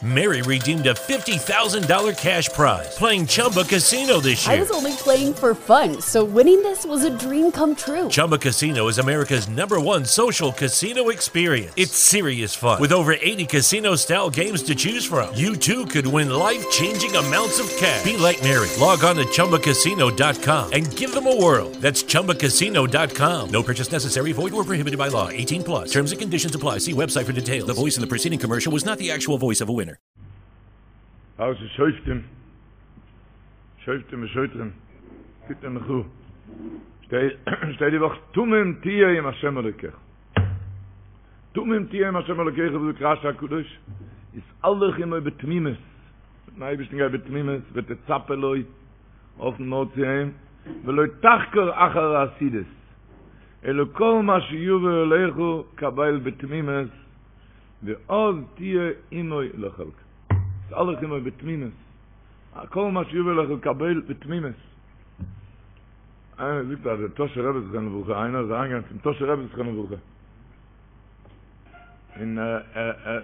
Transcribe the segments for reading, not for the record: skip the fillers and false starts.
Mary redeemed a $50,000 cash prize playing Chumba Casino this year. I was only playing for fun, so winning this was a dream come true. Chumba Casino is America's number one social casino experience. It's serious fun. With over 80 casino style games to choose from, you too could win life changing amounts of cash. Be like Mary. Log on to chumbacasino.com and give them a whirl. That's chumbacasino.com. No purchase necessary, void or prohibited by law. 18 plus. Terms and conditions apply. See website for details. The voice in the preceding commercial was not the actual voice of a winner. פרשת שופטים, שופטים ושוטרים, כי תלכו, שטייט די וואך תמים תהיה עם השם אלוקיך. תמים תהיה עם השם אלוקיך, זאגט רשי הקדוש, התהלך עמו בתמימות, מיטן אייבערשטן גיי בתמימות, ותצפה לו, האפן נאר צו אים, ולא תחקור אחר העתידות, אלא כל מה שיבוא אליך קבל בתמימות, ואז תהיה עמו לחלקו. התהלך עמו בתמימות, כל מה שיבוא אליך קבל בתמימות. איינער זאגט אז דער טאהשער רבי זכרונו לברכה, איינער איז אריינגעגאנגען צום טאהשער רבי זכרונו לברכה, און ער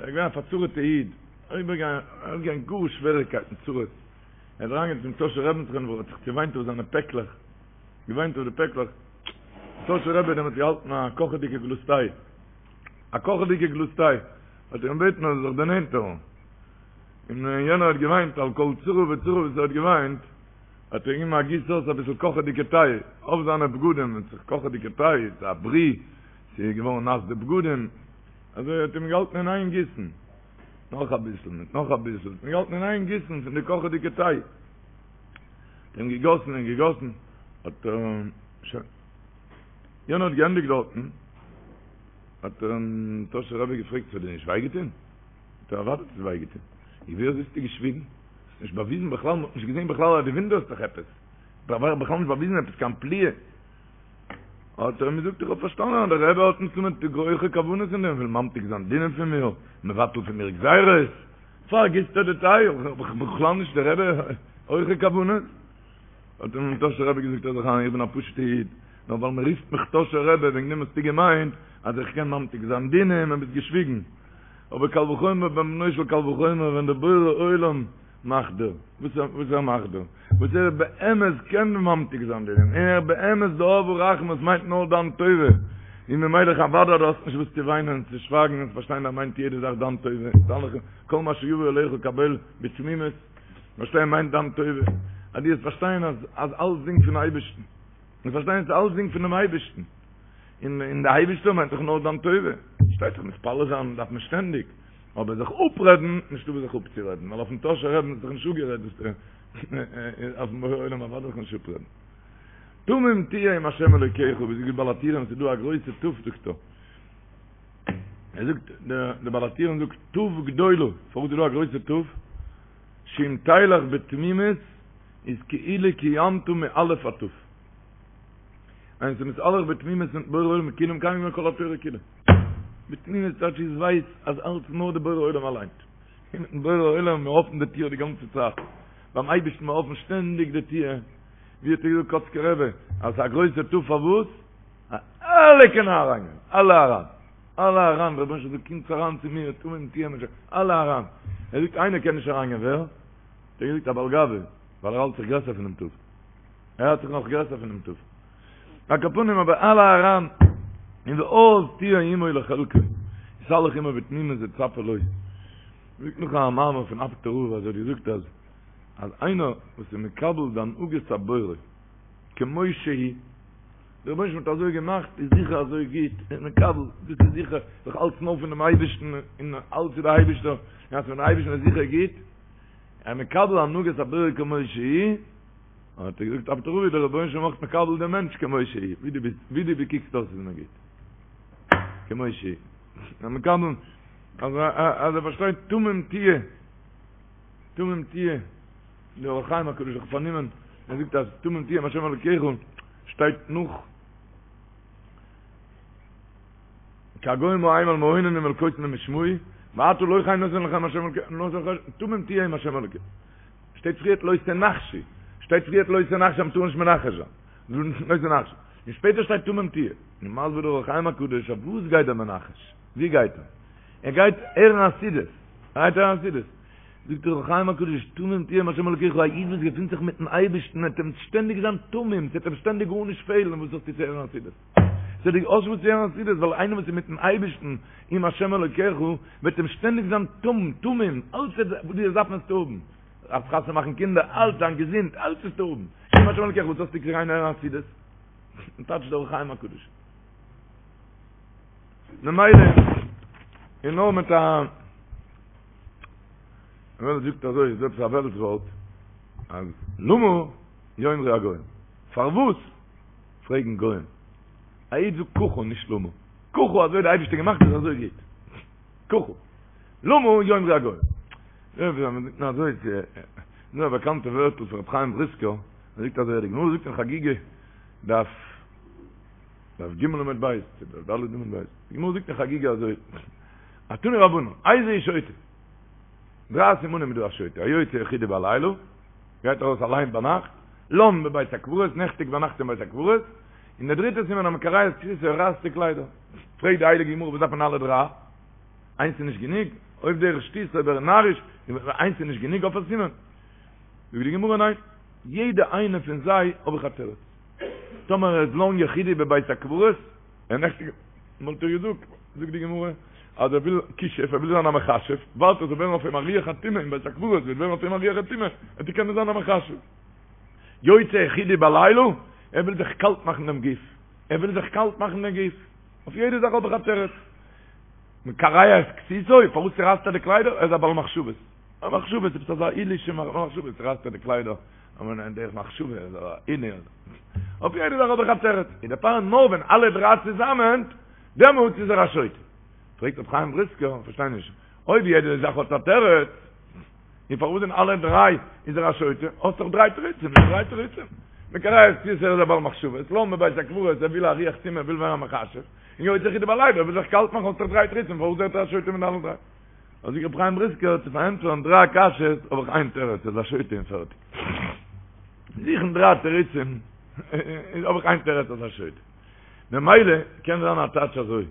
איז געווען א פארצרה'טע איד, אריבערגעגאנגען גאר שוועריגקייטן, צרות, ער איז אריינגעגאנגען צום טאהשער רבי זכרונו לברכה, האט זיך צעוויינט אויף זיינע פעקלעך, געוויינט אויף די פעקלעך, טאהשער רבי האט דעמאלטס געהאלטן א קאכעדיגע גלאז טיי, א קאכעדיגע גלאז טיי, האט ער אים געבעטן ער זאל זיך דערנענטערן, און יענער האט געוויינט על כל צרה וצרה וואס ער האט געוויינט, האט ער געגעבן א גיס אויס אביסל קאכעדיגע טיי אויף זיינע בגדים, און ס'איז קאכעדיגע טיי, ס'איז א ברי, ס'איז געווארן נאס די בגדים, אזוי האט אים געהאלטן אין איין גיסן, נאך אביסל, מיט נאך אביסל, האט אים געהאלטן אין איין גיסן פון די קאכעדיגע טיי, האט אים געגאסן און געגאסן, האט ער, שוין, יענער האט געענדיגט דארטן, האט אים טאהשער רבי געפרעגט, ס'האט דיר נישט וויי געטון? האט ער אוודאי האט עס וויי געטון, און ווי אזוי האסטו געשוויגן? האסט נישט באוויזן בכלל, מ'האט נישט געזען בכלל אז דו וואונדערסט זיך עפעס, בכלל נישט באוויזן עפעס קיין פליאה. האט ער אים געזאגט, איך האב פארשטאנען אז דער רבי האט מסתמא הויכע כוונות אין דעם, וויל ממתיק זיין דינים פון מיר, מבטל פון מיר גזירות, פארגיסט ער די טיי, איך בין בכלל נישט דער רבי, הויכע כוונות. האט אים טאהשער רבי געזאגט הער זיך איין, איך בין א פשוט'ע איד, נאר ווייל מען רופט מיך טאהשער רבי וועגן דעם האסטו געמיינט אז איך קען ממתיק זיין דינים און ביסט געשוויגן. אבער קל וחומר בן בנו של קל וחומר ווען דער בורא עולם מאכט דיר וואס ער מאכט דיר, וואס ער באמת קען ממתיק זיין דינים, און ער באמת די אב הרחמן וואס מיינט נאר דיין טובה, און ממילא אוודאי דו האסט נישט וואס צו וויינען און צו שווייגן און צו פארשטיין ער מיינט יעדע זאך דיין טובה, כל מה שיבוא אליך קבל בתמימות, פארשטיין מיינט דיין טובה, אז דו וועסט פארשטיין אז אז אלסדינג פון אייבערשטן, און פארשטיין אז אלסדינג פונעם אייבערשטן, און און די אייבערשטער מיינט דאך נאר דיין טובה, פארשטייט זיך מתפלל זיין דארף מען שטענדיג, אבער זיך אפרעדן, נישטא וואס זיך אפצורעדן, ווייל אויפן טאהשער רבי'ן האט זיך נישט אפגערעדט וואס אויפן בורא עולם אוודאי זיך נישט אפרעדן. תמים תהיה עם השם אלוקיך, ווי זאגט בעל הטורים, ס'איז דא א גרויסע תי"ו זאגט ער. ער זאגט, דער בעל הטורים זאגט, תי"ו גדולה, פארוואס איז דא א גרויסע תי"ו? שאם תלך בתמימות איז כאילו קיימת מאלף עד תי"ו. איינער איז מתהלך בתמימות מיטן בורא עולם כאילו מקיים געווען כל התורה כולה. בתמימות טייטש איז ווייס אז אלץ נאר די בורא עולם אליין. און מיטן בורא עולם מיר אפן די טיר די גאנצע צייט. ביים אייבערשטן מיר אפן שטענדיג די טיר. ווי האט ער געזאגט קאצקער רבי אז ס'איז א גרויסע תי"ו פארוואס? אלע קענען אריינגיין. אלע אריין. אלע אריין. דער רבונו של עולם זאגט קומטס אריין צו מיר תמים תהיה עם השם. אלע אריין. ער זאגט איינער קען נישט אריינגיין ווער? האט ער געזאגט א בעל גאווה ווייל ער האלט זיך גרעסער פונעם תי"ו. ער האלט זיך נאך גרעסער פונעם תי"ו. על כל פנים אבער אלע אריין און ואז תהיה עמו לחלקו התהלך עמו בתמימות וצפה לו. זאגט נאך א מאמר פון אפטער רב אז ער האט געזאגט אז אז איינער וואס איז מקבל די הנהגת הבורא כמו שהיא, דער רבונו של עולם האט אזוי געמאכט איז זיכער אזוי גוט, איז מקבל, דאס איז זיכער, דאך אלץ נאר פונעם אייבערשטן און אלץ איז דער אייבערשטער, און אז פונעם אייבערשטן איז זיכער גוט, ער מקבל הנהגת הבורא כמו שהיא, האט ער געזאגט אפטער רב דער רבונו של עולם אויך מקבל דעם מענטש כמו שהיא, ווי דו ביסט, ווי דו קוקסט אויס איז מיר גוט, כמו שהיא, ער מקבל, אז אז ער פארשטייט תמים תהיה, תמים תהיה, דער אור החיים הקדוש האט פארנומען, ער זאגט אז תמים תהיה עם השם אלוקיך שטייט נאך כי הגוים ההם על מעוננים ואל קוסמים ישמעו, ואתה לא כן נתן לכם השם אלוקיך, נתן לך תמים תהיה עם השם אלוקיך. שטייט פריערט לא תנחשו, שטייט פריערט לא תנחשו אז מ'טאר נישט מנחש זיין, לא תנחשו, און שפעטער שטייט תמים תהיה, און מסביר דער אור החיים הקדוש אויף וואס גייט דער מנחש, ווי גייט ער? ער גייט הערן עתידות, ער גייט הערן עתידות, זאגט דער אור החיים הקדוש, תמים תהיה עם השם אלוקיך, א איד וואס געפינט זיך מיטן אייבערשטן וועט אים שטענדיג זיין תמים, ס'וועט אים שטענדיג גארנישט פעלן, וואס האסטו צו הערן חסידות? ס'וועט דיר אויס וואס צו הערן חסידות, ווייל איינער וואס איז מיטן אייבערשטן, עם השם אלוקיך, וועט אים שטענדיג זיין תמים, תמים, אלץ וואס דו דארפסט וועסטו האבן, דארפסט חתונה מאכן קינדער, אלץ, זיין געזונט, אלץ וועסטו האבן, עם השם אלוקיך, וואס האסטו צו גיין הערן חסידות? טייטשט דער אור החיים הקדוש. ממילא איז נאר מיט א די וועלט זאגט אזוי, איז עפעס א וועלטס ווארט, אז למה יאמרו הגוים? פארוואס פרעגן גוים? א איד זאגט ככה נישט למה. ככה אזוי האט די אייבערשטער געמאכט איז אזוי גוט. ככה. למה יאמרו הגוים? אזוי איז דא א באקאנטע ווערטל פון רבי חיים בריסקער, ער זאגט אזוי, די גמרא זאגט אין חגיגה דף דף ג' עמוד ב', דף ד' עמוד ב', די גמרא זאגט אין חגיגה אזוי, תנו רבנן, איזהו שוטה? דריי סימנים איז דא א שוטה, היוצא יחידי בלילה, גייט ארויס אליין ביינאכט, לן בבית הקברות, נעכטיגט ביינאכט אין בית הקברות, און דער דריטער סימן המקרע את כסותו, ער רייסט די קליידער. פרעגט די הייליגע גמרא וואס דארף מען אלע דריי? איינס איז נישט גענוג? אויב דרך שטות אויב ער איז נאריש, איינס איז נישט גענוג אויף א סימן? זאגט די גמרא ניין, יעדע איינע פון זיי האב איך א תירוץ. טאמער ער איז לן יחידי בבית הקברות, ער נעכטיגט, וואלט איך געזאגט, זאגט די גמרא, אז ער וויל כישוף, ער וויל זיין א מכשף, ווארט ער זאל ווערן אויף אים א רוח הטומאה אין בית הקברות, וועט ווערן אויף אים א רוח הטומאה, וועט ער קענען זיין א מכשף. יוצא יחידי בלילה, ער וויל זיך קאלט מאכן דעם גוף, ער וויל זיך קאלט מאכן דעם גוף, אויף יעדע זאך האב איך א תירוץ. מקרע את כסותו, פארוואס צורייסט ער די קליידער? ער איז א בעל מחשבות. א מחשבות, עפעס אזא עילוי'שע מחשבות, צורייסט ער די קליידער, אבער אין דרך מחשבה איז א עילוי. אויף יעדע זאך האב איך א תירוץ. און דערפאר נאר ווען אלע דריי צוזאמען, דעמאלטס איז ער א שוטה. פרעגט רבי חיים בריסקער, איך פארשטיי נישט, אויב יעדע זאך האט א תירוץ, און פארוואס אין אלע דריי איז ער א שוטה? האסט דאך דריי תירוצים, נישט דריי תירוצים. מקרע את כסותו ער איז א בעל מחשבות, לן בבית הקברות, ער וויל א רוח טומאה, ער וויל ווערן א מכשף, און יוצא יחידי בלילה, ער וויל זיך קאלט מאכן, האסט דאך דריי תירוצים, פארוואס ווערט ער א שוטה מיט אלע דריי? זאגט רבי חיים בריסקער, צו פארענטפערן דריי קשיות האב איך איין תירוץ, ער איז א שוטה און פערטיג. זוכן דריי תירוצים, האב איך איין תירוץ אז ער איז א שוטה. ממילא קען זיין א טייטש אזוי,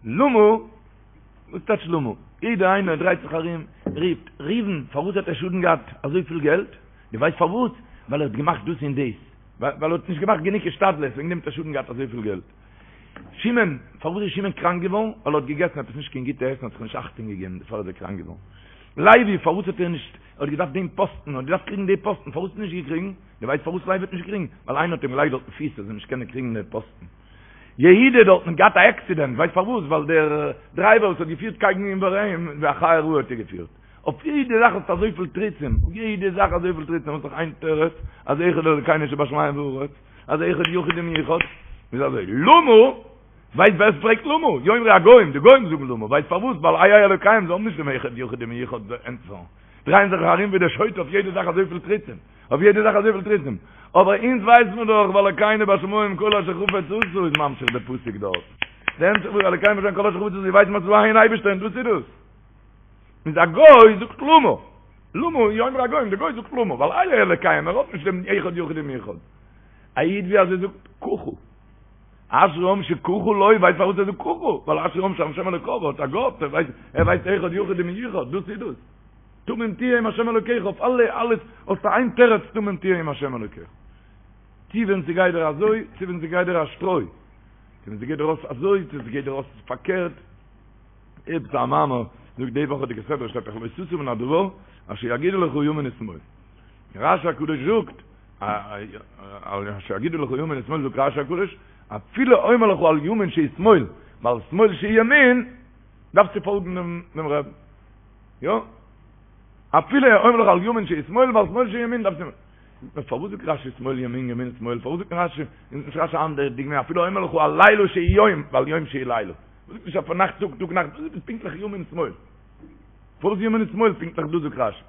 למה, וואס טייטש למה? יעדער איינער דרייט זיך ארום, רופט, ראובן, פארוואס האט ער שאדן געהאט אזויפיל געלט? דו ווייסט פארוואס? ווייל ער האט געמאכט דאס און דאס. ווייל ער האט נישט געמאכט גענוג השתדלות, וועגן דעם האט ער שאדן געהאט אזויפיל געלט. שמעון, פארוואס איז שמעון קראנק געווארן? ווייל ער האט געגעסן עפעס נישט קיין גוטע עסן, האט זיך נישט אכטונג געגעבן, דערפאר איז ער קראנק געווארן. לוי, פארוואס האט ער נישט, ער האט געדארפט דעם פאסטן, ער האט געדארפט קריגן די פאסטן, פארוואס האט ער נישט געקריגן? דו ווייסט פארוואס לוי האט נישט געקריגן? ווייל איינער האט אים געלייגט דארטן פיס ער זאל נישט קענען קריגן די פאסטן. יהודה דארטן האט געהאט א עקסידענט, ווייסט פארוואס? ווייל דער דרייווער וואס האט געפירט קייגן איבער אים, ווי א חיה רעה האט ער געפירט. אויף יעדע זאך האסטו אזויפיל תירוצים, אויף יעדע זאך אזויפיל תירוצים, האסט דאך איין תירוץ, אז אחד אלוקינו שבשמים והארץ, אז אחד יחיד ומיוחד, איז אזוי, למה? ווייסט ווער עס פרעגט למה? יאמרו הגוים, די גוים זאגן למה, ווייסט פארוואס? ווייל איה אלוקיהם, זיי האבן נישט דעם אחד יחיד ומיוחד ענטפער, דרייען זיך ארום ווי דער שוטה אויף יעדע זאך אזויפיל תירוצים, אויף יעדע זאך אזויפיל תירוצים, אבער אונז ווייסט מען דאך ואלוקינו בשמים כל אשר חפץ עשה איז ממשיך די פסוק דארט, די המשך פון אלוקינו בשמים כל אשר חפץ עשה ווייסט מען אז ס'איז דא איין אייבערשטער און דאס איז דאס. איז א גוי זאגט למה, למה יאמרו הגוים, די גוי זאגט למה, ווייל איה אלוקיהם, ער האט נישט דעם אחד יחיד ומיוחד. א איד ווי אזוי זאגט ככה. אשרי העם שככה לו, ווייסט פארוואס ער זאגט ככה? ווייל אשרי העם שהשם אלוקיו, האט א גאט, ער ווייסט, ער ווייסט אחד יחיד ומיוחד, דאס איז דאס. תמים תהיה עם השם אלוקיך, אויף אלע, אלעס, האסטו איין תירוץ תמים תהיה עם השם אלוקיך. צו ווען ס'גייט דיר אזוי, צו ווען ס'גייט דיר א שטרוי. צו ווען ס'גייט דיר אויס אזוי, צו ס'גייט דיר אויס פארקערט. עפעס א מאמר זאגט די וואכעדיגע סדרה שטייט דאך לא תסור מן הדבר אשר יגידו לך ימין ושמאל. רשי הקדוש זאגט אשר יגידו לך ימין ושמאל זאגט רשי הקדוש אפילו אומר לך על ימין שהיא שמאל ועל שמאל שהיא ימין דארפסטו פאלגן דעם רבי. יא? אפילו אומר לך על ימין שהיא שמאל ועל שמאל שהיא ימין דארפסטו נו פארוואס זאגט רשי שמאל ימין ימין שמאל פארוואס זאגט רשי נישט רשי אנדערע דוגמא אפילו אומר לך על לילה שהיא יום ועל יום שהיא לילה זאגט נישט אויף נאכט טאג טאג נאכט דאס איז פונקטליך ימין שמאל פארוואס ימין שמאל פונקטליך דאס זאגט רשי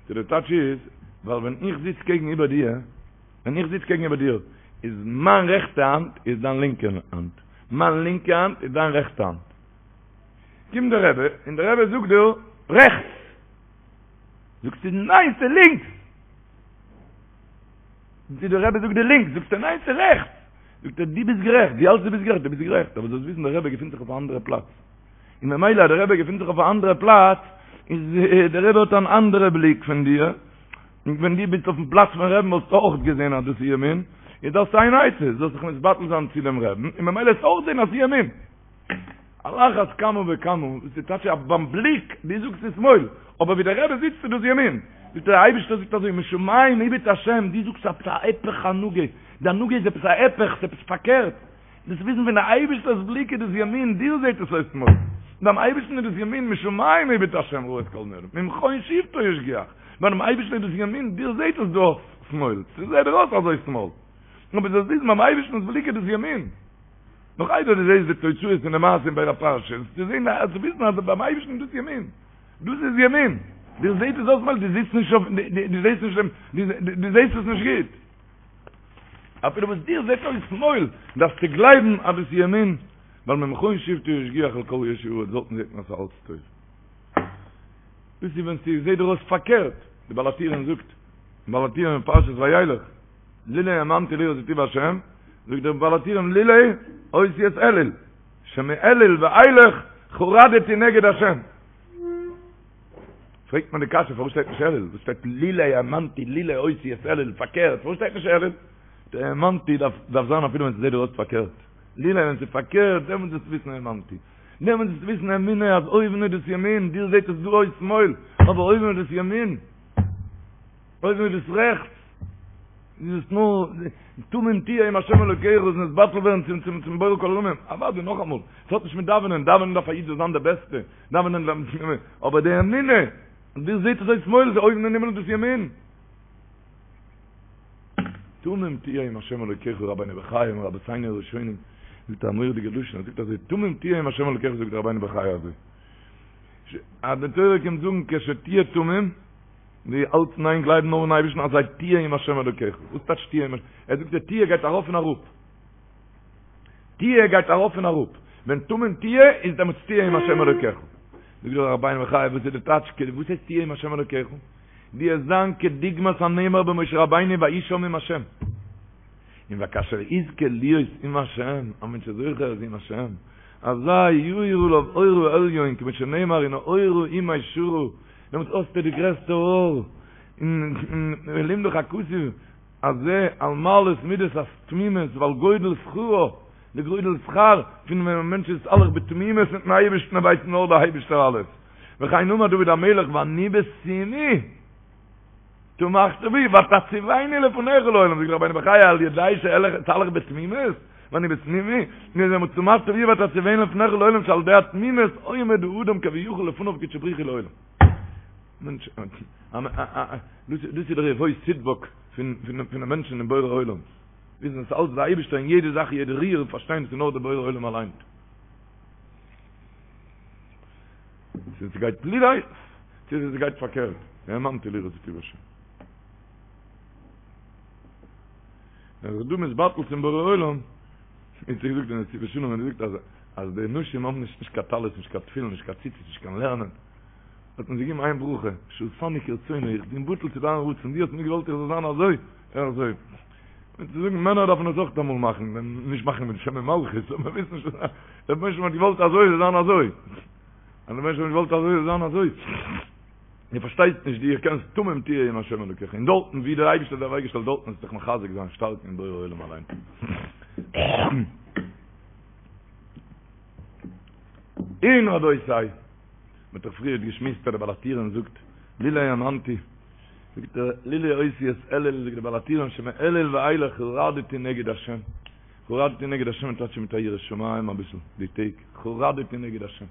די די טייטש איז ווייל ווען איך זיץ קעגן איבער דיר ווען איך זיץ קעגן איבער דיר איז מיין רעכטע האנט איז דיין לינקע האנט מיין לינקע האנט איז דיין רעכטע האנט קומט דער רבי און דער רבי זאגט דיר רעכטס זאגסטו ניין ס'איז לינקס די דער רבי זאגט דיר לינקס, זאגסטו ניין ס'איז רעכטס, זאגט ער דו ביסט גערעכט, דו האלטסט דו ביסט גערעכט, דו ביסט גערעכט, אבער זאלסט וויסן דער רבי געפינט זיך אויף א אנדערע פלאץ, און ממילא אז דער רבי געפינט זיך אויף א אנדערע פלאץ, איז דער רבי האט אן אנדערע בליק פון דיר, און ווען דו ביסט אויפן פלאץ פון רעבן וואלסטו אויך געזען אז דאס איז ימין, איז דאס איין עצה, זאלסט זיך מתבטל זיין צו דעם רעבן, און ממילא וועסטו אויך זען אז ס'איז ימין. על אחת כמה וכמה, וואס איז טייטש אז ביים בליק, דו זאגסט ס'איז שמאל, אבער ווי דער רבי זיצט איז דאס ימין. זאגט ער, דער אייבערשטער זאגט אזוי, משמים הביט השם, דו זאגסט עפעס א היפך הנהגה, די הנהגה איז עפעס א היפך, ס'איז עפעס פארקערט. דארפסט וויסן פון די אייבערשטער'ס בליק איז דאס ימין, דיר זעט עס אויס שמאל, ביים אייבערשטן איז דאס ימין, משמים הביט השם ראה את כל בני האדם, ממכון שבתו ישגיח, ביים אייבערשטן איז דאס ימין, דיר זעט עס דא אויס שמאל, ס'זעט דיר אויס אזוי שמאל, אבער זאלסט וויסן ביים אייבערשטנ'ס בליק איז דאס ימין, נאך איידער דו זעסט די תוצאות פון די מעשה אין בין הפרשות, צו זען צו וויסן אז ביים אייבערשטן איז דאס ימין, דאס איז ימין, דיר זעט עס אויס שמאל, דו זיצט נישט אויף, דו זעסט נישט דעם, דו זעסט עס נישט גוט. אפילו וואס דיר זעט אויס שמאל, דארפסטו גלייבן אז דאס איז ימין, ווייל ממכון שבתו ישגיח על כל יושבי הארץ, דארטן זעט מען אז ס'איז אלץ טוב. דאס איז ווען ס'זעט דיר אויס פארקערט, די בעל הטורים זאגט, בעל הטורים אין פרשת וילך, לולא האמנתי לראות בטוב השם, זאגט דער בעל הטורים לולא אותיות אלול, שמאלול ואילך חרדתי נגד השם. פרעגט מען די קשיא פארוואס שטייט נישט אלול? וואס שטייט לולא האמנתי לולא אותיות אלול פארקערט פארוואס שטייט נישט אלול? די האמנתי דארף דארף זיין אפילו ווען ס'זעט דיר אויס פארקערט לולא ווען ס'איז פארקערט דעמאלטס זאלסטו וויסן האמנתי דעמאלטס זאלסטו וויסן אמונה אז אויבן איז דאס ימין דיר זעט עס דא אויס שמאל אבער אויבן איז דאס ימין אויבן איז דאס רעכטס איז עס נאר תמים תהיה עם השם אלוקיך איז נתבטל ווערן צום צום צום בורא כל עולמים אוודאי נאכאמאל ס'האט נישט מיט דאווענען דאווענען דארף א איד זאל זיין די בעסטע דאווענען אבער די אמונה דיר זעט עס אויס שמאל איז אויבן אין הימל דאס ימין תמים תהיה עם השם אלוקיך רבינו בחיי מרבותינו הראשונים זאגט א מורא'דיגע לשון ער זאגט אזוי תמים תהיה עם השם אלוקיך זאגט רבינו בחיי אזוי אז די תורה קומט זאגן כשתהיה תמים דו האלטסט אין איין גלייבן נאר אין אייבערשטן אזי תהיה עם השם אלוקיך וואס טייטש תהיה עם ער זאגט די תהיה גייט ארויף און אראפ תהיה גייט ארויף און אראפ, ווען תמים תהיה איז דעמאלטס תהיה עם השם אלוקיך. זאגט דער רבינו בחיי וואס איז די טייטש וואס הייסט תהיה עם השם אלוקיך? דו וועסט זיין כדוגמת הנאמר במשה רבינו ויהי שם עם השם. און וכאשר יזכה להיות עם השם, א מענטש איז זוכה אז עם השם, אזי יאיר עליו אור העליון כמו שנאמר ונהורה עמי שרא, דעמאלטס האסטו די גרעסטע אור, און לימדך הכתוב הזה על מעלת מידת התמימות ועל גודל שכרו, די גודל שכר פון ווען א מענטש איז הולך בתמימות מיטן אייבערשטן ער ווייסט נאר דער אייבערשטער אלעס, וכן אמר דוד המלך ואני בתומי תמכת בי ותציבני לפניך לעולם, זאגט רבינו בחיי על ידי שאתהלך בתמימות, ואני בתומי, תמכת בי ותציבני לפניך לעולם שעל ידי התמימות עומד האדם כביכול לפניו קודשא בריך הוא לעולם. מענטש, דאס איז דער יבוא תדבק פון פון די מענטשן אין בורא עולם. וויסן אז אלץ דער אייבערשטער אין יעדע זאך יעדע ריר און פארשטיין עס איז נאר דער בורא עולם אליין. צו עס גייט לולא, צו עס גייט פארקערט. האמנתי לראות בטוב השם. ווען זיך דא מתבטל צום בורא עולם, איז געזאגט אין נתיבות שלום, האט געזאגט אז אז די נשים האבן נישט נישט קיין טלית, נישט קיין תפילין, נישט קיין ציצית, נישט קיין לערנען. האט מען זיי געגעבן איין ברכה, שעשני כרצונו, איך בין בטל צו דיין רצון, דו האסט מיר געוואלט איך זאל זיין אזוי, אזוי. און צו זאגן, מענער דארפן עס אויך אמאל מאכן, נישט מאכן מיט שם ומלכות, אבער וויסן ש, דער רבונו של עולם האט געוואלט אזוי זאל זיין אזוי. אז דער רבונו של עולם האט געוואלט אזוי זאל זיין אזוי. דו פארשטייסט נישט, דו קענסט תמים תהיה עם השם אלוקיך, און דארטן ווי דער אייבערשטער האט דיר אוועקגעשטעלט דארטן זאלסטו דיך מחזק זיין שטארק אין בורא עולם אליין. און רבותי, מ'האט דאך פריערט געשמועסט אז דער בעל הטורים זאגט לולא האמנתי, זאגט ער לולא אותיות אלול, זאגט דער בעל הטורים שמאלול ואילך חרדתי נגד השם, חרדתי נגד השם טייטש מיט א יראת שמים אביסל די טעג, חרדתי נגד השם,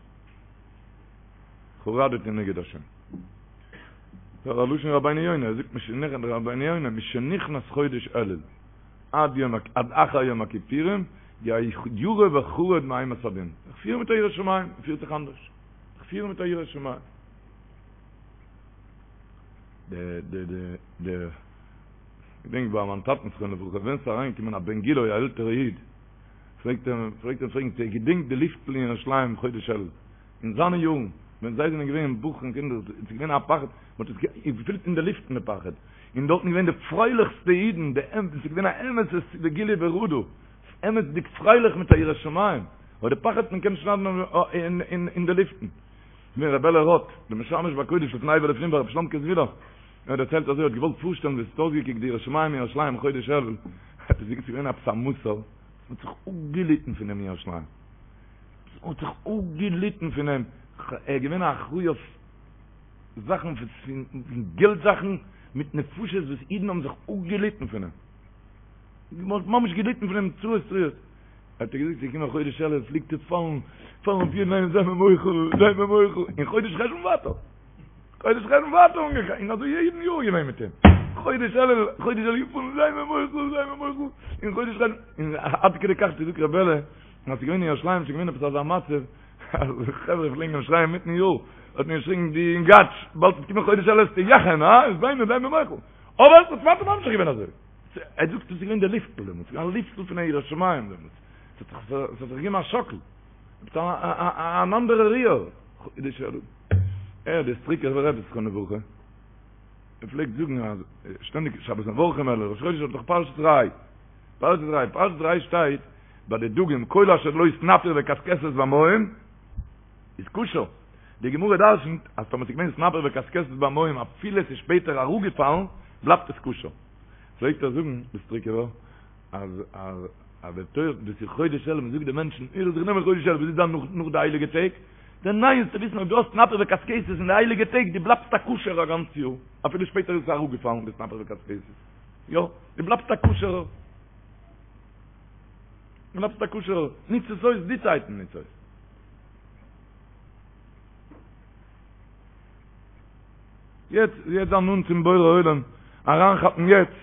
חרדתי נגד השם. דער לשון רבינו יונה, ער זאגט משנכנס רבינו יונה, משנכנס חודש אלול עד יום עד אחר יום הכיפורים, ירא וחרד מאימת הדין. זיך פירן מיט א יראת שמים, מען פירט זיך אנדערש. זיך פירן מיט א יראת שמים. די די די די געדענק ביי מיין טאטן זכרונו לברכה ווען ס'איז אריינגעקומען א בן גילו א עלטערע איד פלעגט ער פלעגט ער פרעגן צו ער געדענקט די לופטן אין ירושלים חודש אלול אין זיינע יארן ווען זיי זענען געווען בחורים קינדער איז געווען א פחד מען האט עס געפילט אין די לופטן די פחד און דארטן געווען די פרייליכסטע אידן די אמת ס'איז געווען א אמת'ע וגילו ברעדה אמת'דיג פרייליך מיט א יראת שמים אבער די פחד מען קען שניידן אין די לופטן. געווען ר' בערלע ראטה, דער משמש בקודש לפני ולפנים ביי רבי שלומ'קע זוויהלער, ער האט דערציילט אזוי, ער האט געוואלט פארשטעלן ווי עס האט אויסגעקוקט די יראת שמים אין ירושלים חודש אלול, האט ער געזאגט ס'איז געווען עפעס א מסור, מ'האט זיך אפגעליטן פון אים אין ירושלים, מ'האט זיך אפגעליטן פון אים, ער איז געווען א אחראי אויף זאכן פון געלט זאכן מיט נפשות וואס אידן האבן זיך אפגעליטן פון אים, מ'האט ממש געליטן פון אים צרות צרורות. האט ער געזאגט ס'איז געקומען חודש אלול פלעגט ער פאלן פאלן אויף יעדן איינעם זיי מיר מוחל זיי מיר מוחל און חודש חשון ווייטער חודש חשון ווייטער אנגעגאנגען און אזוי יעדן יאר געווען מיט אים חודש אלול חודש אלול געפאלן זיי מיר מוחל זיי מיר מוחל און חודש חשון און עד כדי כך זאגט ר' בערלע אז ס'איז געווען אין ירושלים ס'איז געווען עפעס אזא מצב אז חברה פלעגן אים שרייען מיטן יאר האט מען געשריגן דו יונגאטש באלד וועט קומען חודש אלול וועסטו יאכען הא איז זיי מיר זיי מיר מוחל אבער עס האט ווייטער ממשיך געווען אזוי. ער זאגט עס איז געווען די לופטל דעמאלטס, ס'איז געווען א לופטל פון א יראת שמים דעמאלטס, עס האט זיך געגעבן א שאקל, עפעס אן אנדערע ריר, ער דער סטריקובער רבי זכרונו לברכה, ער פלעגט זאגן אז שטענדיג שבת מברכים אלול ראש חודש האט דאך פרשת ראה, פרשת ראה, פרשת ראה שטייט ביי די דגים כל אשר לו סנפיר וקשקשת במים איז כשר, די גמרא דרשנ'ט אז טאמער ס'איז געווען סנפיר וקשקשת במים אפילו עס איז שפעטער אראפגעפאלן בלייבט עס כשר. פלעגט ער זאגן די סטריקובער אז אז אז די תורה דאס איז חודש אלול מ'זאגט די מענטשן איר זאלט זיך נעמען חודש אלול וואס איז דאן נאך נאך די הייליגע טעג די ניין זאלסטו וויסן אויב דו האסט סנפיר וקשקשת אין די הייליגע טעג דו בלייבסט א כשר'ער א גאנץ יאר אפילו שפעטער איז עס אראפגעפאלן די סנפיר וקשקשת יא דו בלייבסט א כשר'ער דו בלייבסט א כשר'ער ניץ עס אויס די צייטן ניץ אויס. יעצט יעצט זיין נאנט צום בורא עולם, אריינכאפן יעצט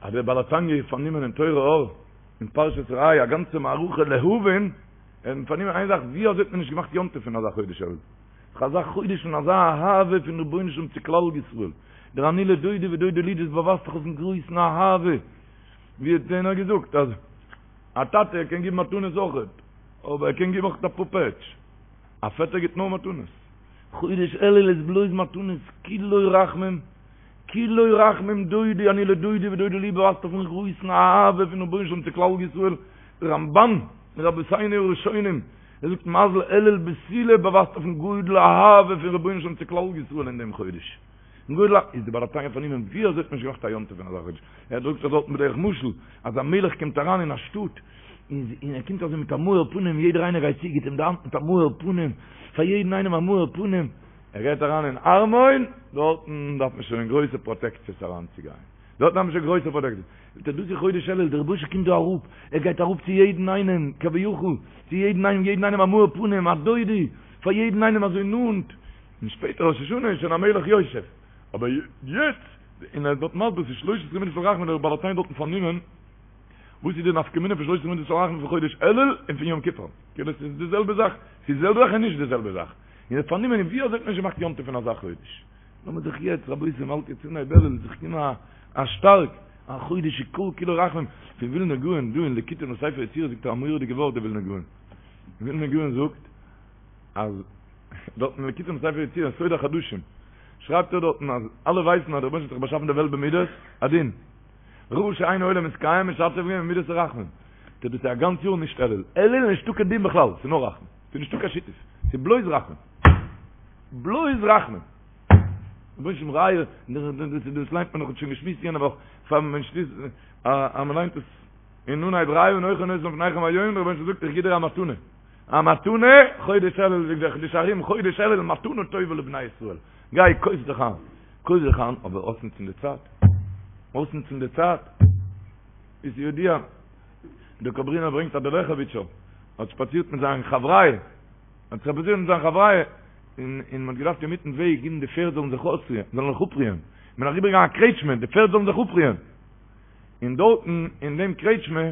אז דער בעל התניא איז פארנומען אין תורה אור, אין פרשת ראה, א גאנצע מערכה להבין, ער איז פארנומען איין זאך, ווי אזוי האט מען נישט געמאכט יום טוב פון אזא חודש אלול? דאך אזא חודש פון אזא אהבה פון רבונו של עולם צו כלל ישראל, דער אני לדודי ודודי לי, דאס באווייזט דאך אויפן גרויסן אהבה, ווי האט איינער געזאגט אז א טאטע קען גיבן מתנות אויכעט, אבער ער קען גיבן אויך אפאר פעטש. א פעטער גיט נאר מתנות. חודש אלול איז בלויז מתנות, כולו רחמים, כולו רחמים דודי אני לדודי ודודי לי באווייזט אויפן גרויסן אהבה פון רבונו של עולם צו כלל ישראל, דער רמבן מרבותינו הראשונים, ער זאגט מזל אלול בתולה באווייזט אויפן גודל אהבה פון רבונו של עולם צו כלל ישראל אין דעם חודש. גודל א איז די בעל התניא פארנומען ווי אזוי האט מען נישט געמאכט א יום טוב פון אזא חודש, ער דרוקט זיך דארטן בדרך משל אז א מלך קומט אריין אין א שטאט און ער קומט אזוי מיט א מאור פנים יעדער איינער גייט צו גיט אים די האנט מיט א מאור פנים פאר יעדן איינעם א מאור פנים, ער גייט אריין אין ארמון דארטן דארף מען שוין גרויסע פראטעקציעס אריין צו גיין דארטן דארף מען שוין גרויסע פראטעקציעס, זאגט ער דאס איז חודש אלול דער רבוש"ע קומט דא אראפ ער גייט אראפ צו יעדן איינעם כביכול צו יעדן איינעם יעדן איינעם א מאור פנים א דודי פאר יעדן איינעם אזוי נאנט. און שפעטער ראש השנה איז שוין המלך יושב, אבער יעצט, און ער איז דארט מסביר ס'איז שלש עשרה מידות של רחמים דער בעל התניא דארטן פארנומען, וואס איז די נפקא מינה פון שלש עשרה מידות של רחמים פון חודש אלול און פון יום כיפור, כאילו ס'איז די זעלבע זאך, ס'איז די זעלבע זאך און נישט די זעלבע זאך, און ער איז פארנומען ווי אזוי האט מען נישט געמאכט יום טוב פון אזא חודש, לאמיר זיך יעצט רבותי מ'האלט יעצט אנהייב אלול זיך געבן א שטארק, א חודש שכל כולו רחמים, פון ווילנא גאון דא אין ליקוטים לספר יצירה זאגט ער א מורא'דיגע ווארט דער ווילנא גאון, ווילנא גאון זאגט אז. דארט אין ליקוטים לספר יצירה סוד החדשים שרייבט ער דארטן אז אלע ווייסן אז דער רבונו של עולם האט זיך באשאפן די וועלט במידת הדין ראה שאין העולם מתקיים משתף געווען במידת הרחמים טא דאס איז א גאנץ יאר נישט אלול אלול איז נישטא קיין דין בכלל ס'איז נאר רחמים ס'איז נישטא קיין שיתוף ס'איז בלויז רחמים בלויז רחמים רבונו של עולם ראה דאס ליינט מען נאך שוין געשמועסט יענע וואך פאר מען שליסט אז מען ליינט עס אין אנהייב ראה אנכי נותן לפניכם היום דער רבונו של עולם זאגט איך גיב דיר א מתנה א מתנה, חודש אלול זאגט דער חידושי הרי"ם, חודש אלול מתנה טובה לבני ישראל, גיי קויף זיך איין, קויף זיך איין, אבער אויסנוצן די צייט, אויסנוצן די צייט, איז ידוע, דער קאברינער ברענגט אז דער לעכעוויטשער האט שפאצירט מיט זיין חבריא, האט שפאצירט מיט זיין חבריא, און און מען האט געדארפט אינמיטן וועג גיבן די פערד זאלן זיך אויסרוען, זאלן זיך אפרוען, מען איז אריבערגעגאנגען א קרעטשמע, די פערד זאלן זיך אפרוען. און דארטן אין דעם קרעטשמע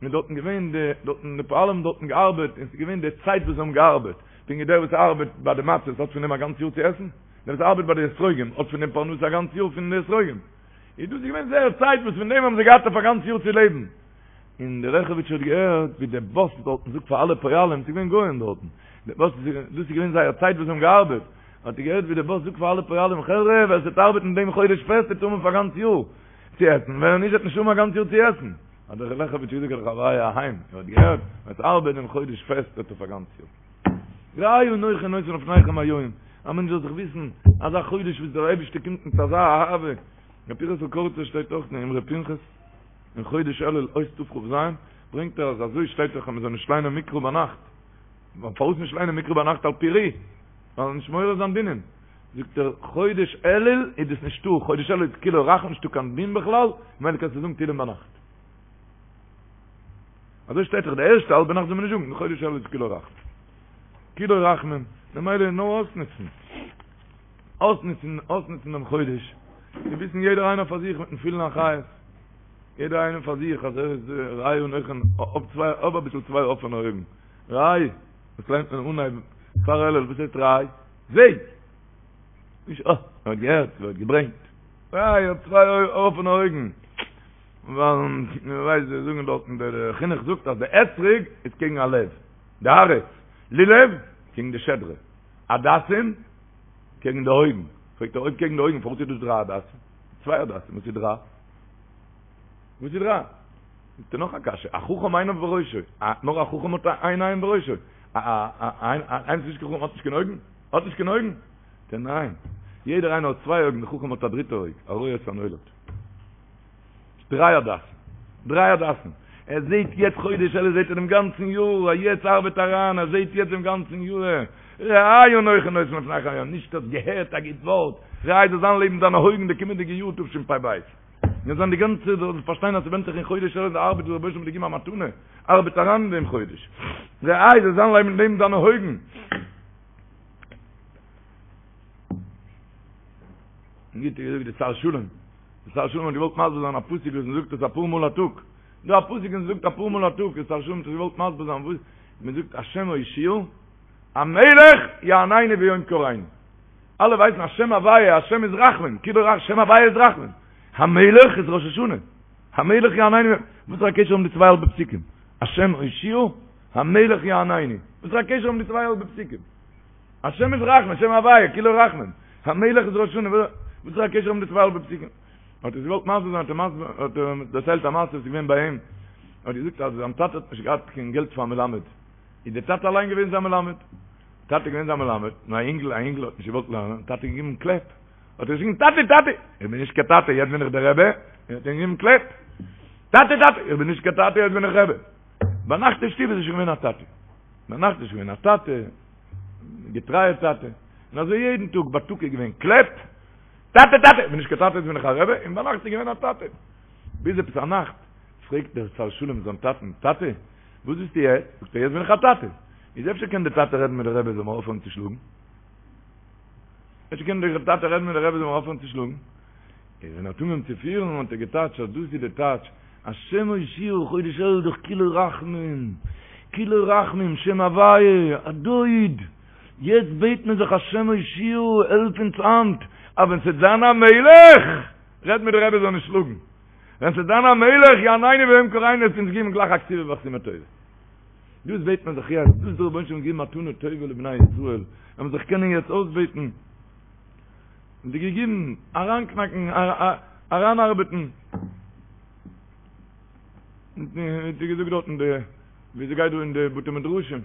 איז דארטן געווען די דארטן די פועלים האבן דארטן געארבעט און ס'איז געווען די צייט וואס זיי האבן געארבעט, פונקט ווי דער וואס ארבעט ביי די מצות האט פון דעם א גאנץ יאר צו עסן, דער וואס ארבעט ביי די אתרוגים האט פון דעם פרנסה א גאנץ יאר פון די אתרוגים, איז דאס איז געווען זייער צייט וואס פון דעם האבן זיי געהאט אויף א גאנץ יאר צו לעבן. און דער לעכעוויטשער האט געהערט ווי דער באס דארטן זאגט פאר אלע פועלים, ס'איז געווען גוים דארטן, דער באס דאס איז געווען זייער צייט וואס זיי האבן געארבעט, האט ער געהערט ווי דער באס זאגט פאר אלע פועלים, חברה, ווער ס'וועט ארבעטן דעם חודש פעסט וועט האבן פאר א גאנץ יאר. צו עסן, ווער נישט וועט נישט האבן א גאנץ יאר צו עסן. האט דער לעכעוויטשער געזאגט פאר די חבריא אהיים, איר האט געהערט, ווער עס ארבעט דעם חודש פעסט האט אויף א גאנץ יאר. ראה אנכי נותן לפניכם היום, א מענטש זאל זיך וויסן, אזא חודש וואס דער אייבערשטער קומט מיט אזא אהבה, ר' פנחס'ל קאריצער שטייט אויך אין אמרי פנחס, אין חודש אלול אות תכ"ז, ברענגט ער אז אזוי שטייט דאך אז מען זאל נישט ליינען מקרא ביינאכט, פארוואס נישט ליינען מקרא ביינאכט על פי ר"י? ווייל נישט מעורר זיין דינים. זאגט ער, חודש אלול איז דאס נישטא, חודש אלול איז כולו רחמים, נישטא קיין דין בכלל, ממילא קענסטו זאגן תהילים ביינאכט. אזוי שטייט דאך די ערשטע האלבע נאכט זאל מען נישט זאגן, חודש אלול איז כולו רחמים. כולו רחמים, ממילא נאר אויסנוצן. אויסנוצן, אויסנוצן דעם חודש. צו וויסן יעדער איינער פאר זיך מיטן פולן חיות. יעדער איינער פאר זיך אז ער איז ראה אנכי, האב צוויי, האב אביסל צוויי אפענע אויגן. ראה, וואס ליינט מען אנהייב פאר אלול, וואס הייסט ראה? זע! נישט אה, מען האט געהערט, מען האט געברענגט. ראה, האב צוויי אפענע אויגן. ווייל מען ווייסט זיי זאגן דארטן דער חינוך זאגט אז די אתרוג איז קעגן א לב, די הארץ, לולב קעגן די שדרה, הדסים קעגן די אויגן, פרעגט ער אויב קעגן די אויגן פארוואס איז דאס דריי הדסים? צוויי הדסים, וואס איז דריי? וואס איז דריי? זאגט ער נאך א קשיא, א חכם עיניו בראשו, נאר א חכם האט איין עין בראשו, איינער וואס איז נישט קיין חכם האט נישט קיין אויגן? האט נישט קיין אויגן? זאגט ער ניין, יעדער איינער האט צוויי אויגן, די חכם האט א דריטע אויג, א רואה את הנולד. דריי הדסים. דריי הדסים. ער זעהט יעצט חודש אלול זעהט ער דעם גאנצן יאר, א יעצט ארבעט אריין, ער זעהט יעצט דעם גאנצן יאר. ראה אנכי נותן לפניכם היום, נישט האסט געהערט א גוט ווארט, ראה זאל זיין לעבן דיינע אויגן די קומענדיגע יאר תשפ"ב. מיר זענען די גאנצע זאל פארשטיין אז ס'ווענדט זיך אין חודש אלול די ארבעט וואס דער רבוש"ע האט געגעבן א מתנה, ארבעט אריין אין דעם חודש. ראה זאל זיין לעבן לעבן דיינע אויגן. גוט געזאגט די שר שלום. די שר שלום האט געוואלט מסביר זיין א פסוק וואס מ'זאגט עס אפאר מאל א טאג. דא א פסוק וואס מ'זאגט אפאר מאל א טאג, די שר שלום האט געוואלט מסביר זיין וואס מ'זאגט השם הושיעה המלך יעננו ביום קראנו. אלע ווייסן אז שם הוויה, השם איז רחמים, כאילו רח, שם הוויה איז רחמים. המלך איז ראש השנה. המלך יעננו, וואס איז א קשר האבן די צוויי האלבע פסוקים? השם הושיעה, המלך יעננו. וואס איז א קשר האבן די צוויי האלבע פסוקים? השם איז רחמים, שם הוויה, כולו רחמים. המלך איז ראש השנה, וואס איז א קשר האבן די צוויי האלבע פסוקים? האט ער געוואלט מסביר זיין, האט ער מסביר, האט ער דערציילט א מעשה וואס איז געווען ביי אים. האט געזאגט אז זיין טאטע האט נישט געהאט קיין געלט פאר א מלמד. איז דער טאטע אליין געווען זיין מלמד. טאטע געווען זיין מלמד, און א אינגל, א אינגל האט נישט געוואלט לערנען, האט טאטע געגעבן קלעפ. האט ער געשריגן, טאטע, טאטע, איך בין נישט קיין טאטע, יעצט בין איך דער רבי, און האט אים געגעבן קלעפ. טאטע, טאטע, איך בין נישט קיין טאטע, יעצט בין איך רבי. ביינאכט אין שטוב איז ער שוין געווען א טאטע. ביינאכט איז שוין געווען א טאטע, געטרייער טאטע. און אזוי יעדן טאג, בייטאג איז געווען קלעפ, טאטע, טאטע, איך בין נישט קיין טאטע, יעצט בין איך א רבי, און ביינאכט איז געווען א טאטע. ביז עפעס א נאכט, פרעגט דער שר שלום זיין טאטן, טאטע, וואס ביסטו יעצט? זאגט ער, יעצט בין איך א טאטע. איז אפשר קען דער טאטע רעדן מיט דער רבי זאל מיר אויפהערן צו שלאגן? אפשר קען דער טאטע רעדן מיט דער רבי זאל מיר אויפהערן צו שלאגן? איז ווען ער האט אנגעהויבן צו פירן האט ער געטייטשט אז דאס איז די טייטש, השם הושיעה חודש אלול דאך כולו רחמים, כולו רחמים, שם הוויה, א דוד, יעצט בעט מען זיך השם הושיעה העלף אונז היינט, אז ווען ס'וועט זיין א מלך, רעד מיט די רבי זאל נישט שלאגן. ווען ס'וועט זיין א מלך יעננו ביום קראנו וועט אונז געבן גלייך א כתיבה וחתימה טובה. דאס בעט מען זיך יעצט, דאס האט דער רבונו של עולם געגעבן מתנה טובה לבני ישראל, אז מ'זאל זיך קענען יעצט אויסבעטן, און די געגעבן, אריינקנאקן, אריינארבעטן. ווי געזאגט דארטן די, ווי ס'גייט דא אין די בתי מדרשים,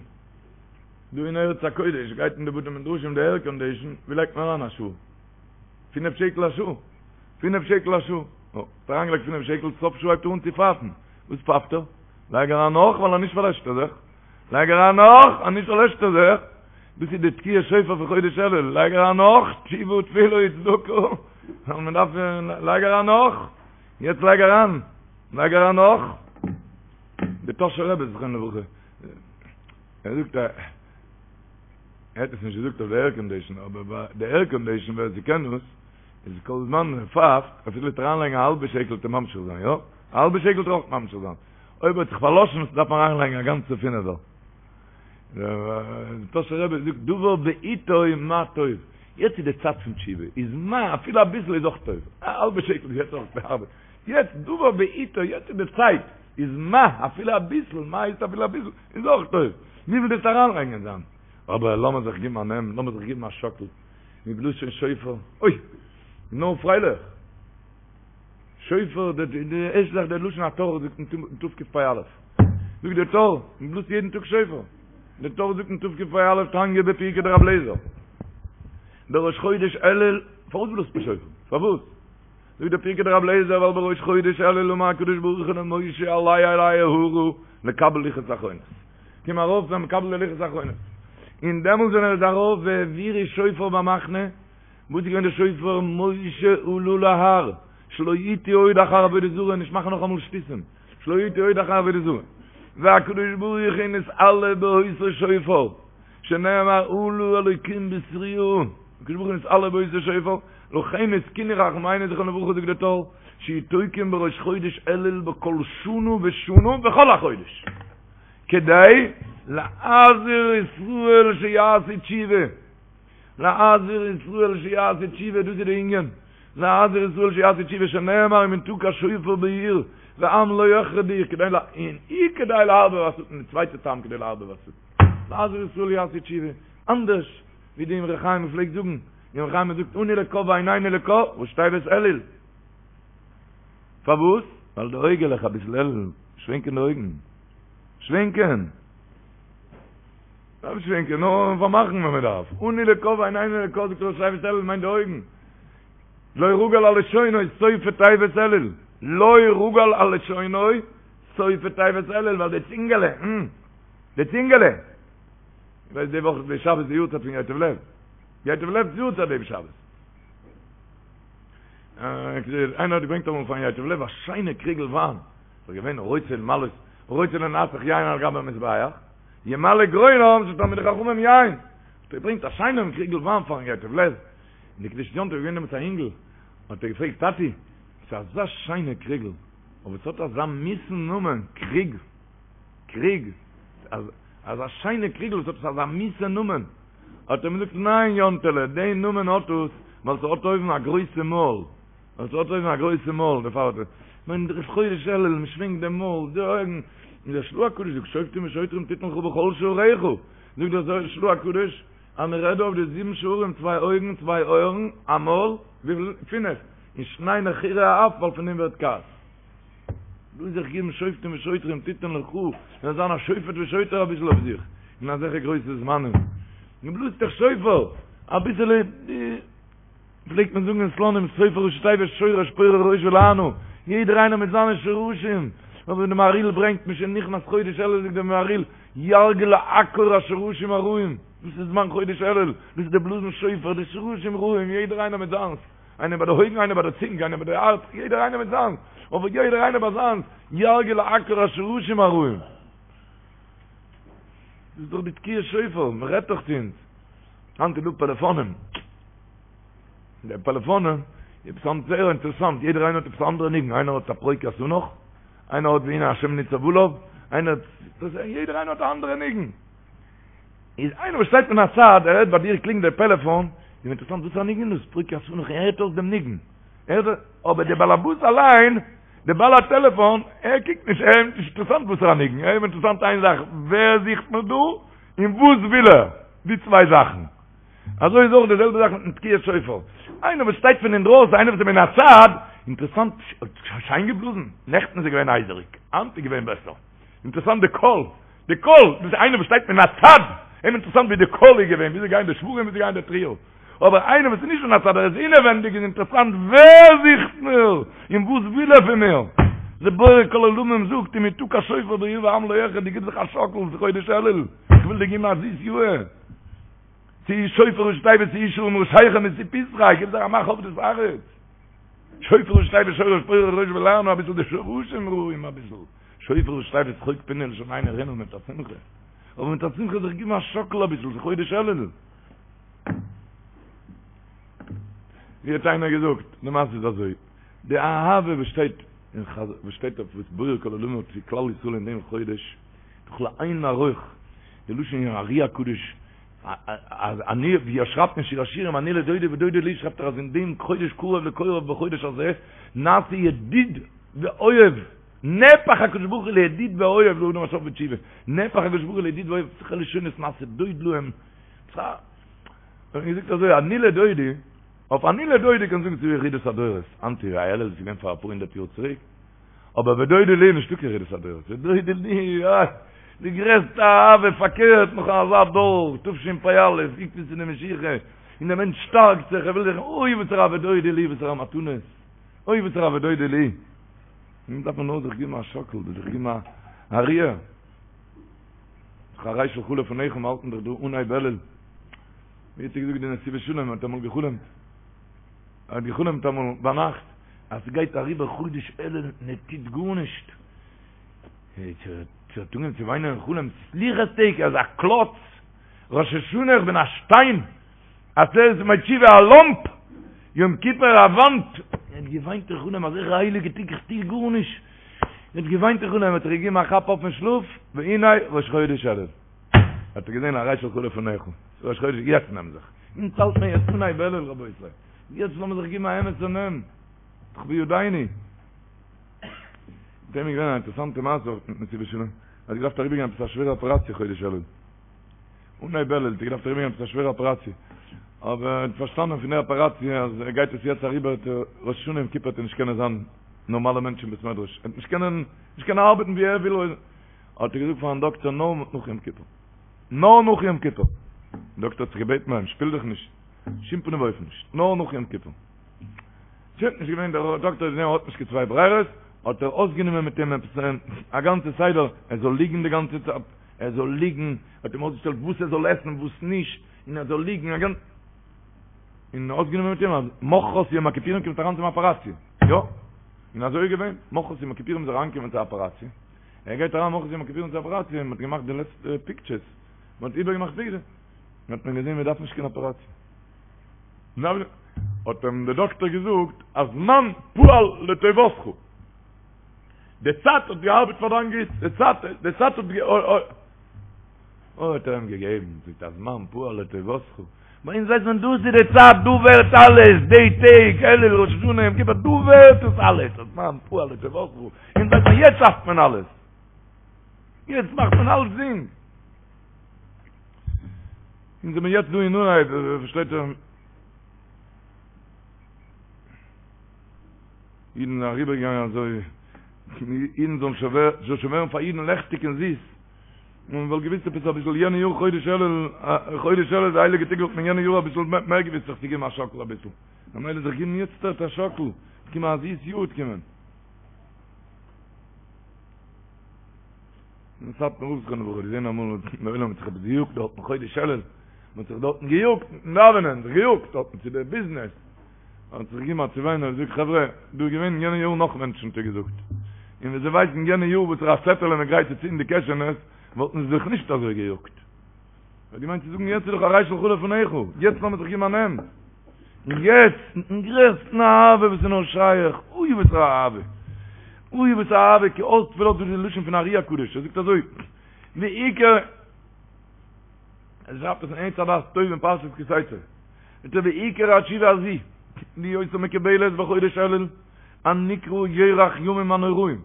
דא אין ארץ הקודש גייט אין די בתי מדרשים די עירקאנדישן, ווי לייגט מען אריין א שעה? פינף שקל א שעה. פינף שקל א שעה. נו, האט אריינגעלייגט פינף שקל, סוף שעה הייבט ער אן צו פייפן. וואס פייפט ער? לייג אריין נאך, ווייל אנישט פארלעשט ער זיך. לייג אריין נאך, אנישט פארלעשט ער זיך. דאס איז די תקיעת שופר פון חודש אלול. לייג אריין נאך, תשובה תפילה וצדקה. מען דארף, לייג אריין נאך. יעצט לייג אריין. לייג אריין נאך. די טאהשער רבי זכרונו לברכה, ער זאגט א. ער האט עס נישט געזאגט אויף די עירקאנדישן, אבער ביי די עירקאנדישן ווער ס'קען דאס, איז כל זמן מען פייפט, אפילו וועט אריינלייגן א האלבע שקל וועט ער ממשיך זיין, יא? א האלבע שקל וועט ער אויך ממשיך זיין. אויב האט זיך פארלאשן דארף מען אריינלייגן א גאנצע פינעווער. דער טאהשער רבי זאגט דבר בעתו מה טוב, יעצט איז די צייט פון תשובה, איז מה, אפילו אביסל איז אויך טוב, א האלבע שקל איז יעצט אויך ארבעט, יעצט דבר בעתו, יעצט איז די צייט, איז מה, אפילו אביסל, מה איז אפילו אביסל, איז אויך טוב, וויפיל דארפסטו אריינלייגן זיין. אבער לאמיר זיך גיבן א נעם, לאמיר זיך גיבן א שאקל, מען בלאזט שוין שופר, אוי! נאר פרייליך! שופר, די ערשטע זאך דער לשון הטור זאגט אין תקפ"א, זאגט דער טור, מען בלאזט יעדן טאג שופר. די טור זאגט אין תקפ"א תניא בפרקי דרבי אליעזר, בראש חודש אלול, פארוואס בלאזט מען שופר? פארוואס? זאגט דער פרקי דרבי אליעזר ווייל בראש חודש אלול אמר הקדוש ברוך הוא למשה עלה אלי ההרה לקבל לוחות אחרונות, קום ארויף זיי מקבל די לוחות אחרונות, און דעמאלס ווען ער איז ארויף והעבירו שופר במחנה, וואס איז געווען די שופר? משה עלה להר, שלא יטעו עוד אחר עבודה זרה, נישט מאכן נאכאמאל שטותים, שלא יטעו עוד אחר עבודה זרה, והקדוש ברוך הוא נתעלה באותו שופר, שנאמר עלה אלוקים בתרועה, הקדוש ברוך הוא נתעלה באותו שופר, לכן התקינו חכמינו זכרונם לברכה זאגט דער טור, שיהו תוקעין בראש חודש אלול בכל שנה ושנה בכל החודש, כדי להזהיר ישראל שיעשו תשובה. להזהיר ישראל שיעשו תשובה, דאס איז די ענין, להזהיר ישראל שיעשו תשובה שנאמר אם יתקע שופר בעיר ועם לא יחרדו, כדי ל... און וכדי לערבב השטן, די צווייטע טעם כדי לערבב השטן, להזהיר ישראל שיעשו תשובה, אנדערש ווי די אמרי חיים פלעגט זאגן, די אמרי חיים זאגט אנו לקה ועינינו לקה, ראשי תיבות אלול. פארוואס? ווייל די אויגעלעך אביסל אלול, שווענקען די אויגן. שווענקען. דארף נישט שווענקען, נאר פארמאכן ווען מען דארף. אנו לקה ועינינו לקה זאגט ראשי תיבות אלול מיינט די אויגן. לא רגל על לשונו סופי תיבות אלול. לא רגל על לשונו סופי תיבות אלול ווייל די צינגעלע, המ. די צינגעלע. ווייסט די וואך די שבת די יארצייט פון ייטב לב. ייטב לב'ס יארצייט דעם שבת. איינער האט געברענגט אמאל פארן ייטב לב א שיינע קריגל וויין. ס'איז געווען רוצה למלאות, רוצה לנסך יין על גבי המזבח. ימלא גרונם של תלמידי חכמים יין, האט ער געברענגט א שיינעם קריגל וויין פארן ייטב לב, און די קדושת יום טוב איז געווען דעמאלטס א אינגל, האט ער געפרעגט טאטי, ס'איז אזא שיינע קריגל, אבער ס'האט אזא מיסן נאמען, קריג, קריג, אזא שיינע קריגל וואס האט עס אזא מיסע נאמען, האט ער אים געזאגט ניין יאנטעלע, די נאמען האט עס ווייל ס'האט אויבן א גרויסע מויל, ווייל ס'האט אויבן א גרויסע מויל, דערפאר האט ער, מיין ראש חודש אלול, מען שווענקט דעם מויל, די אויגן, און דער של"ה הקדוש זאגט שופטים ושוטרים תתן לך בכל שעריך, זאגט דער של"ה הקדוש אז מען רעדט דא אויף די זיבן שערים, צוויי אויגן, צוויי אויערן, א מויל, וויפיל? פינף, און שני נחירי האף, ווייל פון דעם ווערט כעס. דא זיך געבן שופטים ושוטרים תתן לך, זאל זיין א שופט ושוטר אביסל אויף זיך, אין אזעלכע גרויסע זמנים, מען בלאזט דאך שופר, אביסעלע. פלעגט מען זאגן אין סלאנים שופר ראשי תיבות שורש פורה ראש ולענה, יעדער איינער מיט זיינע שורשים, אבער ווי די מהריל ברענגט משנכנס חודש אלול זאגט דער מהריל ירגיל לעקור השורשים הרעים, דאס איז זמן חודש אלול, דאס איז די בלאזן שופר, די שורשים רעים, יעדער איינער מיט זיינס, איינער ביי די אויגן איינער ביי די צונג איינער ביי די הארץ, יעדער איינער מיט זיינס, אבער יעדער איינער ביי זיינס, ירגיל לעקור השורשים הרעים. דאס איז דאך די תקיעת שופר, מען רעדט דאך צו אונז. היינט איז דא פעלעפאנען. די פעלעפאנען, עפעס היינט זייער אינטערעסאנט, יעדער איינער האט עפעס א אנדערע ניגון, איינער האט א פרוק ית ענך, איינער האט והנה השם ניצב עליו, איינער האט, יעדער איינער האט א אנדערע ניגון. איז איינער וואס שטייט מן הצד, ער הערט ביי דיר קלינגט דער פעלעפאן, איז אים אינטערעסאנט וואס פאר א ניגון איז דאס, פרוק ית ענך, ער הערט אויס דעם ניגון. ער הערט, אבער דער בעל הבית אליין, דער בעל הטעלעפאן, ער קוקט נישט, אים איז נישט אינטערעסאנט וואסערע ניגון, אים איז אינטערעסאנט איין זאך, ווער זוכט מיר דא, און וואס וויל ער, די צוויי זאכן. אזוי איז אויך די זעלבע זאך מיטן תקיעת שופר. איינער וואס שטייט פון אינדרויסן, איינער וואס איז מן הצד, אינטערעסאנט, שיין געבלאזן, נעכטן איז ער געווען הייזעריג, היינט איז געווען בעסער. אינטערעסאנט די קול, די קול, דאס איז איינער וואס שטייט מן הצד, אים אינטערעסאנט ווי די קול איז געווען, וויאזוי גייען די שברים, וויאזוי גייען די תרועה. אבער איינער וואס איז נישט מן הצד, ער איז אינעווענדיג, איז אינטערעסאנט ווער זוכט מיר, און וואס וויל ער פון מיר. דער בורא כל עולמים זאגט, אם יתקע שופר בעיר ועם לא יחרדו, גיב זיך א שאקל, ס'איז חודש אלול, איך וויל דיר געבן א זיס יאהר. שאו שופר ראשי תיבות שאו שערים ראשיכם ושאו פתחי, גיב זיך א מאך אויף דאס הארץ. שופר ראשי תיבות שורש פורה ראש ולענה אביסל די שורשים רעים אביסל. שופר ראשי תיבות שחוק פינו ולשוננו רנה מיט א שמחה. אבער מיט א שמחה זיך גיבן א שאקל אביסל, ס'איז חודש אלול. ווי האט איינער געזאגט, די מעשה איז אזוי, די אהבה וואס שטייט אין חז וואס שטייט אויף וואס בורא כל עולמים האט צו כלל ישראל אין דעם חודש, דאך לאין ערוך, די לשון אין ארי הקדוש, אז אני, ווי ער שרייבט אין שיר השירים, אני לדודי ודודי לי, שרייבט ער אז אין דעם חודש קרוב לקוראיו בחודש הזה, נעשה ידיד ואוהב, נהפך הקדוש ברוך הוא לידיד ואוהב לאדם השב בתשובה, נהפך הקדוש ברוך הוא לידיד ואוהב, וועלכע לשונות נעשה דוד להם, האט געזאגט אזוי, אני לדודי, אויף אני לדודי קען זאגן ס'איז ירידת הדורות, היינט אלול איז געווען פאר אפאר הונדערט יאר צוריק, אבער ודודי לי נישטא קיין ירידת הדורות, ודודי לי, איי! די גרעסטע אהבה, פארקערט נאך אזא דור, תשפ"א, עקבתא דמשיחא, און דער מענטש שטארקט זיך, ער וויל זיך, אוי וואסערע ודודי לי, וואסערע מתנות, אוי וואסערע ודודי לי. נו דארף מען נאר זיך געבן א שאקל, זיך געבן א ריר. הרי שלך לפניך מיר האלטן דאך דא אנהייב אלול. ווי האט ער געזאגט די נתיבות שלום האט אמאל געחלומט. ער האט געחלומט אמאל ביינאכט אז ס'גייט אריבער חודש אלול און ער טוט גארנישט. ער האט אנגעהויבן צו וויינען אין חלום, סליחות טעג, ער איז א קלאץ, ראש השנה איך בין א שטיין, עשרת ימי תשובה א לאמפ, יום כיפור א וואנט, ער האט געוויינט אין חלום אזעלכע הייליגע טעג איך טו גארנישט, ער האט געוויינט אין חלום, האט ער געגעבן א כאפ אויף פון שלאף, והנה ראש חודש אלול, האט ער געזען הרי שלך לפניך, ראש חודש, יעצט נעם זיך, אונז האלט מען יעצט אנהייב אלול רבותי, יעצט לאמיר זיך געבן א אמת'ע נעם, דאך בידינו. מיט אים איז געווען א אינטערעסאנטע מעשה אויך מיטן נתיבות שלום, ער האט געדארפט אריבערגיין עפעס א שווערע אפעראציע חודש אלול, אנהייב אלול האט ער געדארפט אריבערגיין עפעס א שווערע אפעראציע, אבער ער האט פארשטאנען פון די אפעראציע אז ער גייט עס יעצט אריבער וועט ער ראש השנה יום כיפור וועט ער נישט קענען זיין נארמאלע מענטש אין בית מדרש, ער וועט נישט קענען נישט קענען ארבעטן ווי ער וויל, האט ער געזאגט פארן דאקטער נאר נאך יום כיפור, נאר נאך יום כיפור, דער דאקטער האט זיך געבעטן ביי אים שפיל דיך נישט, בשום פנים ואופן נישט, נאר נאך יום כיפור. שוין, נישט געווען דער דאקטער האט געזען ער האט נישט קיין צוויי ברירות, האט ער אויסגענומען מיט אים עפעס א גאנצע סדר, ער זאל ליגן די גאנצע צייט, ער זאל ליגן, האט אים אויסגעשטעלט וואס ער זאל עסן וואס נישט, און ער זאל ליגן א גאנצע, און אויסגענומען מיט אים אז מחרת יום הכיפורים קומט אריין צום אפעראציע, יא, און אזוי איז געווען, מחרת יום הכיפורים איז ער אריינגעקומען צו אפעראציע, ער גייט אריין מחרת יום הכיפורים צו אפעראציע, און מען האט געמאכט די לעצטע פיקטשערס, מען האט איבערגעמאכט פיקטשערס, האט מען געזען מען דארף נישט קיין אפעראציע. האט אים דער דאקטער געזאגט, הזמן פעל לטובתך, די צייט האט געארבעט פאר דיין גוטס, די צייט, די צייט האט גע. אוי האט ער אים געגעבן, זאגט הזמן פעל לטובתך, ביי אונז ווייסט מען דאס איז די צייט, דא ווערט אלעס, די טעג, אלול, ראש השנה, יום כיפור, דא ווערט עס אלעס, הזמן פעל לטובתך, אונז ווייסט מען יעצט שאפט מען אלעס, יעצט מאכט מען אלצדינג. אונז זעמיר יעצט דא אין אנהייב, פארשטייט איר, אידן זענען אריבערגעגאנגען אזוי, אידן זאלן שוין זאל שוין ווערן פאר אידן לעכטיג און זיס, און מען וואלט געוויסט עפעס אביסל יענע יאר חודש אלול, חודש אלול די הייליגע טעג וואלט מען יענע יאר אביסל מער געוויסט זיך צו געבן א שאקל אביסל, ממילא זיך געבן יעצט א שאקל, קומען א זיס יאר וועט קומען. אין סאטמאר רב זכרונו לברכה געזען אמאל דער עולם האט זיך עפעס געיאגט דארטן חודש אלול, מען האט זיך דארטן געיאגט מיטן דאווענען, זיך געיאגט דארטן צו די ביזנעס, האט זיך געגעבן א צעוויין און געזאגט חברה, דא איז געווען יענע יאר נאך מענטשן האט ער געזאגט, און ווען זיי ווייסן יענע יאר וואסערע א צעטעלע מען גרייט צו צו אין די קעשענעס, וואלטן זיי זיך נישט אזוי געיאגט. ער האט געמיינט צו זאגן יעצט איז דאך הרי שלך לפניך, יעצט לאמיר זיך געבן א נעם. און יעצט, מיטן גרעסטן אהבה וואס איז נאר שייך, אוי וואס א אהבה, אוי וואס א אהבה, כי אז תפלת דאס איז די לשון פון ארי הקדוש, ער זאגט אזוי, ועיקר, ער שרייבט עס אין עץ הדעת טוב אין פרשת כי תצא, זאגט ער ועיקר התשובה הזו, להיותה מקובלת בחודש אלול, הנקרא ירח ימים הנוראים,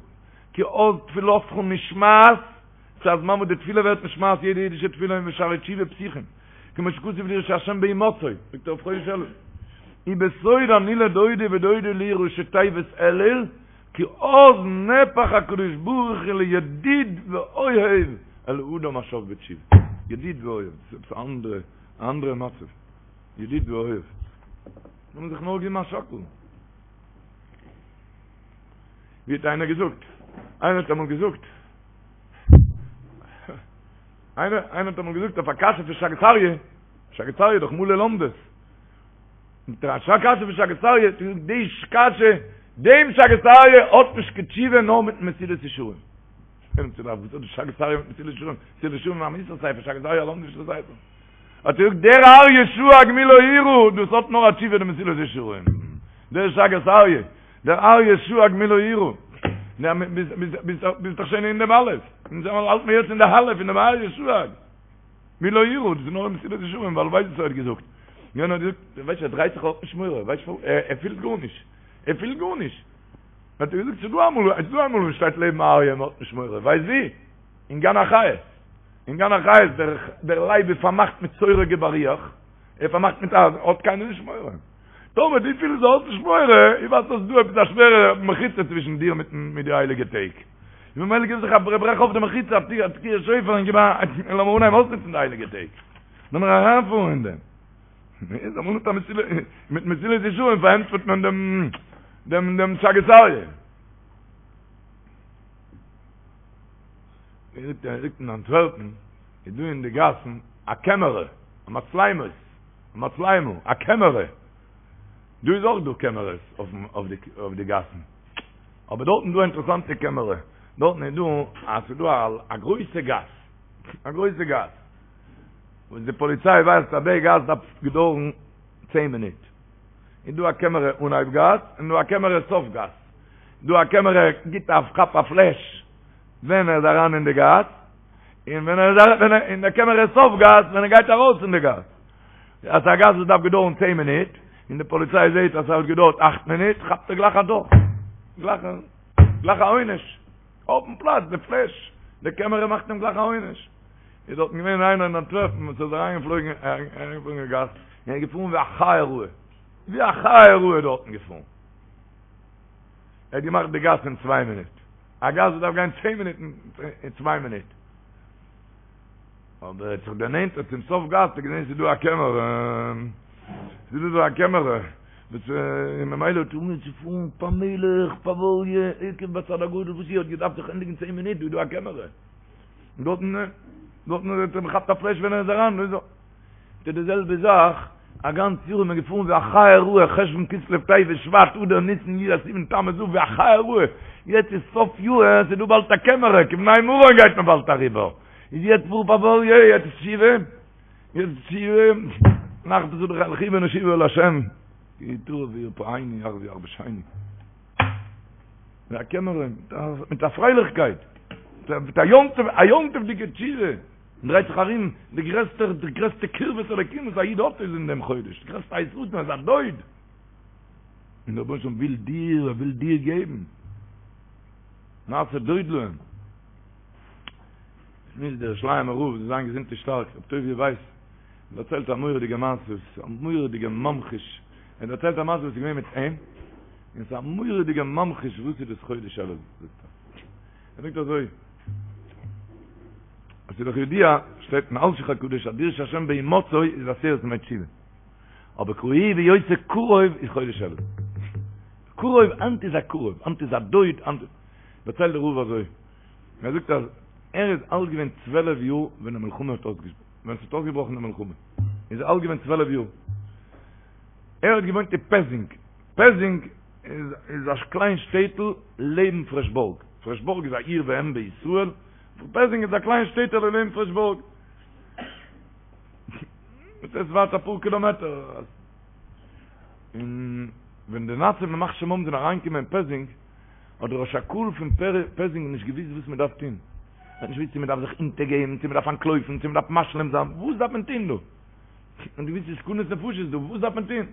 כי אז תפילתך נשמעת, ס'איז א זמן וואס די תפילה ווערט נשמעת יעדע אידישע תפילה און ושערי תשובה פתוחים, כמו שכתוב דרשו השם בהמצאו, זאגט ער אויף חודש אלול, ובסוד אני לדודי ודודי לי ראשי תיבות אלול, כי אז נהפך הקדוש ברוך הוא לידיד ואוהב אל האדם השב בתשובה, ידיד ואוהב, דאס איז עפעס א אנדערע, א אנדערע מצב, ידיד ואוהב, לאמיר זיך נאר געבן א שאקל. ווי האט איינער געזאגט? איינער האט אמאל געזאגט, איינער איינער האט אמאל געזאגט אויף א קשיא פון שאגת אריה, שאגת אריה איז דאך מלא לומדות. מיט א קשיא פון שאגת אריה, האט געזאגט די קשיא, דעם שאגת אריה האט נישט קיין תשובה נאר מיטן מסילת ישרים. וואס האט די שאגת אריה מיט מסילת ישרים? מסילת ישרים איז א מוסר ספר, שאגת אריה א לומדישער ספר. האט ער געזאגט דער אריה שאג מי לא יירא, דאס האט נאר א תשובה די מסילת ישרים. דער שאגת אריה. דער אריה שאג מי לא יירא, ביסט דאך שוין אין דעם אלף, אונז האלט מיר יעצט אין די אלף אין דעם אריה שאג מי לא יירא, דאס איז נאר מסילת ישרים, ווייל ווייסט וואס ער האט געזאגט, יענער האט געזאגט, ווייסט ער דרייט זיך האט נישט מורא, ווייסט ער פילט גארנישט, ער פילט גארנישט, האט ער געזאגט ס'איז דא אמאל, ס'איז דא אמאל וואס שטייט לעבן א אריה און מ'האט נישט מורא, ווייסט ווי? אין גן החיות, אין גן החיות דער לייב איז פארמאכט מיט סורג ובריח, ער איז פארמאכט מיט אייזן, האט קיינער נישט מורא. טאמער דו פילסט דו האסט נישט מורא, איך ווייס אז ס'איז דא עפעס א שווערע מחיצה צווישן דיר מיטן מיט די הייליגע טעג. ממילא גיב זיך א ברעך אויף די מחיצה, א תקיעת שופר און גיב א, לאמיר אנהייבן אויסנוצן די הייליגע טעג. לאמיר אריינפארן אין דעם. איז אמאל מיט א מסילה, מיט מסילת ישרים פארענטפערט מען דעם דעם דעם שאגת אריה. ער זאגט ער זאגט אין אנטווערפן איז דא אין די גאסן א קעמערע, א מצלמות, א מצלמה, א קעמערע. דא איז אויך דא קעמערעס אויפן אויף די אויף די גאסן. אבער דארטן איז דא א אינטערעסאנטע קעמערע. דארטן איז דא אז ס'איז דא א גרויסע גאס, א גרויסע גאס. וואס די פאליציי ווייסט אז די גאס דארף געדויערן צען מינוט. איז דא א קעמערע אנהייב גאס און דא א קעמערע סוף גאס. דא א קעמערע גיט א כאפ א פלעש ווען ער איז אריין אין די גאס, און ווען ער איז אריין אין די קעמערע סוף גאס ווען ער גייט ארויס פון די גאס. אז א גאס וואס דארף געדויערן צען מינוט, און די פאליציי זעהט אז ס'האט געדויערט אכט מינוט, כאפט ער גלייך א דוח. גלייך גלייך א עונש. אויפן פלאץ, די פלעש, די קעמערע מאכט אים גלייך א עונש. איז דארטן געווען איינער אין אנטווערפן וואס איז אריינגעפלויגן אריינגעפלויגן אין גאס, און איז געפארן ווי א חיה רעה. ווי א חיה רעה דארטן געפארן. ער האט געמאכט די גאס אין צוויי מינוט. א גאס וואס דארף גיין צען מינוט אין צוויי מינוט. אבער ער האט זיך דערנענטערט צום סוף גאס, האט ער געזען ס'איז דא א קעמערע, ס'איז דא דא א קעמערע, וואס און ממילא האט ער אנגעהויבן צו פארן פאמעליך, פאוואליע, עקב בצד אגודל, וואס איר האט געדארפט זיך ענדיגן צען מינוט, דא איז דא א קעמערע. און דארטן, דארטן האט ער געכאפט א פלעש ווען ער איז אריין, און אזוי. טוט די זעלבע זאך, א גאנץ יאר איז מען געפארן ווי א חיה רעה, חשוון כסלו טבת שבט אדר ניסן אייר סיוון תמוז אב ווי א חיה רעה, יעצט איז סוף יאר, ס'איז דא באלד א קעמערע, כבני מרון גייט מען באלד אריבער, איז יעצט פאר פאוואליע, יעצט תשובה, יעצט תשובה, נחפשה לכו ונשובה אל השם, כי הוא יטרף וירפאנו יחזיר ויחבשנו. מיט א קעמערע, מיט א פרייליכקייט, מיט א יום טוב, א יום טוב'דיגע תשובה. מען דרייט זיך ארום, די גרעסטע, די גרעסטע קרבת אלוקים וואס א איד האט איז אין דעם חודש, די גרעסטע עת רצון איז א דוד, און דער רבונו של עולם וויל דיר, ער וויל דיר געבן, נעשה דוד להם. שמועסט דער ירושלימער רב זאל זיין געזונט און שטארק, רבי טוביה ווייס, דערציילט א מורא'דיגע מעשה, א מורא'דיגע ממחיש, ער דערציילט א מעשה וואס איז געווען מיט אים, און ס'איז א מורא'דיגע ממחיש וואס איז דאס חודש אלול, זאגט ער. ער זאגט אזוי, עס איז דאך ידוע, שטייט אין אלשיך הקדוש אז דרשו השם בהמצאו איז עשרת ימי תשובה. אבער קראוהו בהיותו קרוב איז חודש אלול. קרוב, היינט איז א קרוב, היינט איז א דוד, היינט איז. דערציילט דער רב אזוי, ער זאגט אז ער איז אלט געווען צוועלף יאר ווען די מלחמה האט אויסגעבראכן, ווען עס האט אויסגעבראכן די מלחמה, איז ער אלט געווען צוועלף יאר. ער האט געוואוינט אין פעזינג, פעזינג איז איז א קליין שטעטל לעבן פרעשבורג, פרעשבורג איז א עיר ואם בישראל, פעזינג איז א קליין שטעטעלע לעבן פרעשבורג, עס איז ווייט אפאר קילאמעטער, און ווען די נאצים ימח שמם זענען אריינגעקומען אין פעזינג, האט דער ראש הקהל פון פעזינג נישט געוואוסט וואס מען דארף טון, ער האט נישט געוואוסט צו מען דארף זיך אונטערגעבן, צו מען דארף אנטלויפן, צו מען דארף משלים זיין, וואס דארף מען טון דא? און דו ווייסט ס'איז סכנת נפשות דא, וואס דארף מען טון?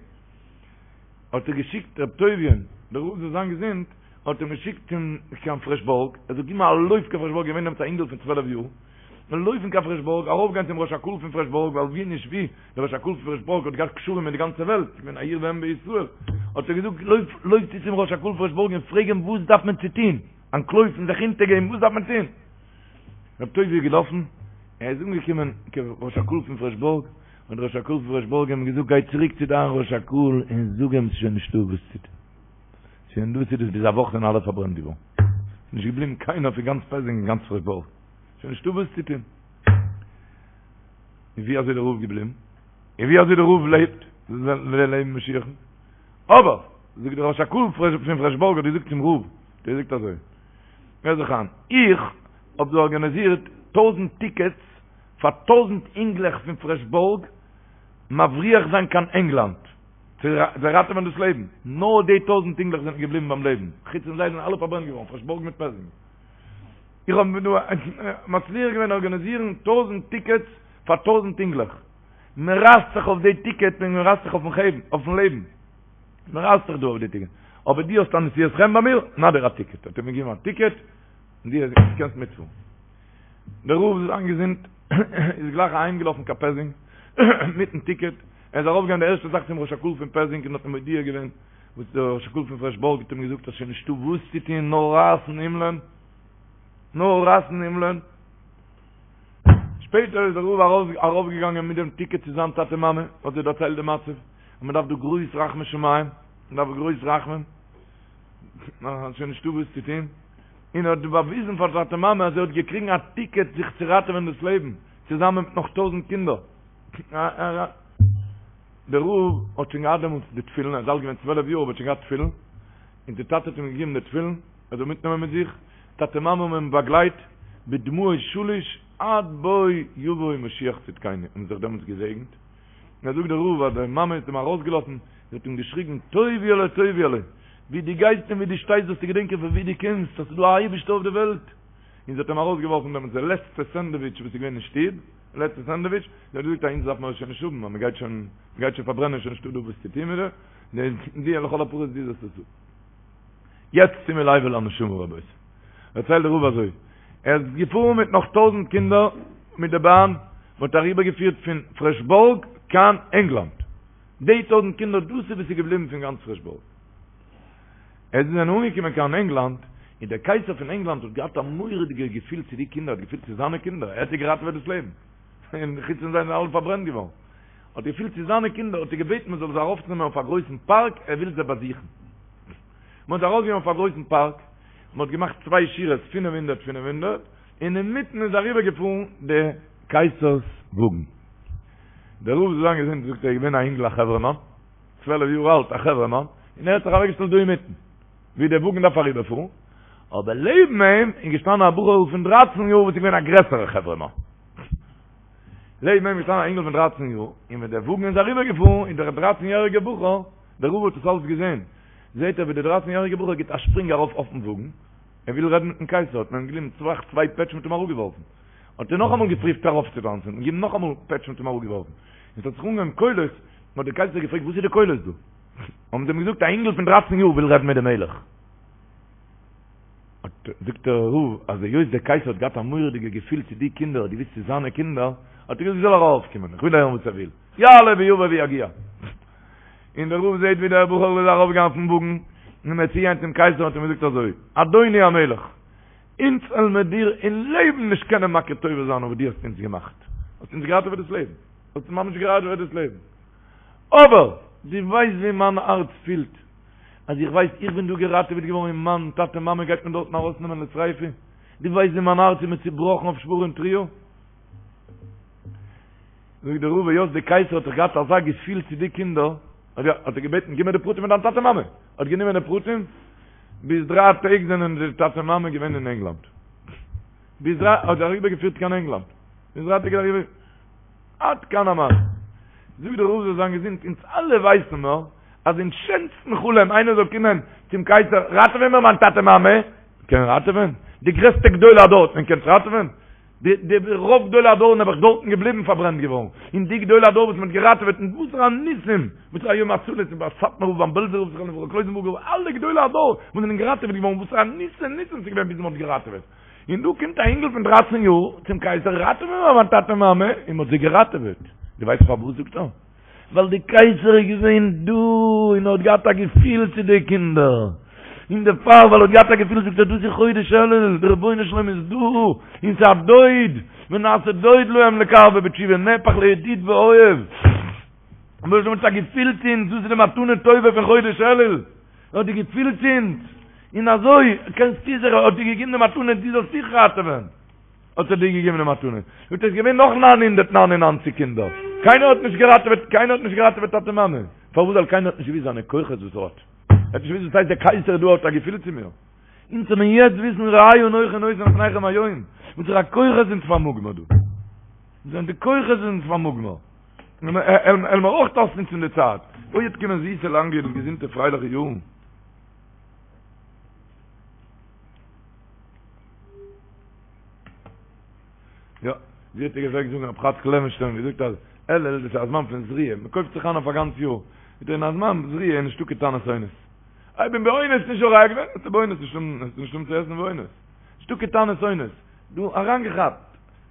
האט ער געשיקט ר' טוביה'ן, דער רב זאל זיין געזונט, האט אים געשיקט צום קיין פרעשבורג, ער זאל געבן א לויף קיין פרעשבורג, געווען דעמאלטס א אינגל פון צוועלף יאר, און לויפן קיין פרעשבורג, ארויפגיין צום ראש הקהל פון פרעשבורג, ווייל ווי נישט ווי, דער ראש הקהל פון פרעשבורג האט געהאט קשרים מיט די גאנצע וועלט, געווען א עיר ואם בישראל, האט ער געזאגט, לויף, לויף צו צום ראש הקהל פרעשבורג און פרעג אים וואס דארף מען צו טון, אנטלויפן, זיך אונטערגעבן, וואס דארף מען טון? ר' טובי' איז געלאפן, ער איז אנגעקומען צום ראש הקהל פון פרעשבורג, האט דער ראש הקהל פון פרעשבורג אים געזאגט גיי צוריק צו דיין ראש הקהל און זאג אים ס'איז שוין נישטא וואס צו טון, שוין דאס איז דאס ביז א וואך זענען אלע פארברענט געווארן, ס'איז נישט געבליבן קיינער פון גאנץ פעזינג און גאנץ פרעשבורג, שוין נישטא וואס צו טון. און ווי אזוי דער רב געבליבן? און ווי אזוי דער רב לעבט? זאל לעבן משיח'ן. אבער, זאגט דער ראש הקהל פון פרעשבורג האט געזאגט צום רב, האט ער געזאגט אזוי, הער זיך איין, איך האב דא ארגאניזירט טויזענט טיקעטס פאר טויזענט אינגלעך פון פרעשבורג מבריח זיין קיין ענגלאנד צו זיי ראטעווען דאס לעבן, נאר די טויזענט אינגלעך זענען געבליבן ביים לעבן, חוץ פון זיי זענען אלע פארברענט געווארן, פרעשבורג מיט פעזינג. איך האב דא מצליח געווען ארגאניזירן טויזענט טיקעטס פאר טויזענט אינגלעך. מען רייסט זיך אויף די טיקעט ווי מען רייסט זיך אויפן לעבן. מען רייסט זיך דא אויף די טיקעט. אבער דו האסט א נשיאת חן ביי מיר, נא דיר א טיקעט. האט ער מיר געגעבן א טיקעט, און דו קענסט מיטפארן. דער רב זאל זיין געזונט איז גלייך אהיימגעלאפן קיין פעזינג מיטן טיקעט. ער איז ארויפגעגאנגען די ערשטע זאך צום ראש הקהל פון פעזינג און האט אים מודיע געווען וואס דער ראש הקהל פון פרעשבורג האט אים געזאגט אז שוין נישטא וואס צו טון נאר רייסן הימלען. נאר רייסן הימלען. שפעטער איז דער רב ארויפגעגאנגען מיט דעם טיקעט צו זיין טאטע מאמע, האט זיי דערציילט די מצב, אז מען דארף דא גרויס רחמי שמים, מען דארף גרויס רחמים, ס'איז שוין נישטא וואס צו טון, און ער האט באוויזן פאר טאטע מאמע אז ער האט געקריגן א טיקעט זיך צו ראטעווען דאס לעבן, צוזאמען מיט נאך טויזענט קינדער. דער רב האט שוין געהאט דעמאלטס די תפילין, ער איז אלט געווען צוועלף יאר אבער האט שוין געהאט תפילין, און די טאטע האט אים געגעבן די תפילין, ער זאל מיטנעמען מיט זיך, טאטע מאמע האבן אים באגלייט בדמעות שליש עד בוא יבוא משיח צדקינו, האבן זיך דעמאלטס געזעגנט, און זאגט דער רב אז די מאמע האט אים ארויסגעלאפן, זי האט אים געשריגן טוביה'לע טוביה'לע, ווי דו גייסט און ווי דו שטייסט זאלסטו געדענקען פון ווי דו קומסט, אז ס'איז דא א אייבערשטער אויף די וועלט, און זי האט אים ארויסגעווארפן דעמאלטס די לעצטע סענדוויטש וואס איז געווען אין שטוב, די לעצטע סענדוויטש, זי האט געזאגט אז אונז דארף מען עס שוין נישט האבן, אז מען גייט שוין, מען גייט שוין פארברענען, שוין נישטא דא וואס צו טון מיט דעם, די לכל הפחות דו זאלסט עס האבן. יעצט שימו לב אל הנשמה רבותי. דערציילט דער רב אזוי, ער איז געפארן מיט נאך טויזענט קינדער מיט די באן, מען האט אריבער געפירט פון פרעשבורג קיין ענגלאנד, די טויזענט קינדער דאס איז וואס איז געבליבן פון גאנץ פרעשבורג. עס זענען אנגעקומען קיין ענגלאנד, און דער קייסער פון ענגלאנד האט געהאט א מורא'דיגע געפיל צו די קינדער, האט געפילט צו זיינע קינדער, ער האט זיי געראטעוועט דאס לעבן, און חוץ פון זיי זענען אלע פארברענט געווארן, האט געפילט צו זיינע קינדער, האט ער געבעטן מען זאל זיי ארויפנעמען אויף א גרויסן פארק, ער וויל זיי באזוכן. מען האט זיי ארויפגענומען אויף א גרויסן פארק, מען האט געמאכט צוויי שורות פינף הונדערט פינף הונדערט, און אינמיטן איז אריבער געפארן די קייסער'ס וואגן. דער רב זאל זיין געזונט זאגט ער איז געווען א אינגל א חברה'מאן, צוועלף יאר אלט א חברה'מאן, און ער האט זיך אוועקגעשטעלט דא אינמיטן, ווי דער וואגן דארף אריבערפארן, אבער לעבן אים איז געשטאנען א בחור'ל פון דרייצן יאר וואס איז געווען א גרעסערע חברה'מאן. לעבן אים איז געשטאנען א אינגל פון דרייצן יאר, און ווען דער וואגן איז אריבערגעפארן, איז דער דרייצן יעריגער בחור, דער רב האט עס אלץ געזען, זעט ער ווי דער דרייצן יעריגער בחור גיבט א שפרינג ארויף אויפן וואגן, ער וויל רעדן מיטן קייסער, האט מען אים געגעבן צוויי צוויי פעטש מ'האט אים אראפגעווארפן. האט ער נאכאמאל געפריווט ארויפצוטאנצן, און געגעבן נאכאמאל פעטש מ'האט אים אראפגעווארפן. און ס'האט זיך אנגעהויבן קולות, האט דער קייסער געפרעגט וואס איז די קולות דא? האבן זיי אים געזאגט א אינגל פון דרייצן יאר וויל רעדן מיט די מלך. האט זאגט דער רב אז היות דער קייסער האט געהאט א מורא'דיגע געפיל צו די קינדער האט געוויסט ס'איז זיינע קינדער, האט ער געזאגט זאל ער ארויפקומען איך וויל הערן וואס ער וויל, יעלה ויבוא ויגיע. און דער רב זעט ווי דער בחור איז ארויפגעגאנגען אויפן וואגן, און ער איז צוגעגאנגען צום קייסער האט אים געזאגט אזוי, אדוני המלך, אונז וועלן מיר דיר אין לעבן נישט קענען מכיר טובה זיין אויף וואס דו האסט אונז געמאכט, האסט אונז געראטעוועט דאס לעבן, האסט אונז ממש געראטעוועט דאס לעבן, אבער דו ווייסט ווי מיין הארץ פילט, אז איך ווייס איך בין דא געראטעוועט געווארן און מיין טאטע מאמע גייט מען דארטן ארויסנעמען לשריפה, דו ווייסט ווי מיין הארץ איז מיר צובראכן אויף שברים תרועה? זאגט דער רב היות די קייסער האט דאך געהאט אזא געפיל צו די קינדער, האט ער געבעטן גיב מיר די פרטים פון דיין טאטע מאמע, האט גענומען די פרטים, ביז דריי טעג זענען די טאטע מאמע געווען אין ענגלאנד, ביז דריי האט ער אריבער געפירט קיין ענגלאנד, ביז דריי טעג איז אריבער. עד כאן המעשה. זאגט דער רב זאל זיין געזונט, אונז אלע ווייסן מיר אז אין שענסטן חלום איינער זאל קומען צום קייסער ראטעווען מיר מיין טאטע מאמע, קען ראטעווען? די גרעסטע גדולי הדור האט מען געקענט ראטעווען? די די רוב גדולי הדור נעבעך דארטן געבליבן פארברענט געווארן, און די גדולי הדור וואס מען האט געראטעוועט און וואסערע ניסים, וואסערע יום הצלה איז ביי סאטמאר רב ביים בעלזער רב זכרונו לברכה קלויזענבורגער רב אלע גדולי הדור וואס זענען געראטעוועט געווארן וואסערע ניסים ניסים ס'איז געווען ביז מען האט געראטעוועט. און דא קומט א אינגל פון דרייצן יאר צום קייסער, ראטעווע מיר מיין טאטע מאמע, און מ'האט זיי געראטעוועט. דו ווייסט פארוואס? זאגט ער, ווייל די קייסער איז געווען דא און האט געהאט א געפיל צו די קינדער, און דערפאר ווייל ער האט געהאט א געפיל זאגט ער, דאס איז חודש אלול, דער רבונו של עולם איז דא, און ס'איז א דוד, ונעשה דוד להם לקרבם בתשובה, נהפך לידיד ואוהב. רבונו של עולם האט א געפיל צו אונז, דאס איז די מתנה טובה פון חודש אלול. ער האט די געפיל צו אונז, און אזוי קענסטו זיך, האט דיר געגעבן די מתנה דו זאלסט זיך ראטעווען, האט ער דיר געגעבן די מתנה, זאגט ער, עס איז געווען נאך 999 קינדער, קיינער האט נישט געראטעוועט, קיינער האט נישט געראטעוועט טאטע מאמע, פארוואס ווייל קיינער האט נישט געוואוסט זיינע כוחות וואס ער האט, ער האט נישט געוואוסט וואס הייסט דער קייסער דא האט א געפיל צו מיר, אונז זאל מען יעצט וויסן ראה אנכי נותן לפניכם היום, וואסערע כוחות אונז פארמאגן מיר דא, וואס זענען די כוחות אונז פארמאגן מיר. וועלן מיר אויך אויסנוצן די צייט. אוי וועט קומען זיסע לאנגע און געזונטע פרייליכע יארן. יא, ווי האט ער געפלעגט זאגן רב חאצקל לעווענשטיין געזאגט אז אלול דאס איז א זמן פון זריעה, מען קויפט זיך איין אויף א גאנץ יאר. זאגט ער אין א זמן זריעה איז נישטא קיין טענות עונות. איך בין באונס נישט זורע געווען, האסטו באונס נישט נישט האבן צו עסן באונס. נישטא קיין טענות עונות. דא אריינגעכאפט.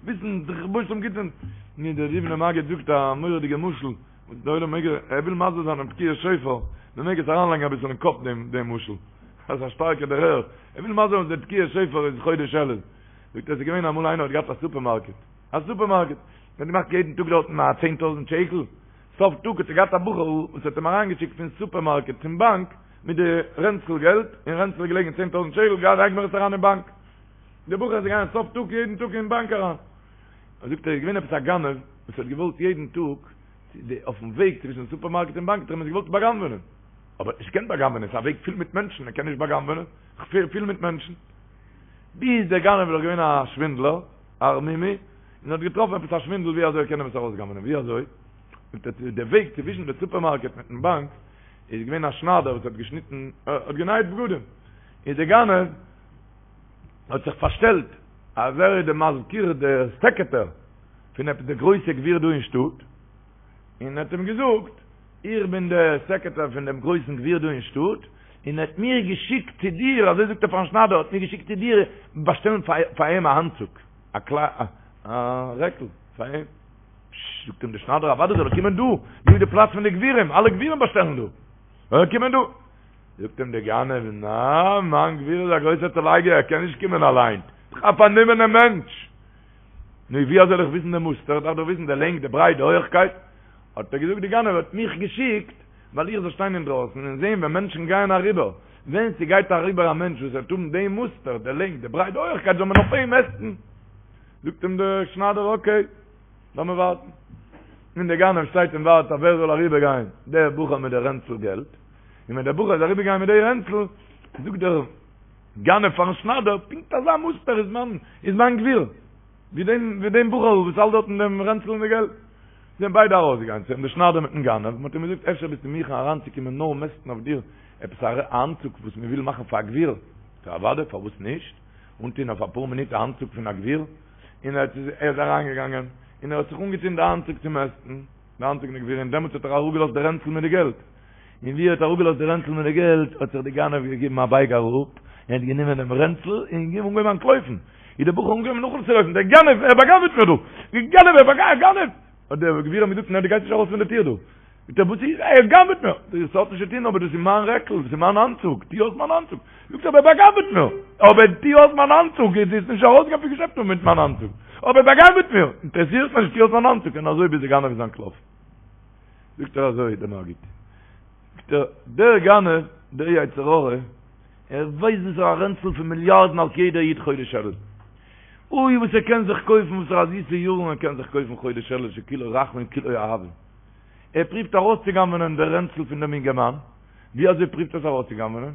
וויסן דער רבונו של עולם גיט אונז ני דער דובנער מגיד זאגט א מורא'דיגע משל וואס דער עולם מעג ער וויל מסביר זיין דעם תקיעת שופר מען מעג עס אריינלייגן אביסל אין קאפ דעם דעם משל אז א שטארקע דערהער ער וויל מסביר זיין אז דער תקיעת שופר איז חודש אלול. זאגט ער ס'איז געווען אמאל איינער האט געהאט א סופערמארקעט, א סופערמארקעט, האט געמאכט יעדן טאג דארטן א 10000 שקל, סוף טאג האט ער געהאט א בחור וואס האט אים אריינגעשיקט פון סופערמארקעט צום באנק מיט די רענצל געלט, אין רענצל איז געלעגן 10000 שקל, גיי לייג מיר עס אריין אין באנק. דער בחור איז געגאנגען סוף טאג יעדן טאג אין באנק אריין. זאגט ער איז געווען עפעס א גנב וואס האט געוואלט יעדן טאג אויפן וועג צווישן סופערמארקעט און באנק האט ער אים עס געוואלט בא'גנב'ענען. אבער האט נישט געקענט בא'גנב'ענען, ס'איז א וועג פול מיט מענטשן, ער קען נישט בא'גנב'ענען, פול מיט מענטשן. ביז דער גנב איז דאך געווען א שווינדלער, א ערמומי, און האט געטראפן עפעס א שווינדל ווי אזוי ער קען אים עס ארויסגנב'ענען. ווי אזוי? זאגט ער, די וועג צווישן די סופערמארקעט מיטן באנק איז געווען א שניידער וואס האט געשניטן, האט גענייט בגדים. איז דער גנב האט זיך פארשטעלט אז ער איז די מזכיר, די סעקערטער פון עפעס די גרויסע גביר דא אין שטאט, און האט אים געזאגט, איך בין דער סעקערטער פון דעם גרויסן גביר דא אין שטאט, און ער האט מיר געשיקט צו דיר, אזוי זאגט ער פארן שניידער, האט מיר געשיקט צו דיר באשטעלן פאר אים א אנצוג, א רעקל פאר אים. פשש, זאגט אים דער שניידער, אוודאי זאל ער קומען דא, דא איז די פלאץ פון די גבירים, אלע גבירים באשטעלן דא, זאל ער קומען דא. זאגט אים דער גנב, נא, מיין גביר איז א גרויסער צולייגער, ער קען נישט קומען אליין, דאך א פארנומענער מענטש. נו, ווי אזוי זאל איך וויסן די מוסטער, איך דארף דאך וויסן די לענג, די ברייט, די הויעכקייט. האט ער געזאגט, די גנב האט מיך געשיקט, ווייל איך זאל שטיין אינדרויסן און זען ווען מענטשן גייען אריבער, ווען ס'גייט אריבער א מענטש וואס וועט האבן דעם מוסטער, די לענג, די ברייט, די הויעכקייט, זאל מען אויף אים מעסטן. זאגט אים דער שניידער, אקעי, לאמיר ווארטן. און דער גנב שטייט און ווארט אויף ווער זאל אריבערגיין, דער בחור מיט די רענצל געלט. און ווען דער בחור איז אריבערגעגאנגען מיט די רענצל, זאגט דער גנב פארן שניידער, פונקט אזא מוסטער איז מיין איז מיין גביר, ווי דעם ווי דעם בחור וואס האלט דארטן דעם רענצל און די געלט. זענען ביידע ארויסגעגאנגען צו אים, דער שניידער מיטן גנב, מען האט אים געזאגט, אפשר ביסטו מוכן אריינצוקומען נאר מעסטן אויף דיר עפעס א אנצוג וואס מען וויל מאכן פאר א גביר? זאגט ער, אוודאי, פארוואס נישט? אנטון אויף אפאר מינוט א אנצוג פון א גביר, און ער איז אריינגעגאנגען, און ער האט זיך אנגעטון די אנצוג צו מעסטן, די אנצוג פון די גביר, און דעמאלטס האט ער אראפגעלאזט די רענצל מיט די געלט, און ווי ער האט אראפגעלאזט די רענצל מיט די געלט, האט זיך די גנב געגעבן א בייג אראפ, און האט גענומען דעם רענצל, און געגעבן אנגעהויבן אנטלויפן, איז דער בחור אנגעהויבן נאכצולויפן, דער גנב, ער באגנב'עט מיר דא! דער גנב, ער באגנב'עט, גנב! האט דער גביר אים געזאגט, נע דו גייסט נישט ארויס פון די טיר דא! זאגט ער, וואס איז, ער גנב'עט מיר! זאגט ער, ס'האט נישט צו טון, אבער דאס איז מיין רעקל, דאס איז מיין אנצוג, טו אויס מיין אנצוג! זאגט ער, אבער ער באגנב'עט מיר! אבער טו אויס מיין אנצוג, דו וועסט נישט ארויסגיין פון געשעפט מיט מיין אנצוג! אבער ער באגנב'עט מיר! אינטערעסירט מיר נישט, טו אויס מיין אנצוג! און אזוי ביז דער גנב איז אנטלאפן. זאגט ער אזוי דער מגיד, זאגט ער, דער גנב, דער יצר הרע, ער ווייסט וואס א רענצל פון מיליארדן האלט יעדער איד חודש אלול. אוי וואס ער קען זיך קויפן, וואס פאר א זיסע יארן ער קען זיך קויפן חודש אלול שכולו רחמים כולו אהבה. ער פריווט ארויסצוגנב'נען דער רענצל פון דעם אינגערמאן, ווי אזוי פריווט ער עס ארויסצוגנב'נען?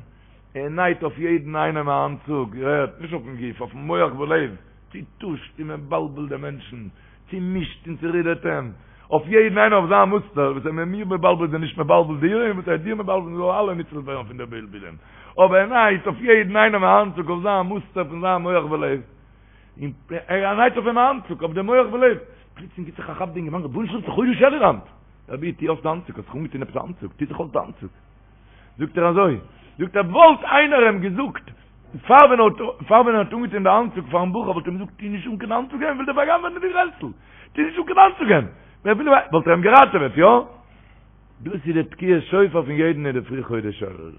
ער נייט אויף יעדן איינעם א אנצוג, איר הערט, נישט אויפן גוף, אויפן מח ולב, צוטושט און מבלבל דעם מענטשן, צומישט און צורודערט אים, אויף יעדן איינער אויף זיין מוסטער, וואס ער איז מיר מבלבל איז ער נישט מבלבל דיר, און וואס ער איז דיר מבלבל זאלן אלע ניצול ווערן פון די בלבולים, אבער ער נייט אויף יעדן איינעם א אנצוג אויף זיין מוסטער פון זיין מח ולב, און ער נייט אויף אים א אנצוג אויף די מח ולב, פלוצלינג גיבט זיך א כאפ די אינגערמאן, רבונו של עולם ס'איז חודש אלול היינט! רבי טו אויס די אנצוג, האסט זיך אנגעטון עפעס א אנצוג, טו זיך אויס די אנצוג. זאגט ער אזוי, זאגט ער וואלט איינער אים געזאגט פאר ווען ער האט פאר ווען ער האט אנגעטון די אנצוג פארן בחור וואלט ער אים געזאגט טו נישט אן קיין אנצוג ער וויל דיר באגנבענען די רענצל, טו נישט אן קיין אנצוג ער וויל וואלט ער אים געראטעוועט, יא? דאס איז די תקיעת שופר פון יעדן אינדערפרי חודש אלול.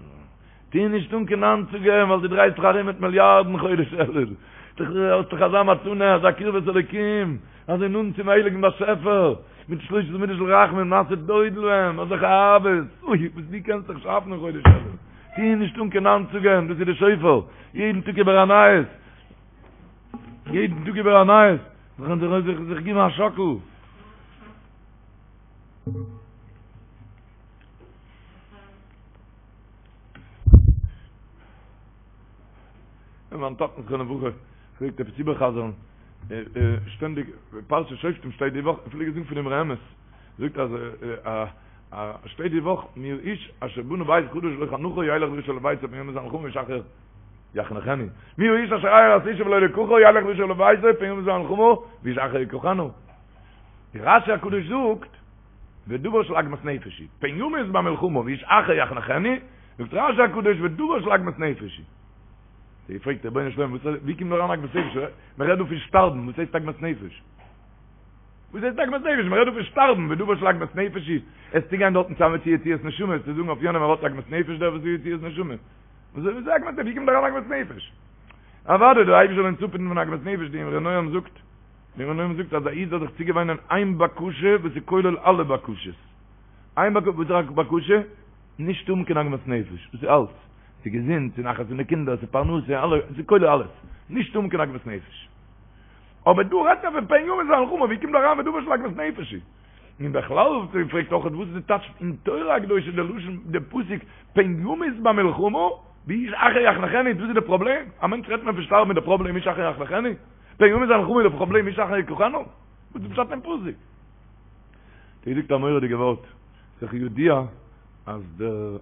טו נישט אן קיין אנצוגען ווייל דו דרייסט זיך ארום מיט מיליארדן חודש אלול. דו האסט דאך אזא מתנה, אזא קרבת אלוקים, אזוי נאנט צום הייליגן באשעפער, מיט שלש עשרה מידות של רחמים, נעשה דוד להם, אזעלכע אהבות, אוי, וואס דו קענסט זיך שאפן אין חודש אלול. טו נישט אן קיין אנצוגען, דאס איז די שופר, יעדן טאג איבער א נייעס, יעדן טאג איבער א נייעס, זיך זיך געבן א שאקל. און מיין טאטן זכרונו לברכה פלעגט עפעס איבערחזר'ן שטענדיג פרשת שופטים שטייט די וואך, פלעג ער זאגן פון אמרי אמת, זאגט אז שטייט די וואך מי האיש אשר בנה בית חדש ולא חנכו ילך וישוב לביתו פן ימות במלחמה ואיש אחר יחנכנו מי האיש אשר ארש אשה ולא לקחה ילך וישוב לביתו פן ימות במלחמה ואיש אחר יקחנה די רשי הקדוש זאגט ודבר של עגמת נפש היא, פן ימות במלחמה ואיש אחר יחנכנו, זאגט רשי הקדוש ודבר של עגמת נפש היא. זי פרעגט רבונו של עולם, ווי קומט דא אריין עגמת נפש? מען רעדט דא פון שטארבן, וואס הייסט עגמת נפש? וואס הייסט עגמת נפש? מען רעדט דא פון שטארבן, ודבר של עגמת נפש היא. עסטו גיין דארטן צוזאמען צו יציאת נשמה, צו זאגן אויף יענעם ער האט עגמת נפש דער וואס איז יציאת נשמה. וואס איז עגמת נפש? ווי קומט דא אריין עגמת נפש? אוודאי דער אייבערשטער זאל אונז אפהיטן פון עגמת נפש, די אמרי נועם זאגט, די אמרי נועם זאגט אז א איד זאל זיך צוגעוויינען איין בקשה וואס איז כולל אלע בקשות, איין בקשה, וואס איז א בקשה? נישט האבן קיין עגמת נפש, דאס איז אלץ, ס'איז געזונט, ס'איז נחת פון די קינדער, ס'איז פרנסה, אלע, ס'איז כולל אלעס, נישט האבן קיין עגמת נפש. אבער דא רעדט מען פון פן ימות במלחמה, ווי קומט דא אריין ודבר של עגמת נפש? און בכלל פרעגט אויך וואס איז די טייטש אין תורה הקדושה די לשון די פסוק פן ימות במלחמה ואיש אחר יחנכנו וואס איז די פראבלעם? א מענטש רעדט מען פון שטארבן איז די פראבלעם איש אחר יחנכנו? פן ימות במלחמה איז די פראבלעם איש אחר יקחנו? וואס איז פשט אין פסוק? דער זאגט א מורא'דיגע ווארט, ס'איז ידוע אז דער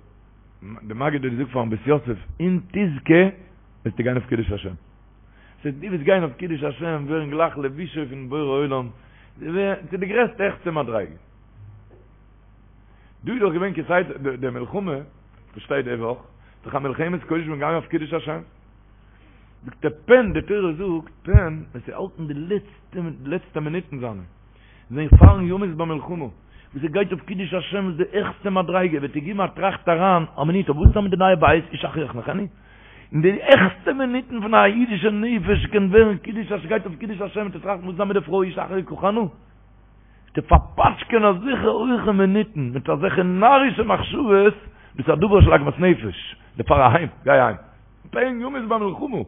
די מגיד האט געזאגט פארן בית יוסף אם תזכה וועסטו גיין אויף קידוש השם. ס'הייסט דו וועסט גיין אויף קידוש השם ווערן גלייך לבושו פון בורא עולם, צו די גרעסטע העכסטע מדריגה. דא איז דאך געווען כסדר די מלחמה וואס שטייט די וואך, דאך א מלחמת קודש מ'גייט אויף קידוש השם. זאגט ער פן, די תורה זאגט פן, ווען ס'האלטן די לעצטע לעצטע מינוטן זיינע, זיין פארן ימות במלחמה, וואס ער גייט אויף קידוש השם וואס די העכסטע מדריגה, וועט ער גיבן א טראכט אריין, א מינוט, אבער וואס איז מיט די נייע בית, איש אחר יחנכנו? אין די העכסטע מינוטן פון א אידישע נפש קען ווערן קידוש השם, גייט אויף קידוש השם צו טראכטן וואס איז מיט די פרוי איש אחר יקחנו, צו פארפאטשקען אזעלכע הויכע מינוטן מיט אזעלכע נארישע מחשבות, דאס איז א דבר של עגמת נפש, דערפאר אהיים, גיי אהיים. פן ימות במלחמה,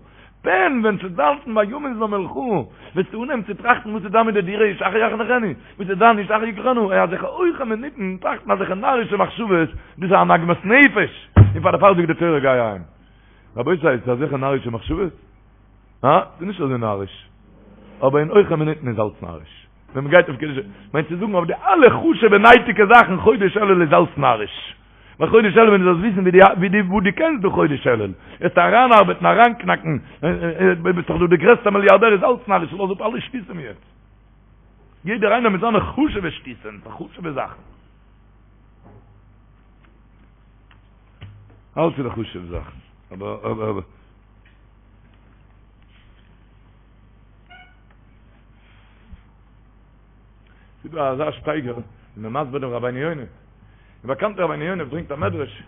פן ווען ס'וועט האלטן ביי ימות במלחמה, וועסטו אנהייבן צו טראכטן וואס איז דא מיט די דירה איש אחר יחנכנו, וואס איז דא איש אחר יקחנו, אין אזעלכע הויכע מינוטן טראכטן אזעלכע נארישע מחשבות, דאס איז אן עגמת נפש, און פאר דערפאר זאגט די תורה גיי אהיים. רבותי, ס'איז אזעלכע נארישע מחשבות? הא? ס'איז נישט אזוי נאריש. אבער אין הויכע מינוטן איז אלץ נאריש. ווען מ'גייט אויף קידוש, מיינט צו זאגן אויף די אלע חשוב'ע נייטיגע זאכן חודש אלול איז אלץ נאריש. ווייל חודש אלול ווען דו זאלסט וויסן ווי די ווי די וואו דו קענסט דא חודש אלול, וועסטו אריינארבעטן אריינקנאקן, ביסט דאך דא די גרעסטע מיליארדער איז אלץ נאריש, לאז אפ אלע שטותים יעצט. יעדער איינער מיט זיינע חשוב'ע שטותים, חשוב'ע זאכן. אלץ איז די חשוב'ע זאכן. אבער אבער אבער. ס'איז דא אזא שטייגער ווי מ'איז מסביר דעם רבינו יונה. די באקאנטע רבינו יונה ברענגט א מדרש,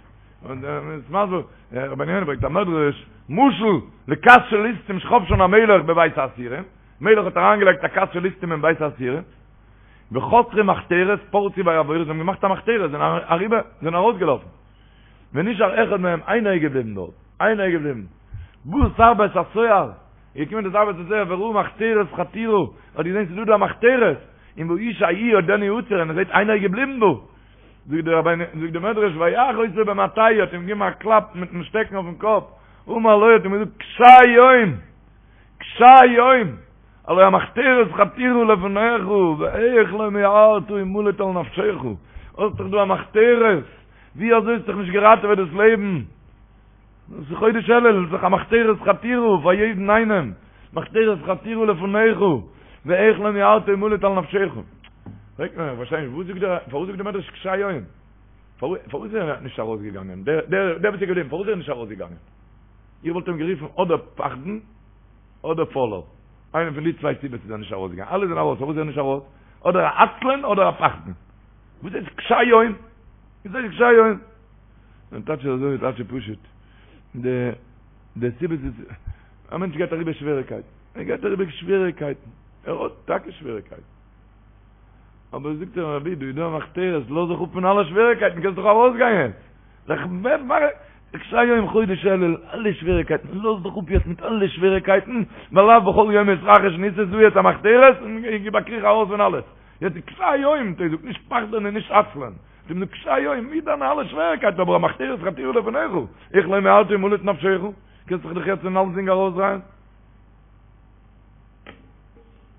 און מ'איז מסביר, רבינו יונה ברענגט א מדרש, משל לכת של ליסטים שחפשן המלך בבית האסירים, מלך האט אריינגעלייגט א כת של ליסטים אין בית האסירים, וחתרו מחתרת פרצו ויעבורו, זיי האבן געמאכט א מחתרת, זענען אריבער, זענען ארויסגעלאפן. ונשאר אחד מהם, איינער איז געבליבן דארט, איינער איז געבליבן. בא שר בית הסוהר, איז געקומען דער שר בית הסוהר וראה מחתרת חתורה, האט געזען ס'איז דא דא א מחתרת, און והאיש ההוא עודנו עצור, און ער זעט איינער איז געבליבן דא. זאגט דער רבינו, זאגט דער מדרש, ויך אותו במטהו, האט אים געגעבן א קלאפ מיטן שטעקן אויפן קאפ, אמר לו, האט אים געזאגט, קשה יום! קשה יום! הלא המחתרת חתורה לפניך, ואיך לא מיהרת המלט על נפשך, האסט דאך דא א מחתרת, ווי אזוי האסט דיך נישט געראטעוועט דאס לעבן? דאס איז חודש אלול, איז דאך א מחתרת חתורה פאר יעדן איינעם, מחתרת חתורה לפניך, ואיך לא מיהרת המלט על נפשך. פרעגט מען, איך פארשטיי נישט, וואס זאגט דער, פארוואס זאגט דער מדרש קשה יום? פארוואס איז ער נישט ארויסגעגאנגען? דער דער וואס איז געבליבן, פארוואס איז ער נישט ארויסגעגאנגען? איך וואלט אים גערופן אדער פחדן, אדער פוילער. איינע פון די צוויי סיבות איז ער נישט ארויסגעגאנגען. אלע זענען ארויס, פארוואס איז ער נישט ארויס? אדער א עצלן אדער א פחדן. וואס הייסט קשה יום? וואס הייסט קשה יום? דער טייטש איז אזוי, טייטש איז פשוט. די די סיבות איז, א מענטש גייט אריבער שוועריקייטן. ער גייט אריבער שוועריקייטן. ער האט טאקע שוועריקייטן. אבער זאגט ער רבי דא איז דא א מחתרת, לאז זיך אפ פון אלע שוועריקייטן, קענסט דאך ארויסגיין יעצט. זיך קשה יום חודש אלול, אלע שוועריקייטן, לאז דיך אפ יעצט מיט אלע שוועריקייטן, ווייל לאו בכל יום מתרחש ניסא, ס'איז דא יעצט א מחתרת, און גיב א קריך ארויס פון אלעס. יעצט איז קשה יום, טא זאג נישט פחדן און נישט עצלן. זאג נאר קשה יום, מיט דיינע אלע שוועריקייטן, אבער המחתרת חתורה לפניך, איך לא מיהרת המלט נפשך, קענסט זיך דאך יעצט פון אלסדינג ארויסדרייען.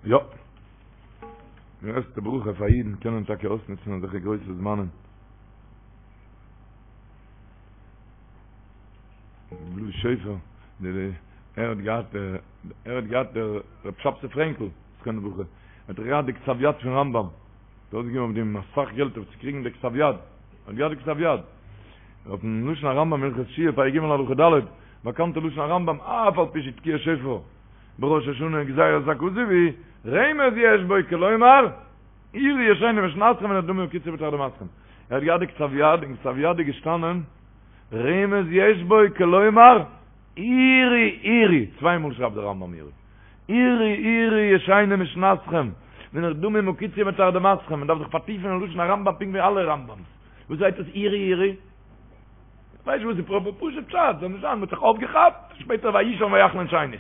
יא. די גרעסטע ברכה פאר אידן קענען טאקע אויסנוצן אזעלכע גרויסע זמנים. בלאז שופר, ער האט געהאט, ער האט געהאט דער רב שבתי פרענקל, זכרונו לברכה, האט ער געהאט די כתב יד פון רמב"ם, האט אויסגעגעבן אויף דעם אסאך געלט אויף צו קריגן די כתב יד, האט געהאט די כתב יד, אויפן לשון הרמב"ם הלכות תשובה פרק ג' הלכה ד', באקאנטע לשון הרמב"ם, אף על פי שתקיעת שופר בראש השנה גזירת הכתוב היא, רמז יש בו כלומר, עורו ישנים משנתכם ונרדמים הקיצו בתרדמתכם. ער האט געהאט די כתב יד, אין כתב יד איז געשטאנען, רמז יש בו כלומר. עורו עורו, צוויי מאל שרייבט דער רמב ם עורו, עורו עורו ישנים משנתכם, ונרדמים הקיצו מתרדמתכם, מען דארף זיך פארטיפן אין לשון הרמב ם פונקט ווי אלע רמב ם'ס, וואס הייסט עס עורו עורו? כ'ווייס נישט וואס איז פראפער פשוט פשט, זאל נישט זיין, מ'האט זיך אויפגעכאפט, שפעטער ויישן ויחלום שנית.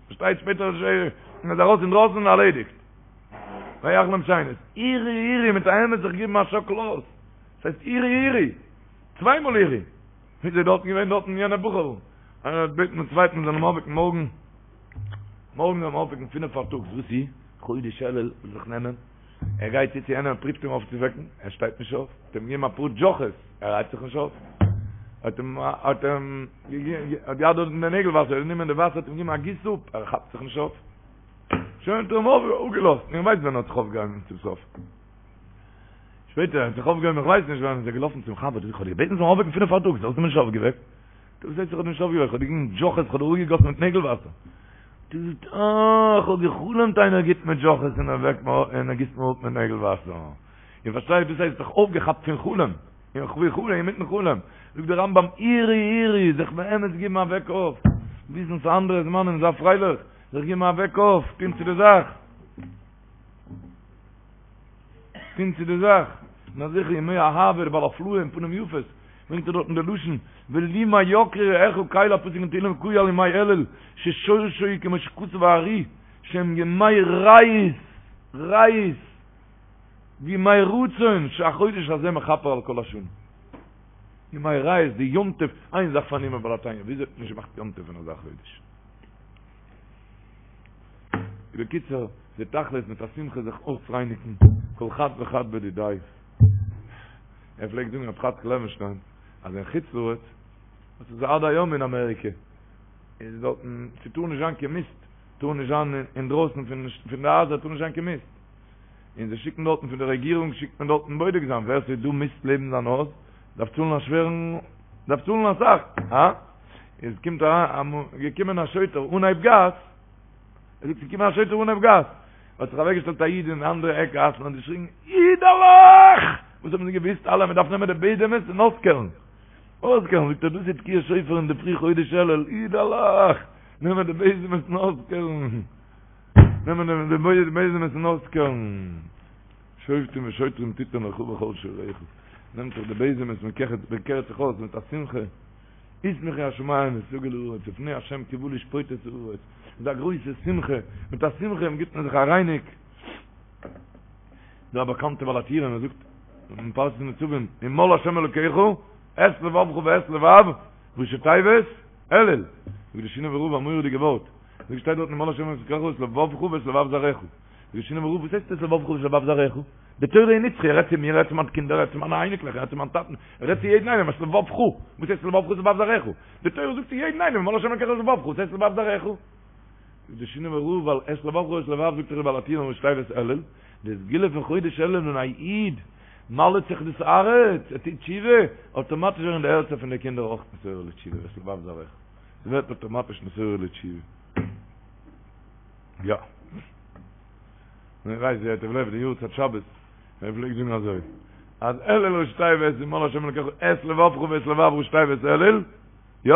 פארשטייט שפעטער איז מען ארויס אינדרויסן און ארלעדיגט. ויחלום שנית. עורו עורו מיט א אמת זיך געבן א שאקל אויס. ס'הייסט עורו עורו. צוויי מאל עורו. ווי איז דארטן געווען דארטן יענע בחור'ל. איינער האט געבעטן דעם צווייטן זאל אים אויפוועקן מארגן. מארגן זאל אים אויפוועקן פינף פארטאגס. וואס איז? חודש אלול וויל זיך נעמען. ער גייט צו צו יענעם פריווט אים אויפצווועקן, ער שטייט נישט אויף, האט אים געגעבן אפאר דזשאכעס, ער הייבט זיך נישט אויף, האט אים האט אים האט געהאט דארט אין די נעגל וואסער, גענומען די וואסער האט אים געגעבן א גיס אפ, ער כאפט זיך נישט אויף, שוין האט ער אים אפגעלאזט, איך ווייס ווען ער האט זיך אויפגעהויבן צום סוף, שפעטער ער האט זיך אויפגעהויבן איך ווייס נישט ווען, איז ער געלאפן צום חבר, איך האב דיר געבעטן זאלסט מיר אויפוועקן פינף פארטאגס, האסט מיר נישט אויפגעוועקט. דו זעסט איך האב דיר נישט אויפגעוועקט, איך האב דיר געגעבן דזשאכעס, איך האב דיר אפגעגאסן מיט נעגל וואסער. דו זאגסט, אה, איך האב גע'חלומ'ט איינער גיבט מיר דזשאכעס און ער וועקט מיר אויף און ער גיסט מיר אפ מיט נעגל וואסער. איר פארשטייט, דאס הייסט זיך אויפגעכאפט פון חלום, אין חלום, אינמיטן חלום. זאגט דער רמב ם, עורו עורו, זיך באמת געבן א וועק אויף, וויסן ס'איז אנדערע זמנים, זיי פרייליך, זיך געבן א וועק אויף, טון צו די זאך. טון צו די זאך, און אזעלכע ימי אהבה, דער בעל הפלאה אין פנים יפות, ברענגט ער דארטן די לשון, ולימה יקרו רעיך קל א פסוק אין תהילים קאי על ימי אלול, ששורשו הוא כמו שכתב הארי, שהם ימי רעות, רעות, וימי רצון, שהחודש הזה מכפר על כל השנה. ימי רעות, די יום טוב, איין זאך פארנומען בעל התניא, וויאזוי האט מען נישט געמאכט יום טוב פון אזא חודש? בקיצור, די תכלית מיט א שמחה זיך אויסרייניגן, כל חד וחד בדידיה. ער פלעגט זאגן רב חאצקל לעווענשטיין אז אין חוץ לארץ, וואס איז עד היום אין אמעריקע, איז דארטן, ס'טאר נישט זיין קיין מיסט, טאר נישט זיין אינדרויסן פון די הייזער טאר נישט זיין קיין מיסט. און זיי שיקן דארטן פון די רעגירונג שיקט מען דארטן בודק זיין ווער ס'איז דא מיסט לעבן זיין הויז, דארף צאלן א שווערן, דארף צאלן אסאך, הא? איז קומט אריין, געקומען א שוטר אנהייב גאס, ער זאגט ס'איז געקומען א שוטר אנהייב גאס, האט זיך אוועקגעשטעלט א איד אין די אנדערע עק גאס און האט געשריגן, אידעלעך! וואס האבן זיי געוואוסט אלע, מ'דארף נעמען די בעזעמעס און אויסקערן. אויסקערן, זאגט ער, דאס איז תקיעת שופר אין די פרי חודש אלול, אידעלעך! נעמען די בעזעמעס און אויסקערן. נעמען די בעזעמעס און אויסקערן. שופטים ושוטרים תתן לך בכל שעריך. נעמט זיך די בעזעמעס, מ'קערט זיך אויס מיט א שמחה. ישמחו השמים ותגל הארץ לפני ה' כי בא לשפוט את הארץ, איז א גרויסע שמחה, מיט א שמחה גיבט מען זיך א רייניג, דא א באקאנטע בעל הטורים ער זאגט אין פרשת נצבים ומל ה' אלקיך את לבבך ואת לבב ראשי תיבות אלול, זאגט די שינאווער רב א מורא'דיגע ווארט, זאגט שטייט דארט ומל ה' אלקיך את לבבך ואת לבב זרעך, זאגט די שינאווער רב וואס הייסט את לבבך ואת לבב זרעך? די תורה איז נצחי, ער רעדט צו מיר, ער רעדט צו מיינע קינדער, ער רעדט צו מיינע אייניקלעך, ער רעדט צו מיין טאטן, ער רעדט צו יעדן איינעם, את לבבך, וואס הייסט לבבך ואת לבב זרעך? די תורה זאגט צו יעדן איינעם, ומל ה' אלקיך את לבבך, וואס הייסט לבב זרעך? זאגט די שינאווער רב, ווייל את לבבך ואת לבב זאגט דאך די בעל הטורים ראשי תיבות אלול, די סגולה פון חודש אלול ווען א איד מל'ט זיך דאס הארץ, ער טוט תשובה, אויטאמאטיש ווערן די הערצער פון די קינדער אויך נתעורר לתשובה, ואת לבב זרעך, ס'ווערט אויטאמאטיש נתעורר לתשובה. יא. מען ווייסט ווי ייטב לב די יארצייט שבת, ער פלעגט זאגן אזוי, אז אלול ראשי תיבות ומל השם אלקיך את לבבך ואת לבב ראשי תיבות אלול, יא?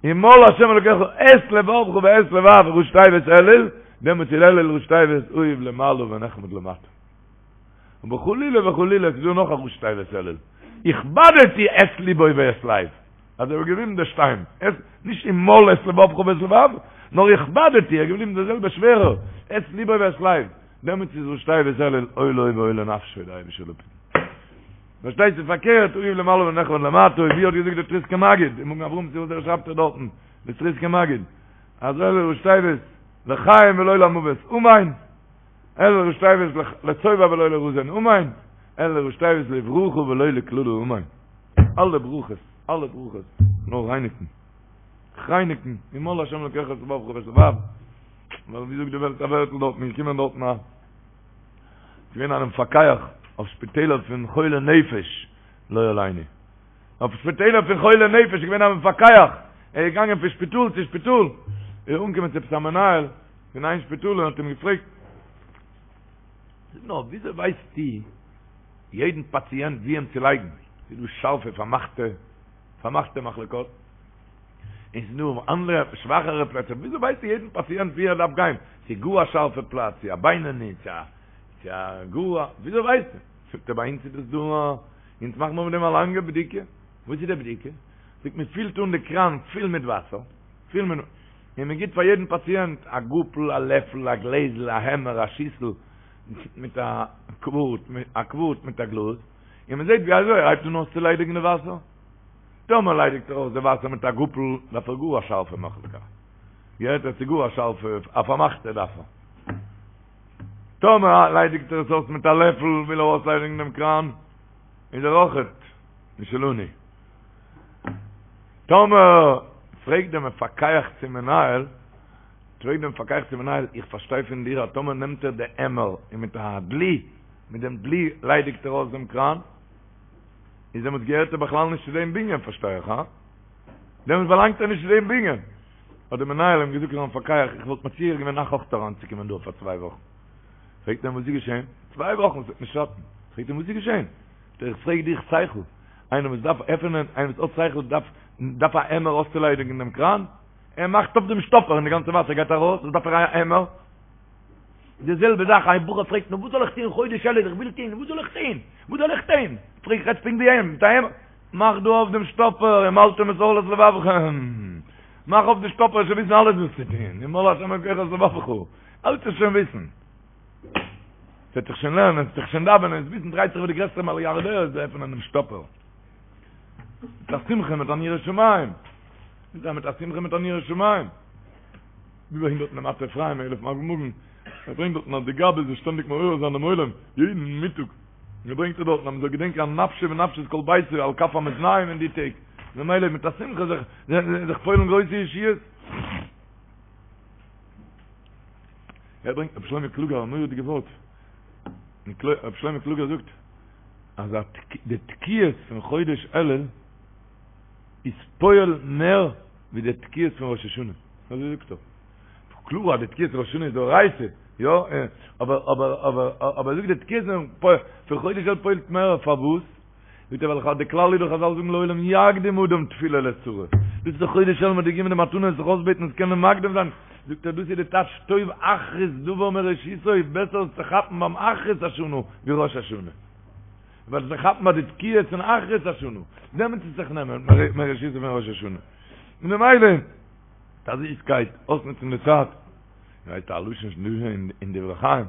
ומל השם אלקיך את לבבך ואת לבב ראשי תיבות אלול, דעמאלטס איז אלול ראשי תיבות אהוב למעלה ונחמד למטה. אבער חלילה וחלילה ס'איז דא נאך א ראשי תיבות אלול, הכבדתי את לבו ואת לב. אז ער איז געבליבן דער שטיין, עס, נישט ומל את לבבך ואת לבב, נאר הכבדתי, ער איז געבליבן דער זעלבער שווערער, את לבו ואת לב, דעמאלטס איז ראשי תיבות אלול אוי לו ואוי לנפשו די אייבישטער זאל אפהיטן. פארשטייט זיך פארקערט, אהוב למעלה ונחמד למטה, ווי האט געזאגט דער טריסקער מגיד, אין מגן אברהם צו וואס ער שרייבט ער דארטן, דער טריסקער מגיד, אז אלול ראשי תיבות לחיים ולא למוות, אמן, אלול ראשי תיבות לשובע ולא לרזון, אמן, אלול ראשי תיבות לברכה ולא לקללה, אמן. אלע ברכות, אלע ברכות, נאר רייניגן, רייניגן, ומל השם אלקיך את לבבך ואת לבב, ווייל ווי זאגט די וועלט א ווערטל דארט, מיר קומען דארטן א, געווען א מפקח אויף שפיטעלער פון חולי נפש, לא עלינו, אויף שפיטעלער פון חולי נפש איז געווען א מפקח, ער איז געגאנגען פון שפיטאל צו שפיטאל, ער איז אנגעקומען צו עפעס א מנהל פון איין שפיטאל און האט אים געפרעגט, זאג נאר, וויאזוי ווייסטו יעדן פאציענט ווי אים צו לייגן, ס'איז דא שארפע פארמאכטע פארמאכטע מחלקות. און ס'איז דא אנדערע שוואכערע פלעצער, וויאזוי ווייסטו יעדן פאציענט ווי ער דארף גיין, צו גאר א שארפע פלאץ, צו א בינוני, צו א צו א גאר א, וויאזוי ווייסטו? זאגט ער ביי אונז איז דאס דא א, אונז מאכן מיר מיט דעם א לאנגע בדיקה, וואס איז די בדיקה? זאגט מען פילט אן די קראן פול מיט וואסער, פול מיט, און מען גיבט פאר יעדן פאציענט א גאפל, א לעפל, א גלעזל, א עמער, א שיסל, מיט א קווארט, א קווארט מיט א גלאז, און מען זעט ווי אזוי ער הייבט אן אויסצוליידיגן די וואסער. טאמער ליידיגט ער אויס די וואסער מיט א גאפל, דארף ער גאר א שארפע מחלקה. געהערט ער צו גאר א שארפע, א פארמאכטע דארף ער. טאמער ליידיגט ער עס אויס מיט א לעפל, וויל ער אויסליידיגן דעם קראן, איז ער אויכעט משלנו. טאמער פרעגט דער מפקח צום מנהל, פרעגט דער מפקח צום מנהל, איך פארשטיי פון דיר אז טאמער נעמט ער די עמער און מיט א דלי, מיט דעם דלי ליידיגט ער אויס דעם קראן, איז דעמאלטס געהערט ער בכלל נישט צו דעם בנין, פארשטיי איך, הא? דעמאלטס באלאנגט ער נישט צו דעם בנין. האט דער מנהל אים געזאגט פארן מפקח, איך וואלט מציע געווען אייך אויך אריינצוקומען דא פאר צוויי וואכן. פרעגט ער אים וואס איז געשען? צוויי וואכן, ס'וועט נישט שאטן. פרעגט אים וואס איז געשען? זאגט ער, איך פרעג דיך שכל, איינער וואס דארף עפענען, איינער וואס האט שכל דארף דארף א עמער אויסצוליידיגן דעם קראן? ער מאכט אויף דעם שטאפער און די גאנצע וואסער גייט ארויס, וואס דארף ער א עמער? די זעלבע זאך, א בחור פרעגט נו וואס זאל איך טון חודש אלול, איך וויל טון, וואס זאל איך טון? וואס זאל איך טון? פרעג איך רעדסט פונקט ווי אים, מיט א עמער, מאך דא אויף דעם שטאפער, ומלתם את ערלת לבבכם, מאך אויף די שטאפער, וועסט שוין וויסן אלעס וואס צו טון, ומל השם אלקיך את לבבך, אלעס וועסט שוין וויסן. ס'וועט זיך שוין לערנען, ס'וועט זיך שוין דאווענען, עס וויסן דרייט זיך ווי די גרעסטע מיליארדער איז עפענען דעם שטאפער. מיט א שמחה, מיט אן יראת שמים. מיט א מיט א שמחה מיט אן יראת שמים. ווי ברענגט דארטן דער מטה אפרים אלף מגן, ער ברענגט דארטן אז די גבאי זאל שטענדיג מעורר זיין דעם עולם, יעדן מיטאג, און ער ברענגט דארטן אז מען זאל געדענקען אז נפשו ונפשת כל ביתו על כף המאזניים אין די טעג, ממילא מיט א שמחה זיך זיך פועל'ן גרויסע ישועות. ער ברענגט רבי שלמה קלוגער א מורא'דיגע ווארט, רבי שלמה קלוגער זאגט אז די תקיעות פון חודש אלול איז פועל מער ווי די תקיעות פון ראש השנה, אזוי זאגט ער. קלאר אז די תקיעות פון ראש השנה איז דאורייתא, יא, אבער אבער אבער אבער ער זאגט די תקיעות פון חודש אלול פועל'ט מער, פארוואס? זאגט ער ווייל די כלל איז דאך חזל זאגן לעולם יקדים אדם תפילה לצרה, דאס איז דאך חודש אלול מ'האט געגעבן די מתנה זיך אויסבעטן עס קען מען מקדים זיין, זאגט ער דאס איז די טייטש טוב אחרית דבר מראשיתו, בעסער עס צו כאפן ביים אחרית השנה ווי ראש השנה. ווייל זיך כאפן ביי די תקיעות פון אחרית השנה, דעמאלטס איז זיך נעמען מראשיתו פון ראש השנה. און ממילא, מיט א זיסקייט, אויסנוצן די צייט, ווייסט א לשון אין דברי חיים,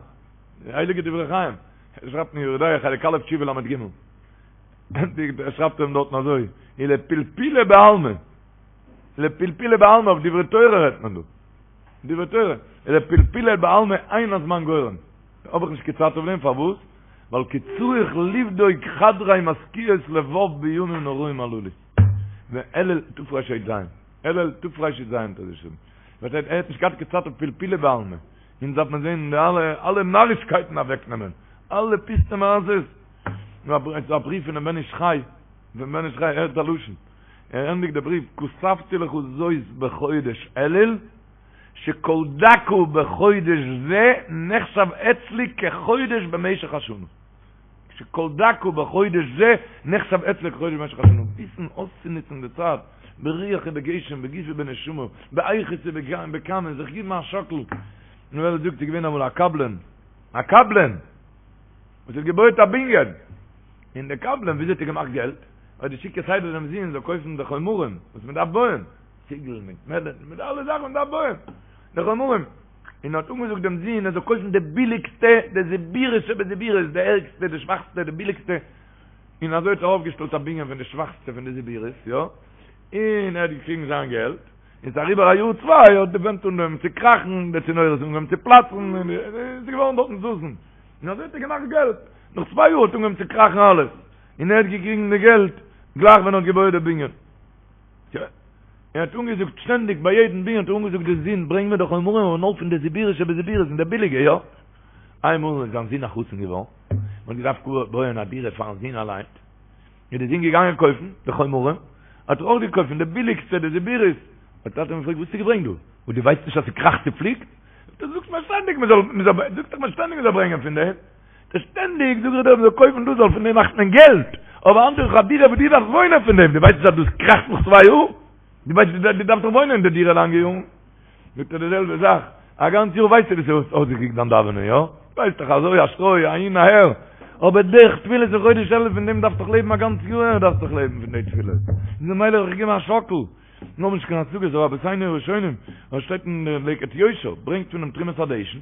די הייליגע דברי חיים, ער שרייבט אין יורה דעה חלק א' תשובה ל"ג, ער שרייבט אים דארטן אזוי, ולפלפולא בעלמא, לפלפולא בעלמא, אויף דברי תורה רעדט מען דא, דברי תורה, ולפלפולא בעלמא אין הזמן גורם. האב איך נישט קיין צייט אויף דעם, פארוואס? ווייל כי צריך לבדוק חדרי מזכירות לבב בימים נוראים הללו. ואלול תרי"ז, אלול תרי"ז האט ער געשריבן. פארשטייט ער האט נישט געהאט קיין צייט אויף פלפולא בעלמא. אונז דארף מען זען די אלע אלע נארישקייטן אוועקנעמען. אלע פיסטע מעשות. ס'איז א בריוו פונעם בן איש חי, פון בן איש חי, הערט א לשון. ער ענדיגט די בריוו, כתבתי לך זאת בחודש אלול. שכל דקה בחודש זה נחשב אצלי כחודש במשך השנה. שכל דקה בחודש זה נחשב אצלי כחודש במשך השנה. וויסן אויסצונוצן די צייט, ברוח ובגשם, בגוף ובנשמה, באיכות ובכמות, זיך גיבן א שאקל. נו ווער זאגט ס'איז געווען אמאל א קבלן, א קבלן, וואס האט געבויעט א בנין, און דער קבלן וויאזוי האט ער געמאכט געלט? ער האט געשיקט כסדר דעם זון זאל קויפן די חומרים וואס מען דארף בויען, ציגל מיט מעלען מיט אלע זאכן מען דארף בויען די חומרים, און האט אנגעזאגט דעם זון ער זאל קויפן די ביליגסטע, די זיבורית שבזיבורית, די ערגסטע, די שוואכסטע, די ביליגסטע, און אזוי האט ער אויפגעשטעלט א בנין פון די שוואכסטע פון די זיבורית, יא, און ער האט געקריגן זיין געלט, און ס'איז אריבער א יאר צוויי האט די ווענט אנגעהויבן צו קראכן, די צינורות אנגעהויבן צו פלאצן, און עס איז געווארן דארטן זאזן, און אזוי האט ער געמאכט געלט, נאך צוויי יאר האט אנגעהויבן צו קראכן אלעס, און ער האט געקריגן די געלט גלייך ווען ער האט געבויעט די בנין. יא. ער האט אנגעזאגט שטענדיג ביי יעדן בנין האט ער אנגעזאגט די זון ברענג מיר די חומרים אבער נאר פון די זיבורית שבזיבורית פון די ביליגע יא. איינמאל איז זיין זון א חתן געווארן, מען האט געדארפט בויען א דירה פארן זון אליין, איז די זון געגאנגען קויפן די חומרים, האט ער אויך געקויפט פון די ביליגסטע די זיבורית, האט טאטע אים געפרעגט וואס האסטו געברענגט דא? וואס דו ווייסט נישט אז ס'קראכט צופליקט? זאגט ער זאגסט מיר שטענדיג מען זאל מען זאל זאגסט דאך מיר שטענדיג מען זאל ברענגען פון דעם. שטענדיג זאג איך דיר מ'זאל קויפן דאס ווייל פון דעם מאכט מען געלט, אבער היינט איז דאך א דירה וואס דו דארפסט וואוינען פון דעם, דו ווייסט נישט אז דאס קראכט נאך צוויי יאר? דו ווייסט דו דארפסט דאך וואוינען אין די דירה לאנגע יארן. זאגט ער די זעלבע זאך, א גאנץ יאר ווייסטו ווי ס'האט אויסגעקוקט דיין דאווענען, יא? ווייסט דאך אזוי א שטרוי אהין אהער, אבער די תפילות אין חודש אלול פון דעם דארפסט דאך לעבן א גאנץ יאר דארפסט דאך לעבן פון די תפילות, איז ממילא האב איך געגעבן א שאקל, מיר האבן נישט קיין השגות אבער רבותינו הראשונים, וואס שטייט אין די לקט יושר, ברענגט פונעם תרומת הדשן,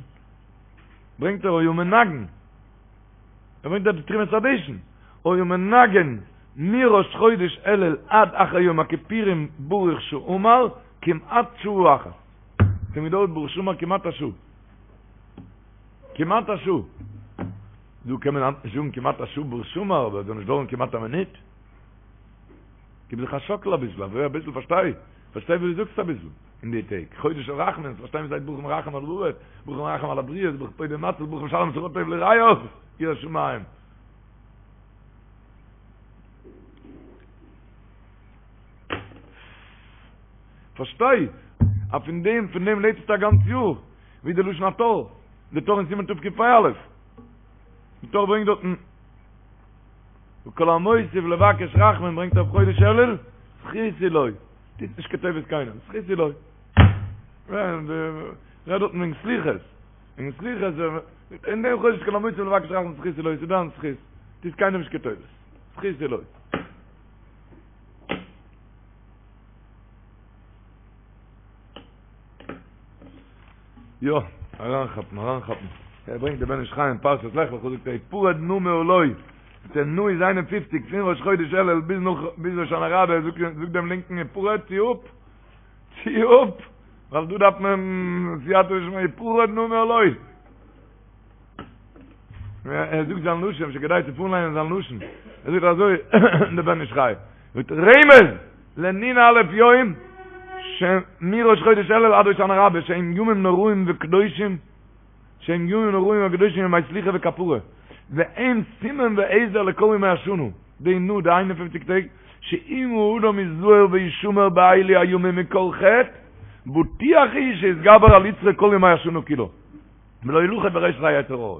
ברענגט ער היה מנגן, ער ברענגט דארט די תרומת הדשן, היה מנגן מראש חודש אלול עד אחר יום הכיפורים ברוך שאמר כמעט שעה אחת. ס'האט געדויערט ברוך שאמר כמעט א שעה. כמעט א שעה. דא קען מען היינט נישט זאגן כמעט א שעה ברוך שאמר, אבער עס זאל נישט דויערן כמעט א מינוט. גיב זיך א שאקל אביסל, אזוי אביסל פארשטיי, פארשטיי וואס דו זאגסט אביסל אין די טעג, חודש של רחמים, פארשטיי וואס הייסט ברוך מרחם על הארץ, ברוך מרחם על הבריות, ברוך פודה ומציל, ברוך משלם שכר טוב ליראיו, ירא שמים. פארשטיי, אז פון דעם, פון דעם לעבסטו א גאנץ יאר, ווי די לשון הטור, די טור אין סימן תקפ"א, די טור ברענגט דארטן, וכל המוסיף לבקש רחמים ברענגט אויף חודש אלול, זכות הוא לו, טוט נישט קיין טובות קיינעם, זכות הוא לו. רעדט דארטן וועגן סליחות, וועגן סליחות, אין דעם חודש כל המוסיף לבקש רחמים זכות הוא לו, ס'איז דיין זכות, טוט קיינעם נישט קיין טובות, זכות הוא לו. יא, אריינכאפן, אריינכאפן. ער ברענגט די בן איש חי אין פרשת לך לך, זאגט ער, הפרד נא מעלי. זאגט ער, נא איז 51, פון ראש חודש אלול ביז נאך, ביז הושענא רבה, זאגט זאגט דעם לינקן, הפרד, צי אפ, צי אפ, ווייל דא דארף מען סייעתא דשמיא, הפרד נא מעלי. ער זאגט זיין לשון, אפשר כדאי צו פארליינען זיין לשון. ער זאגט אזוי, דער בן איש חי, זאגט רמז לנ"א יום שמראש חודש אלול עד הושענא רבה שהם ימים נוראים וקדושים שהם ימים נוראים וקדושים ימי סליחה וכפרה והם סימן ועזר לכל ימי השנה די נ"א די 51 טעג שאם האדם יזהר וישמר באלו הימים מכל חטא בטוח הוא שיתגבר על יצרו כל ימי השנה כולה ולא ילכד ברשת היצר הרע.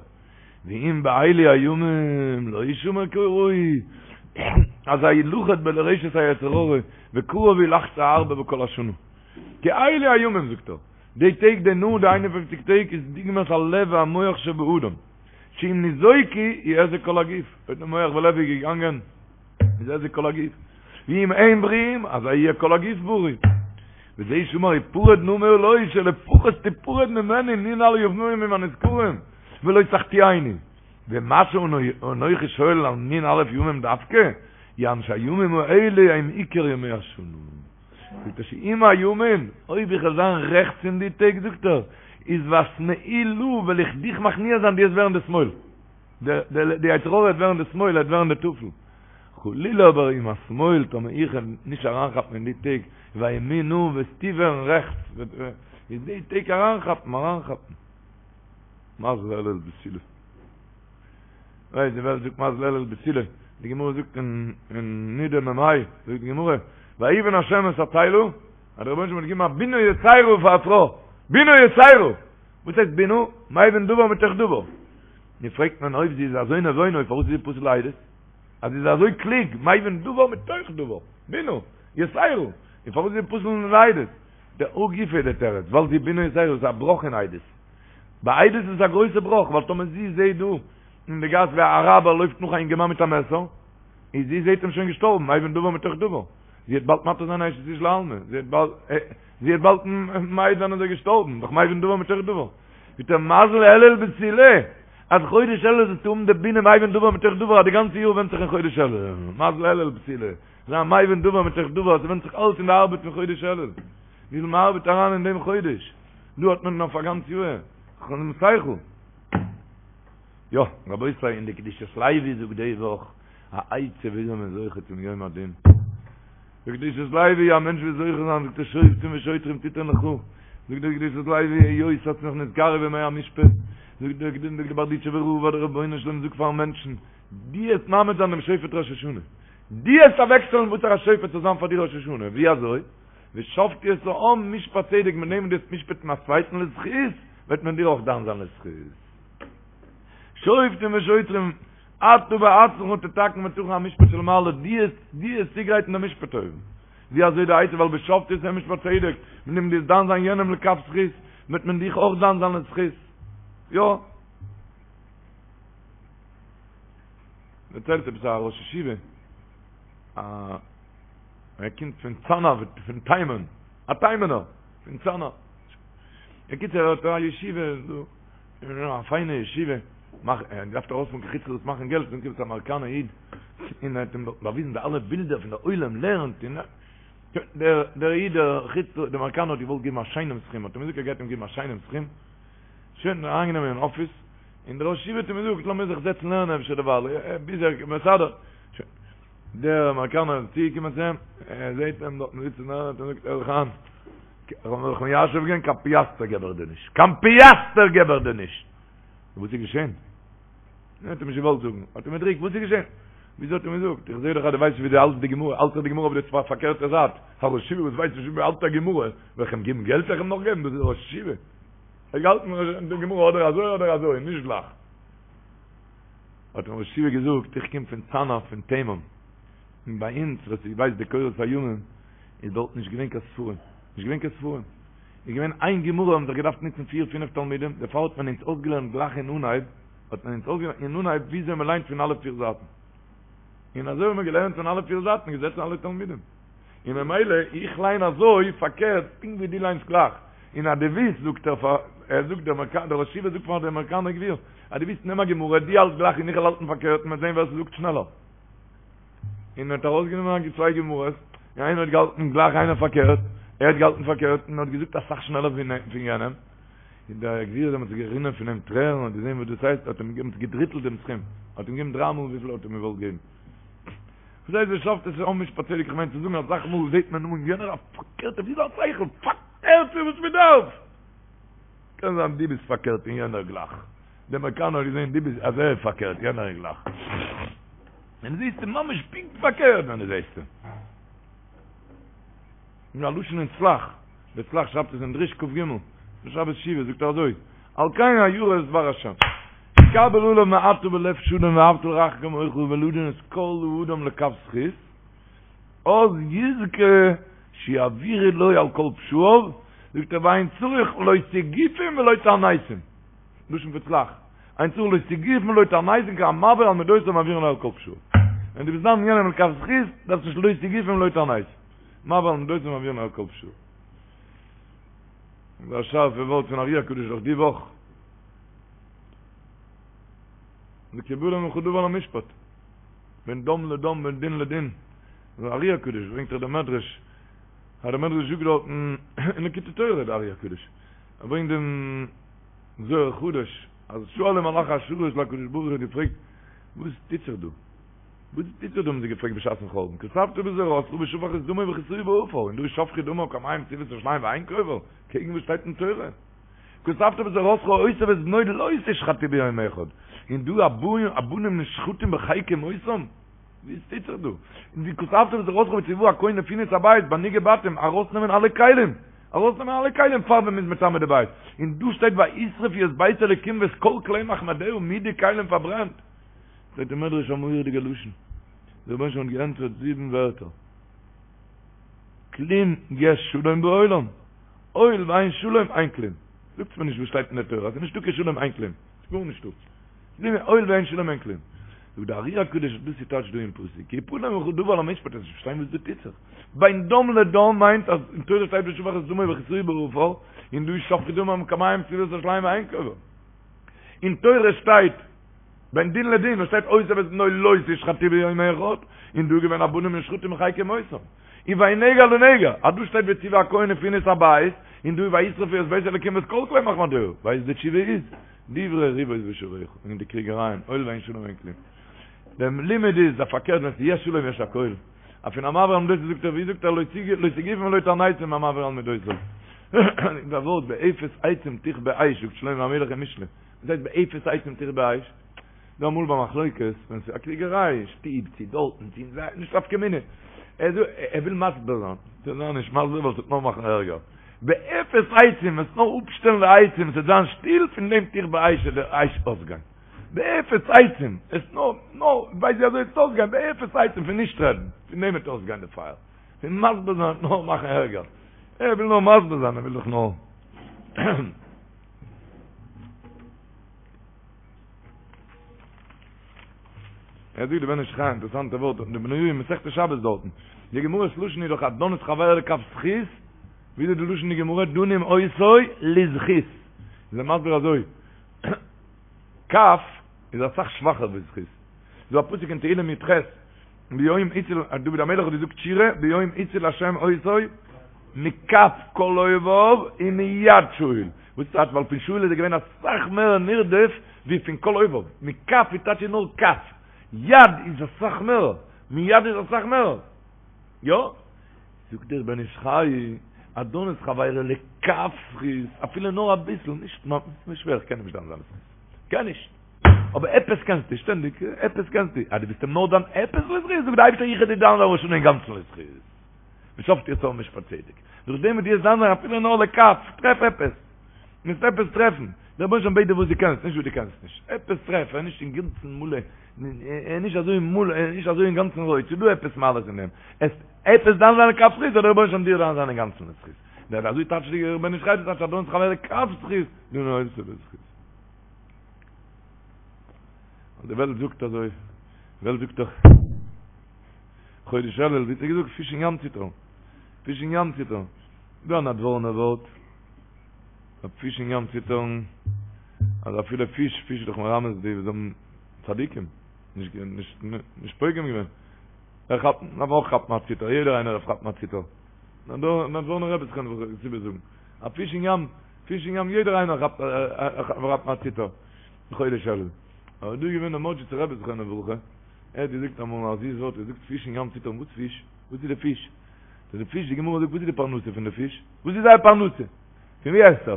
ואם באלו הימים לא ישמר כראוי, אזי ילכד ברשת היצר הרע, וקרוב הוא לחטוא הרבה בכל השנה. כי אלו הימים, זאגט ער, די טעג די נ"א די 51 טעג איז דוגמת הלב והמוח שבאדם, שאם ניזוקו יהזק כל הגוף, אויב די מוח ולב איז געגאנגען, איז היזק כל הגוף. ואם הם בריאים, אזי יהיה כל הגוף בריא. וזה שאמר הפרד נא מעלי שלפחות תיפרד ממני נ"א ימים הנזכרים ולא תחטיאני. ומה שאנוכי שואל על נ"א ימים דווקא, יען שהימים האלה הם עיקר ימי השנה. זאגט ער שאם הימין, אויב איך וועל זיין רעכטס אין די טעג, זאגט ער, איז ואשמאילה וועל איך דיך מכניע זיין דו וועסט ווערן די שמאל. די יצר הרע וועט ווערן די שמאל, ער וועט ווערן די טפל. חלילה אבער אם השמאל טאמער איך וועל נישט אריינכאפן אין די טעג, ואימינה וועסטו ווערן רעכטס, איז די טעג אריינכאפן, אריינכאפן. מזל אלול בתולה. ווייסט די וועלט זאגט מזל אלול בתולה, די גמרא זאגט אין נידה מ"ה, זאגט די גמרא, ויבן השם את הצלע, אז דער רבונו של עולם האט געגעבן א בינה יתירה פאר א פרוי, בינה יתירה! וואס הייסט בינה? מבין דבר מתוך דבר. נו פרעגט מען אויב זי איז אזוי נבונה פארוואס איז זי פסול לעדות? אז זי איז אזוי קלוג, מבין דבר מתוך דבר, בינה, יתירה, און פארוואס איז זי פסול לעדות? דהא גופא איז די תירוץ, ווייל זי בינה יתירה איז א בראך אין עדות. ביי עדות איז עס א גרויסע בראך, ווייל טאמער זי זעהט דא אין די גאס ווי א אראבער לויפט נאך א אינגערמאן מיט א מעסער, איז זי זעהט אים שוין געשטארבן, מבין דבר מתוך דבר. זי וועט באלד מתיר זיין אשת איש לעלמא, זי וועט באלד, זי וועט באלד מעיד זיין אז ער איז געשטארבן, דאך מבין דבר מתוך דבר. מיט דער מזל אלול בתולה, אז חודש אלול זאלסטו האבן די בינה מבין דבר מתוך דבר, אז די גאנצע יאר ווענדט זיך אין חודש אלול. מזל אלול בתולה, זיין מבין דבר מתוך דבר, עס ווענדט זיך אלץ אין די ארבעט פון חודש אלול. וויפיל מען ארבעט אריין אין דעם חודש, דא האט מען אויף א גאנץ יאר. שכל. יא, רבותי, אין די קדושת לוי זאגט די וואך א עצה וויאזוי מען איז זוכה צום יום הדין. די קדושת לוי, א מענטש וויל זוכה זיין, זאגט ער שופטים ושוטרים תתן לך, זאגט דער קדושת לוי, היות ס'האט זיך נתקרב ימי המשפט, זאגט דער זאגט דער בארדיטשובער רב אז דער רבונו של עולם זאגט פארן מענטשן, דו וועסט מעמיד זיין דעם שופט ראש השנה, דו וועסט אוועקשטעלן וואסערע שופט זאל זיין פאר דיר ראש השנה, ווי אזוי? ושפטו את העם משפט צדק, מיט דעם וואס דו וועסט משפט'ן א צווייטן לזכות, וועט מען דיר אויך דן זיין לזכות. שופטים ושוטרים, אתה בעצמך תתקן ותכין המשפט של מעלה, דו וועסט, דו וועסט צוגרייטן דעם משפט אויבן. ווי אזוי די עצה ווייל ושפטו את העם משפט צדק, מיט דעם דו'סט דן זיין יענעם לכף זכות, וועט מען דיך אויך דן זיין לזכות. יא. דערציילט עפעס א ראש ישיבה, א ער קומט פון צאנא, פון תימן, א תימנ'ער, פון צאנא. בקיצור ער האט א ישיבה דא, א פיינע ישיבה, מאך, ער האט געדארפט ארויספארן קיין חוץ לארץ מאכן געלט, און קומט א אמעריקאנער איד, און ער האט אים דארט באוויזן די אלע בילדער פון די עולם לערנט, און דער דער איד דער חוץ דער אמעריקאנער האט געוואלט געבן א שיינעם סכום, האט אים געזאגט ער גייט אים געבן א שיינעם סכום, שוין אריינגענומען אין אפיס, און דער ראש ישיבה האט אים געזאגט לאמיר זיך זעצן לערנען אפשר דערווייל, ביז ער מסדר, שוין, דער אמעריקאנער איז צוגעקומען צו אים, ער זעט אים דארטן זיצן לערנען, האט ער געזאגט הער זיך איין, איך האב מיך מיישב געווען, קיין פיאסטער געב איך דיר נישט, קיין פיאסטער געב איך דיר נישט! וואס איז געשען? ער האט אים נישט געוואלט זאגן, האט אים געדריקט, וואס איז געשען? וויאזוי האט ער מיר געזאגט? איך זעה דאך אז דו ווייסט נישט ווי דו האלטסט די גמרא, האלטסט דאך די גמרא אויף די פארקערטע זייט, א ראש ישיבה וואס ווייסט נישט ווי מען האלט א גמרא, וועל איך אים געבן געלט? וועל איך אים נאך געבן? דאס איז ראש ישיבה. ער האט געהאלטן די גמרא אדער אזוי אדער אזוי, נישט גלייך. האט אים ראש ישיבה געזאגט, איך קום פון צאנא פון תימן, און ביי אונז, ווער ס'ווייסט די קורות הימים, איז דארט נישט געווען קיין ספרים, נישט געווען קיין ספרים, איז געווען איין גמרא האבן זיך געדארפט נוצן פיר פינף תלמידים, דערפאר האט מען אונז אויסגעלערנט גלייך אין אנהייב, האט מען אונז אויסגעלערנט אין אנהייב וויאזוי מען ליינט פון אלע פיר זייטן, און אזוי האבן מיר געלערנט פון אלע פיר זייטן, געזעצן אלע תלמידים, און ממילא איך ליין אזוי פארקערט פונקט ווי דו ליינסט גלייך, און אז דו ווילסט זאגט ער פאר, ער זאגט דער אמעריקאנער, דער ראש ישיבה זאגט פאר דער אמעריקאנער גביר, אז דו ווילסט נעם א גמרא, דו האלט גלייך און איך וועל האלטן פארקערט און מ'וועט זען ווער ס'זאגט שנעלער. און ער האט ארויסגענומען צוויי גמרות, און איינער האט געהאלטן גלייך איינער פארקערט, ער האט געהאלטן פארקערט און האט געזאגט אסאך שנעלער פון יענעם, און דער גביר איז דעמאלטס גערינען פון אים טרערן, האט געזען וואס דאס הייסט, האט אים געגעבן געדריטלט דעם סכום, האט אים געגעבן דריי מאל וויפיל ער האט אים געוואלט געבן. וואס הייסט ושפטו את העם משפט צדק, איך מיין צו זאגן אסאך מאל זעט מען אן יענער א פארקערטע, ווי זיין שכל, פארקערט פון וואס מען דארף! קען זיין דו ביסט פארקערט און יענער גלייך. דער אמעריקאנער האט געזען דו ביסט אז ער איז פארקערט יענער איז גלייך. ווען דו זעסט אים ממש פונקט פארקערט ווען דו זעסט אים. אין א לשון אין צל"ח, דער צל"ח שרייבט עס אין דרוש כ"ג, שבת שובה זאגט ער אזוי, על כן הירא את דבר השם. קבל עליו מעתה בלב שלם ואהבת לרעך כמוך ולדון את כל האדם לכף זכות, אז יזכה שיעבירו לו על כל פשעיו, זאגט ער ואין צריך לא סיגופים ולא תעניתים, לשון פון צל"ח, אין צריך לא סיגופים ולא תעניתים כי המעביר על מידותיו מעבירין לו על כל פשעיו. ווען דו ביסט דן יענעם לכף זכות, דארפסט נישט לא סיגופים ולא תעניתים. מעביר על מידותיו מעבירין לו על כל פשעיו. דאס איז א שארפע ווארט פון ארי הקדוש דאך די וואך. כי יפלא ממך דבר למשפט. בין דם לדם בין דין לדין. דער ארי הקדוש ברענגט דאך דער מדרש, אז דער מדרש זאגט דארטן אין ליקוטי תורה דער ארי הקדוש, ער ברענגט דעם זוהר חדש, אז שאלו מלאכי השרת להקדוש ברוך הוא האט געפרעגט, וואס טוט זיך דא? וואס טוט זיך דא האבן זיי געפרעגט בשעת'ן חורבן, כתבת בתורתך ושפך את דמו וכסהו בעפר, און דא איז שפכו דמו כמים סביבות ירושלים ואין קובר, קעגן וואס שטייט אין תורה? כתבת בתורתך אותו ואת בנו לא תשחטו ביום אחד, און דא הבנים נשחטים בחיק אמותם? וואס טוט זיך דא? און ווי כתבת בתורתך וצוה הכהן לפנו את הבית ביי נגעי בתים ארויסנעמען אלע כלים, ארויסנעמען אלע כלים פאר ווען מ'איז מטמא די בית, און דא שטייט וישרפו את בית אלוקים ואת כל כלי מחמדיה מיט די כלים פארברענט. זאגט דער מדרש א מורא'דיגע לשון, דער רבונו של עולם האט געענטפערט זיבן ווערטער, כלום יש שלום בעולם, הואיל ואין שלום אין כלום. זאגטס מיר נישט וואס שטייט אין די תורה, אז ס'איז נישטא קיין שלום אין כלום, ס'איז גארנישטא. הואיל ואין שלום אין כלום. זאגט די ארי הקדוש דאס איז טייטש דא אין פסוק, כי יפלא ממך דבר למשפט, וועסט נישט פארשטיין וואס דא טוט זיך. בין דם לדם מיינט אז אין תורה שטייט ושפך את דמו וכסהו בעפר, און דא איז שפכו דמם כמים סביבות ירושלים ואין קובר. אין תורה שטייט בין דין לדין, עס שטייט אותו ואת בנו לא תשחטו ביום אחד, און דא איז געווען הבנים נשחטים בחיק אמותם. און בין נגע לנגע, אז דא שטייט וצוה הכהן ופנו את הבית, און דא איז וישרפו את בית אלוקים ואת כל כלי מחמדיה, ווייסט די תשובה איז, דברי ריבות בשעריך, און די קריגערייען, הואיל ואין שלום אין כלום. דער לימוד איז, אז פארקערט ווען ס'איז יש שלום יש הכל. אויף פון המעביר על מידותיו זאגט ער, ווי זאגט ער, לא סיגופים ולא תעניתים המעביר על מידותיו. דער ווארט באפס עצים תכבה אש זאגט שלמה המלך אין משלי. וואס הייסט באפס עצים תכבה אש? דא אמאל ביי מחלוקת, ווען ס'איז א קריגעריי אין שטוב, צו דארטן, צו אין זיי, נישט נפקא מינה. ער זאגט, ער וויל מסביר זיין. זאל זיי נישט מסביר ווייל ס'וועט נאר מאכן ערגער. באפס עצים, וועסט נאר אפשטעלן די עצים, ס'וועט זיין שטיל, פון דעם תכבה אש וועט די אש אויסגיין. באפס עצים, עס נאר, נאר, ווייסט ווי אזוי עס וועט אויסגיין, באפס עצים פון נישט רעדן, פון דעם וועט אויסגיין די פייער. פון מסביר זיין וועט נאר מאכן ערגער. ער וויל נאר מסביר זיין, ער וויל דאך נאר. ער זאגט די בן איש חי, אינטערעסאנטע ווארט, די בניהו אין מסכת שבת דארטן. די גמרא'ס לשון איז דאך הדן את חברו לכף זכות, ווי איז די לשון די גמרא דנים אותו לזכות. איז ער מסביר אזוי, כף איז אסאך שוואכער ווי זכות. ס'דא א פסוק אין תהילים י"ח, ביום הציל, דוד המלך האט געזאגט שירה, ביום הציל השם אותו מכף כל אויביו ומיד שאול. וואס טייטש ווייל פון שאול איז ער געווען אסאך מער נרדף ווי פון כל אויביו. מכף איז טייטש נאר כף. יד איז אסאך מער. מיד איז אסאך מער. יא? זאגט דער בן איש חי, הדן את חברו לכף זכות, אפילו נאר אביסל, נישט נישט שווער, איך קען נישט דן זיין לזכות. קען נישט. אבער עפעס קענסטו, שטענדיג, עפעס קענסטו. אז דו ביסט אים נאר דן עפעס לזכות, זאגט דער אייבערשטער איך וועל דיר דן זיין ראש השנה אינגאנצן לזכות. ושפטו את העם משפט צדק. דורך דעם וואס דו וועסט דן זיין אפילו נאר לכף, טרעף עפעס. מוזט עפעס טרעפן. דער רבונו של עולם בעט דיר וואס דו קענסט, נישט וואס דו קענסט נישט. עפעס טרעף, ער איז נישט אינגאנצן מלא, ער איז נישט אזוי מלא, ער איז נישט אזוי אינגאנצן רויט, ס'איז דא עפעס מעלות אין דעם. עס עפעס דן זיין לכף זכות, זאל דער רבונו של עולם דיר דן זיין אינגאנצן לזכות. דער אזוי טייטשט דער בן איש חי, דאס טייטש הדן את חברו לכף זכות, דנין אותו לזכות. די וועלט זאגט אזוי, די וועלט זאגט דאך, חודש אלול, ווי האט ער געזאגט, פיש אין ים ציטערן, פיש אין ים ציטערן, דא א נאדווארנע ווארט, א פיש אין ים ציטערן, אז אפילו פיש, פיש איז דאך מרמז די וואס האבן צדיקים, נישט נישט נישט פוגם געווען, ער כאפט, דארף אויך כאפן א ציטער, יעדער איינער דארף כאפן א ציטער, נאדווארנע רבי זכרונו זאגן, א פיש אין ים, פיש אין ים יעדער איינער כאפט כאפט א ציטער, חודש אלול. אבער דא איז געווען דער מאדזשיצער רבי זכרונו לברכה, ער האט געזאגט אמאל א זיס ווארט, ער זאגט פיש אין ים ציטערן, וואס פיש? וואס איז די פיש? די פיש, די גמרא זאגט וואס איז די פרנסה פון די פיש? וואס איז זייער פרנסה? פון ווי עסט ער?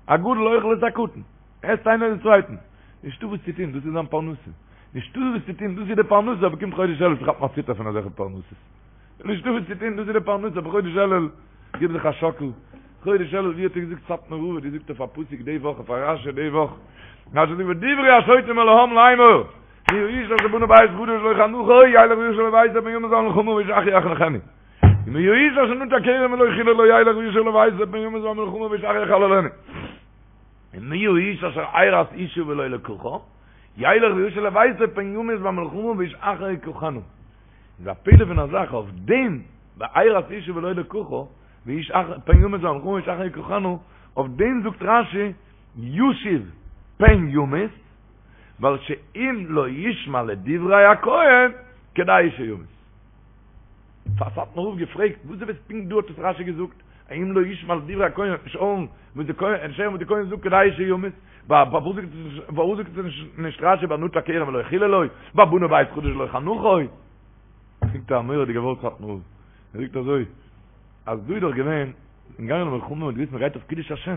הגדול אוכל את הקטן, עסט איינער די צווייטן. נישטא וואס צו טון, דאס איז זיין פרנסה. נישטא וואס צו טון, דאס איז די פרנסה, אבער קומט חודש אלול כאפט מען א ציטער פון אזעלכע פרנסות. נישטא וואס צו טון, דאס איז די פרנסה, אבער חודש אלול, גיב זיך א שאקל. חודש אלול, ווי האט ער געזאגט סאטמאר רב האט געזאגט אויף א פסוק די וואך, אויף א רשי די וואך. רשי זאגט ודברו השוטים אל העם לאמור, מי האיש אשר בנה בית חדש ולא חנכו, ילך וישוב לביתו פן ימות במלחמה ואיש אחר יחנכנו. ומי האיש אשר נטע כרם ולא חללו ילך וישוב לביתו פן ימות במלחמה ואיש אחר יחללנו. ומי האיש אשר ארש אשה ולא לקחה, ילך וישוב לביתו פן ימות במלחמה ואיש אחר יקחנה. איז א פלא פון א זאך אויף דעם בארש אשה ולא לקחה, ואיש אחר פן ימות במלחמה ואיש אחר יקחנה, אויף דעם זאגט רשי ישוב פן ימות, ווייל שאם לא ישמע לדברי הכהן כדאי שימות. פאר סאטמאר רב געפרעגט וואס עפעס פונקט דא האט עס רשי געזאגט, אם לא ישמע לדברי הכהן וועט נישט הערן וואס די כהן נישט הערן וואס די כהן זאגט כדאי שימות, פארוואס זאגט עס נישט רשי ביי נטע כרם ולא חיללו, ביי בנה בית חדש ולא חנכו? זאגט א מורא'דיגע ווארט סאטמאר רב, ער זאגט אזוי, אז דא איז דאך געווען, אין גאנגען למלחמה מ'האט געוויסט מ'גייט אויף קידוש השם,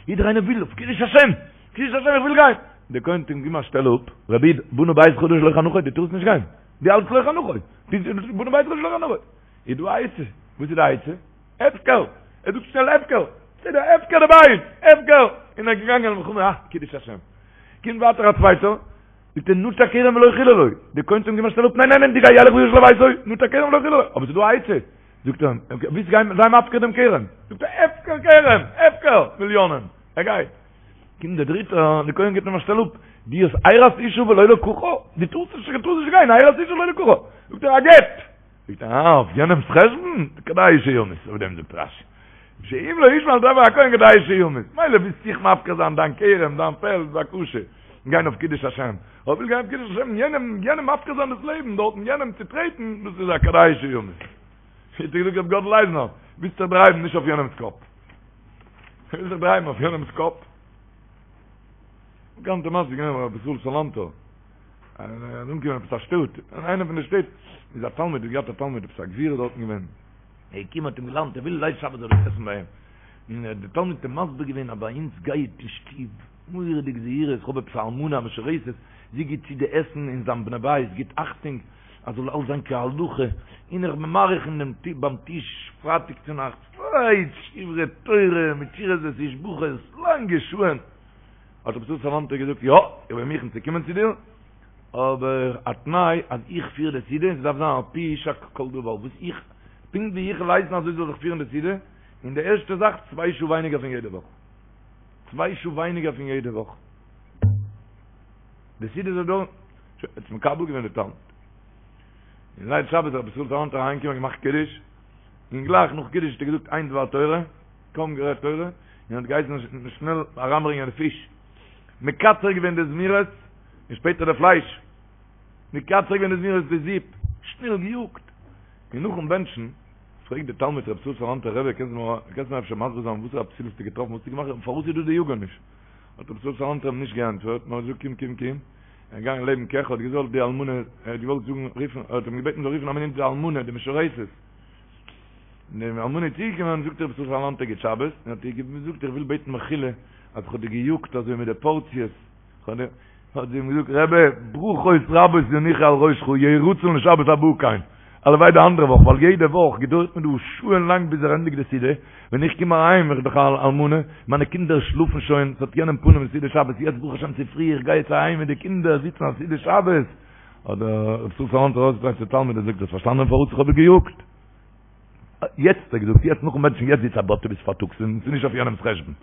יעדער איינער וויל אויף קידוש השם, קידוש השם איך וויל גיין, דער כהן האט אים געגעבן א שטעל אפ, רבי איד, בנה בית חדש ולא חנכו, דו טארסט נישט גיין, דו האלטסט לא חנכו, בנה בית חדש ולא חנכו, איז דא א עצה, וואס איז די עצה? הפקר! ער זאגט שנעל הפקר! בסדר, הפקר די בית! הפקר! און ער איז געגאנגען למלחמה, אה, קידוש השם. קומט ווייטער א צווייטער, זאגט ער נטע כרם ולא חיללו, די כהן האט אים געגעבן א שטעל אפ, ניין ניין ניין, דו גיי ילך וישוב לביתו, נטע כרם ולא חיללו, אבער ס'איז דא א עצה, זאגט ער אים, ווילסט גיין, זיי מפקיר דעם כרם, זאגט ער, הפקר כרם, הפקר, מיליאנען, ער גייט. קומט דער דריטער, די כהן גיבט אים א שטעל אפ, דו האסט ארש אשה ולא לקחה, דו טארסט נישט, דו טארסט נישט גיין, ארש אשה ולא לקחה, זאגט ער, א גט! זאגט ער, אה, אויף יענעמ'ס חשבון? כדאי שימות, אויף דעם זאגט רשי, שאם לא ישמע לדברי הכהן כדאי שימות, מילא ווילסט זיך מפקיר זיין דיין כרם, דיין פעלד, בבקשה, גיין אויף קידוש השם, אבער וויל גיין אויף קידוש השם, יענעם, יענעם מפקיר זיין דאס לעבן דארטן, יענעם צוטרעטן, דאס איז א כדאי שימות. האט געזאגט רבי גאדל אייזנער, ווילסט זיך דרייוון נישט אויף יענעמ'ס קאפ. ווילסט זיך דרייוון אויף יענעמ'ס קאפ? באקאנטע מעשה איז געווען ביי רבי ישראל סאלאנטער. ער איז אנגעקומען עפעס א שטאט, אין איינע פון די שטעט איז א תלמיד, האט געהאט א תלמיד עפעס א גביר איז דארטן געווען, ער איז געקומען האט אים געלאדנט ער וויל ליל שבת זאל ער עסן ביי אים, און דער תלמיד האט אים מסביר געווען אז ביי אונז גייט אין שטוב מורא'דיג זהירות, איך האב עפעס א אלמנה א משרתת, זי גיט צו די עסן און זיין בני בית גיט אכטונג אז זאל אלס זיין כהלכה, און איך בין מאריך אין דעם ביים טיש פרייטאג צונאכטס, שברי תורה מיט שירות ותשבחות לאנגע שעה'ן. האט רבי ישראל סאלאנטער געזאגט, יא, איך בין מוכן צו קומען צו דיר, אבער א תנאי אז איך פיר די סעודה און ס'דארף זיין על פי יישק כל דבר, וואס איך. פונקט ווי איך וועל הייסן אזוי זאל זיך פירן די סעודה, און די ערשטע זאך, צוויי שעה ווייניגער פון יעדע וואך. צוויי שעה ווייניגער פון יעדע וואך. די סעודה זאל דויערן, שוין, האט עס מקבל געווען די תלמיד. און ליל שבת איז רבי ישראל סאלאנטער אריינגעקומען געמאכט קידוש, און גלייך נאך קידוש האט ער געזאגט איין דבר תורה, קוים גערעדט תורה, און האט געהייסן שנעל אריינברענגען די פיש. מקצר געווען די זמירות, און שפעטער די פלייש. מקצר געווען די זמירות די זופ, שנעל געיאגט. און נאכן בענטשן, פרעגט די תלמיד רבי ישראל סאלאנטער, רבי קענסט מיר אפשר מסביר זיין וואסערע פסול האסטו געטראפן, וואס האסטו געמאכט, פארוואס איז דא די יאגעניש? האט רבי ישראל סאלאנטער אים נישט געענטפערט, נאר געזאגט קום קום קום, ער איז געגאנגען לעבן קעך, האט געזאלט די אלמנה, ער האט געוואלט זאגן רופן, ער האט אים געבעטן זאל רופן א מינוט די אלמנה, די משרתת. די אלמנה איז צוגעקומען, זאגט רבי ישראל סאלאנטער גוט שבת, און האט איר געזאגט איך וויל בעטן מחילה אז איך האב דיר געיאגט אזוי מיט די פארציעס, האט זי אים געזאגט, רבי, ברכות רבות ינוחו על ראשך, יהי רצון לשבת הבא כן, הלוואי די אנדערע וואך, ווייל יעדע וואך געדויערט מיר דא שעה'ן לאנג ביז ער ענדיגט די סעודה, ווען איך קום אהיים, איך בין דאך א אלמנה, מיינע קינדער שלאפן שוין, ס'האט יענעם פנים סעודת שבת, יעצט ברוך השם צופרי, איך גיי יעצט אהיים מיט די קינדער זיצן א סעודת שבת, האט דער רב ישראל סאלאנטער אויסגעדרייט צום תלמיד און זאגט, האסט פארשטאנען פארוואס איך האב דיר געיאגט? יעצט האט ער געזאגט, יעצט נאכן בענטשן, יעצט זיץ א באטע ביז פארטאגס, און ס'איז נישט אויף יענעמ'ס חשבון.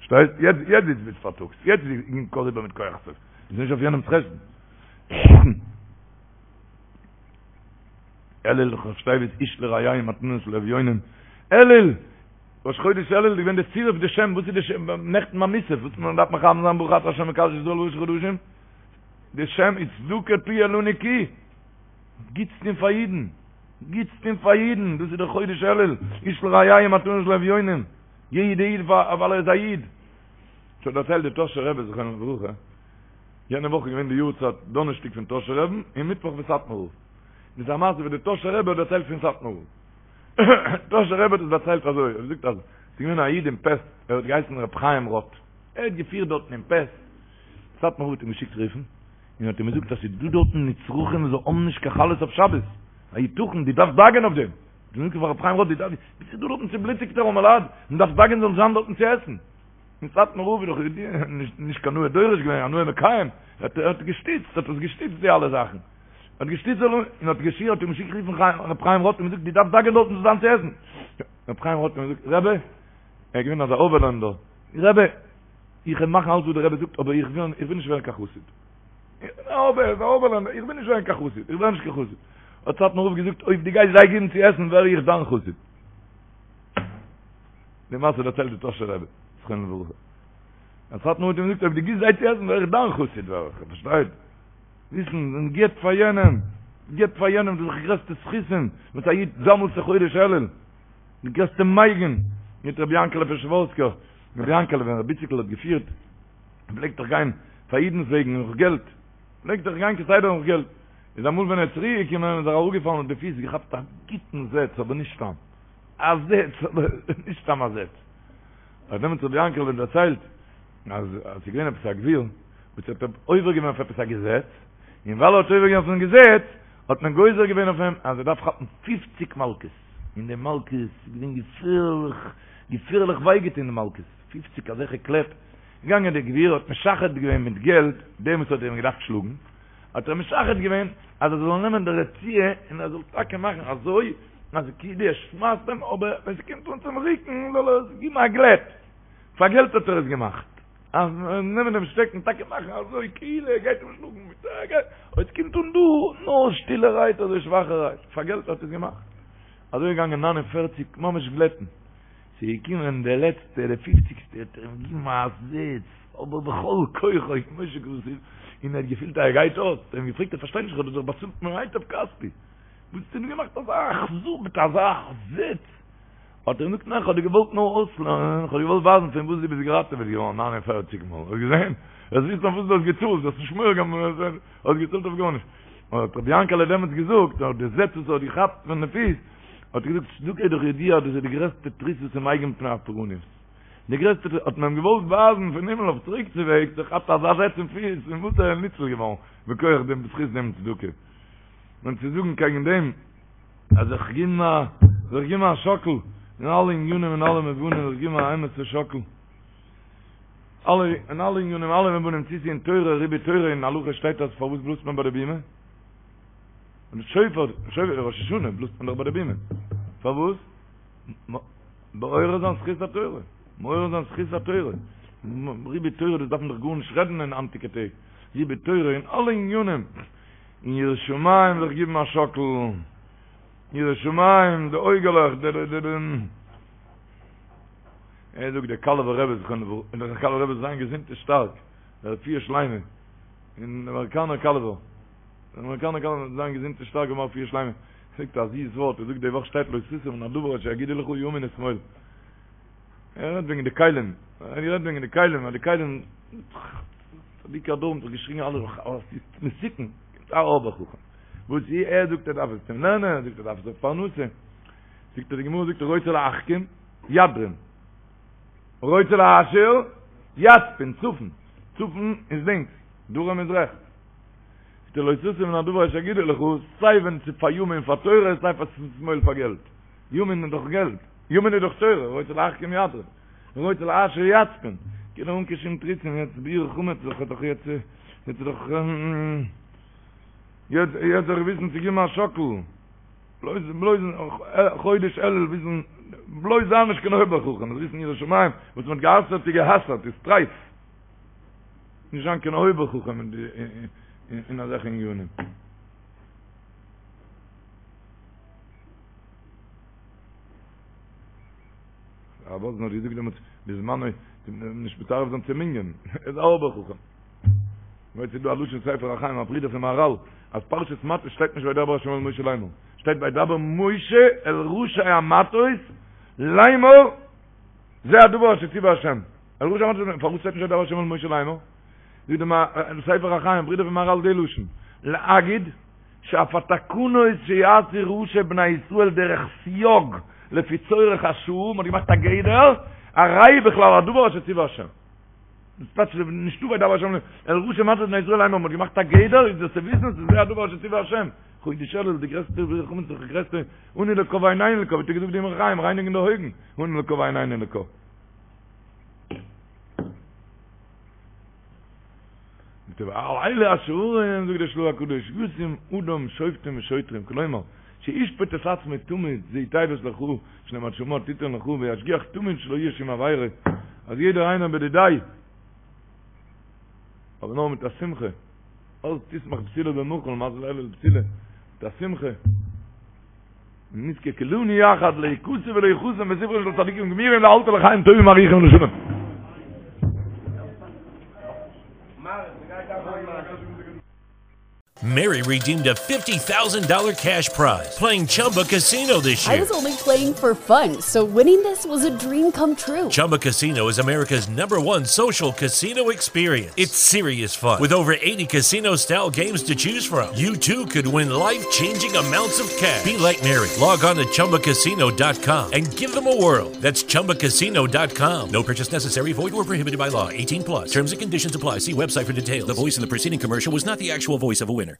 שטייט יעצט יעצט זיץ ביז פארטאגס יעצט איז אין קאר איבער מיט כח סוף איז נישט אויף יענעמס חשבון אלול ראשי תיבות איש לרעהו מתנות לאביונים אלול ראש חודש אלול איז געווען די צירוף די שם וואס איז די שם נעכטן ביי מוסף וואס מען דארף מכוון זיין ברוך אתה השם מקדש ישראל בראשי חדשים די שם איז צדקה תהיה לנו כי גוטס טון פאר אידן גוטס טון פאר אידן דאס איז דער חודש אלול איש לרעהו מתנות לאביונים יעדע איד ווייל ער איז א איד. ס'האט דערציילט די טאהשער רבי זכרונו לברכה, יענע וואך איז געווען די יארצייט דאנערשטאג פון טאהשער רבין און מיטוואך פון סאטמאר רב. דאס איז א מעשה וואס די טאהשער רבי האט דערציילט פון סאטמאר רב. טאהשער רבי האט עס דערציילט אזוי, ער האט געזאגט אז ס'איז געווען א איד אין פעסט, ער האט געהייסן ר' חיים רוט, ער האט געפירט דארטן אין פעסט, סאטמאר רב האט אים געשיקט רופן, און האט אים געזאגט אז ס'איז דא דארטן נצרכים וואס זיי האבן נישט קיין חלות אויף שבת, היתכן, דו דארפסט דאגה'ן אויף דעם. דו זאגסט פאר ר' חיים רוט דו דארפסט ביסט דא דארטן צובלוטיגטע ארעמעלייט און דארפסט דאגה'ן זאלן זיין דארטן צו עסן. און סאטמאר רב איז דאך נישט נישט קיין נאה דורש געווען א נאה מקיים, ער האט געשטיצט האט עס געשטיצט די אלע זאכן. האט געשטיצט זאל און האט געשי האט אים געשיקט רופן ר' חיים רוט און געזאגט דו דארפסט דאגה'ן דארטן זאל זיין צו עסן. ר' חיים רוט האט געזאגט רבי, ער איז געווען אזא אויבערלענדער, רבי, איך וועל מאכן אלץ וואס דער רבי זאגט אבער איך וויל איך וויל נישט ווערן קיין חסיד. אבער איך וויל נישט ווערן קיין חסיד, איך ווער נישט קיין חסיד. האט סאטמאר רב געזאגט, אויב דו גייסט זיי געבן צו עסן, ווער איך דיין חסיד. די מעשה דערציילט די טאהשער רבי, זכרונו לברכה. אז סאטמאר רב האט אים געזאגט, אויב דו גיבסט זיי צו עסן, ווער איך דיין חסיד, ווער איך, פארשטייט? וויסן, מען גיבט פאר יענעם, גיבט פאר יענעם, דאס איז די גרעסטע זכותים, וואס א איד זאמלט זיך חודש אלול, די גרעסטע מגין, מיט רבי יענקעלע פשעווארסקער, רבי יענקעלע ווען רבי איציקל האט געפירט, פלעגט דאך גיין פאר אידנס וועגן נאך געלט, פלעגט דאך גיין כסדר נאך געלט, איז אמאל ווען ער איז צוריק געקומען איז ער אראפגעפאלן אויף די פיס, געכאפט א גוטן זעץ, אבער נישט סתם א זעץ, אבער נישט סתם א זעץ. האט דעמאלטס רבי יענקעלע דערציילט אז עס איז געווען עפעס א גביר וואס האט עובר געווען אויף עפעס א געזעץ, און ווייל ער האט עובר געווען אויפן געזעץ האט מען גוזר געווען אויף אים אז ער דארף כאפן פופציג מלקות, און די מלקות איז געווען געפערליך, געפערליך וויי געטון די מלקות, פופציג אזעלכע קלעפ, געגאנגען דער גביר האט משחד געווען מיט געלט דעם וואס האט איהם געדארפט שלאגן, האט ער משחד געווען אז ער זאל נעמען די רצועה און ער זאל טאקע מאכן אזוי אז כאילו ער שמייסט אים אבער ווען ס'קומט אן צום רוקן זאל ער עס גיבן א גלעט, פאר געלט האט ער עס געמאכט, אז נעמען דעם שטעקן טאקע מאכן אזוי כאילו ער גייט אים שלאגן מיט א געלט, אויב ס'קומט אן דא נאר שטילערהייט אזוי שוואכערהייט, פאר געלט האט ער עס געמאכט, אזוי געגאנגען ניין און פערציג ממש גלעטן. ס'איז געקומען דער לעצטער, דער פופציגסטער, האט ער אים געגעבן א זעץ, אבער בכל כוחו, כמו שכתוב, און ער האט געפילט אז ער גייט אויס, האט ער אים געפרעגט, איך פארשטיי נישט, איך האב דיר דאך באצאלט ממיטב כספי, וואס האסטו מיר געמאכט אזא אכזר מיט אזא זעץ? האט ער אים געזאגט, ניין, איך האב דיר געוואלט נאר אויסלערנען, איך האב דיר געוואלט ווייזן פון וואס דו ביסט געראטעוועט געווארן ניין און פערציג מאל, האסט געזען? וועסט וויסן אויף וואס דו האסט געצאלט, דו האסט נישט מורא געהאט, האסט געצאלט אויף גארנישט. האט רבי יענקעלע דעמאלטס געזאגט, נאך די זעץ וואס ער האט געכאפט פון די פיס, האט ער געזאגט צדקה איז דאך ידוע אז דאס איז די גרעסטע תריסין ומגין מפני הפורענות. די גרעסטע תריס, האט מען אים געוואלט ווייזן פון הימל אויף צוריק צו וועגס, ער כאפט אזא זעץ אין פיס, פון וואס ער איז ניצול געווארן, מכח דעם בזכות דעם צדקה. און צו זאגן קעגן דעם, אז זיך געבן א, זיך געבן א שאקל, אין אלע ענינים און אלע מובנים, זיך געבן א אמת'ע שאקל. אלע, אין אלע ענינים, אלע מובנים, צו ס'איז אין תורה, ריבוי תורה, אין הלכה שטייט אז פארוואס בלאזט מען ביי די בימה? און שופר, שופר ראש השנה בלאזט מען דאך ביי די בימה. פארוואס? מעורר זיין זכות התורה, מעורר זיין זכות התורה, ריבוי תורה דאס דארף מען דאך גארנישט רעדן אין היינטיגע טעג, ריבוי תורה אין אלע עניינים, אין יראת שמים זיך גיבן א שאקל, יראת שמים, די אויגעלעך, די די די די. ער זאגט דער קאלובער רבי זכרונו לברכה, דער קאלובער רבי זאל זיין געזונט און שטארק, דער רפואה שלימה, אין אמעריקאנער קאלובער. דער אמעריקאנער קאלובער זאל זיין געזונט און שטארק און רפואה שלימה, זאגט א זיס ווארט, ער זאגט די וואך שטייט לא תסור מן הדבר אשר יגידו לך ימין ושמאל. ער רעדט וועגן די כלים, ער רעדט וועגן די כלים, אז די כלים, צדיקי הדור האבן זיך געשריגן אלע, אז ס'איז מסוכן, קומט א אויבער חכם, וואס ער זאגט ער דארף עס צום לערנען, ער זאגט ער דארף עס אויף פרנסה, זאגט ער די גמרא זאגט רוצה להחכים, ידרים. רוצה להעשיר, יצפין, צפון, צפון איז לינקס, דרום איז רעכטס. זאגט ער לא תסור מן הדבר אשר יגידו לך, סיי ווען ס'איז פאר ימין פאר תורה, סיי פאר שמאל פאר געלט. ימין איז דאך געלט, ימין איז דאך תורה, רוצה להחכים ידרים, רוצה להעשיר יצפין. כאילו אן קיין שום תירוצים, יעצט ביעור חמץ זיך האט דאך יעצט, יעצט איז דאך, יעצט יעצט זיך וויסן צו געבן א שאקל, בלויז בלויז חודש אלול וויסן, בלויז זיין נישט קיין אויבער חכם, וויסן יראת שמים, וואס מ'האט גע'אסר'ט איז גע'אסר'ט, איז טרייף. נישט זיין קיין אויבער חכם אין די אין אזעלכע ענינים. הרב וואזנער האט געזאגט דעמאלטס בזמנו נישט מצרף זיין צום מנין, איז א אויבער חכם. ווייל ס'איז דא א לשון ספר החיים א ברודער פון מהרל אז פרשת מטות שטייט נישט וידבר השם אל משה לאמור, שטייט וידבר משה אל ראשי המטות לאמור זה הדבר אשר ציווה השם. אל ראשי המטות, פארוואס שטייט נישט וידבר השם אל משה לאמור? זאגט דער ספר החיים, ברודער פון מהרל די לשון, להגיד שאף התקנות שיעשו ראשי בני ישראל דרך סייג לפי צורך השעה, מ'האט געמאכט א גדר, הרי בכלל הדבר אשר ציווה השם. דאס טייטש נישטא וידבר השם אל ראשי מטות בני ישראל לאמור, מ'האט געמאכט א גדר, איז דאס צו וויסן ס'איז זה הדבר אשר ציווה השם. חודש אלול די גרעסטע חמץ די גרעסטע אנו לקה ועינינו לקה, ווי האט געזאגט די אמרי חיים רייניגן די אויגן, אנו לקה ועינינו לקה. ועל אלה השערים, זאגט דער של"ה הקדוש, ישים אדם שופטים ושוטרים, כלומר, שישפוט את עצמו תמיד, זו תיבת לך, שנאמר שמוע תיתן לך, וישגיח תמיד שלא יהיה שום עבירה, אז יעדער איינער בדידיה, אבער נאר מיט א שמחה, אז תשמח בתולה במחול, מזל אלול בתולה, מיט א שמחה. ונזכה כולנו יחד להיכתב ולהיחתם בספרן של צדיקים גמורים לאלתר לחיים טובים ארוכים לשלום. Mary redeemed a $50,000 cash prize playing Chumba Casino this year. I was only playing for fun, so winning this was a dream come true. Chumba Casino is America's number one social casino experience. It's serious fun. With over 80 casino style games to choose from, you too could win life changing amounts of cash. Be like Mary. Log on to chumbacasino.com and give them a whirl. That's chumbacasino.com. No purchase necessary, void or prohibited by law. 18 plus. Terms and conditions apply. See website for details. The voice in the preceding commercial was not the actual voice of a winner.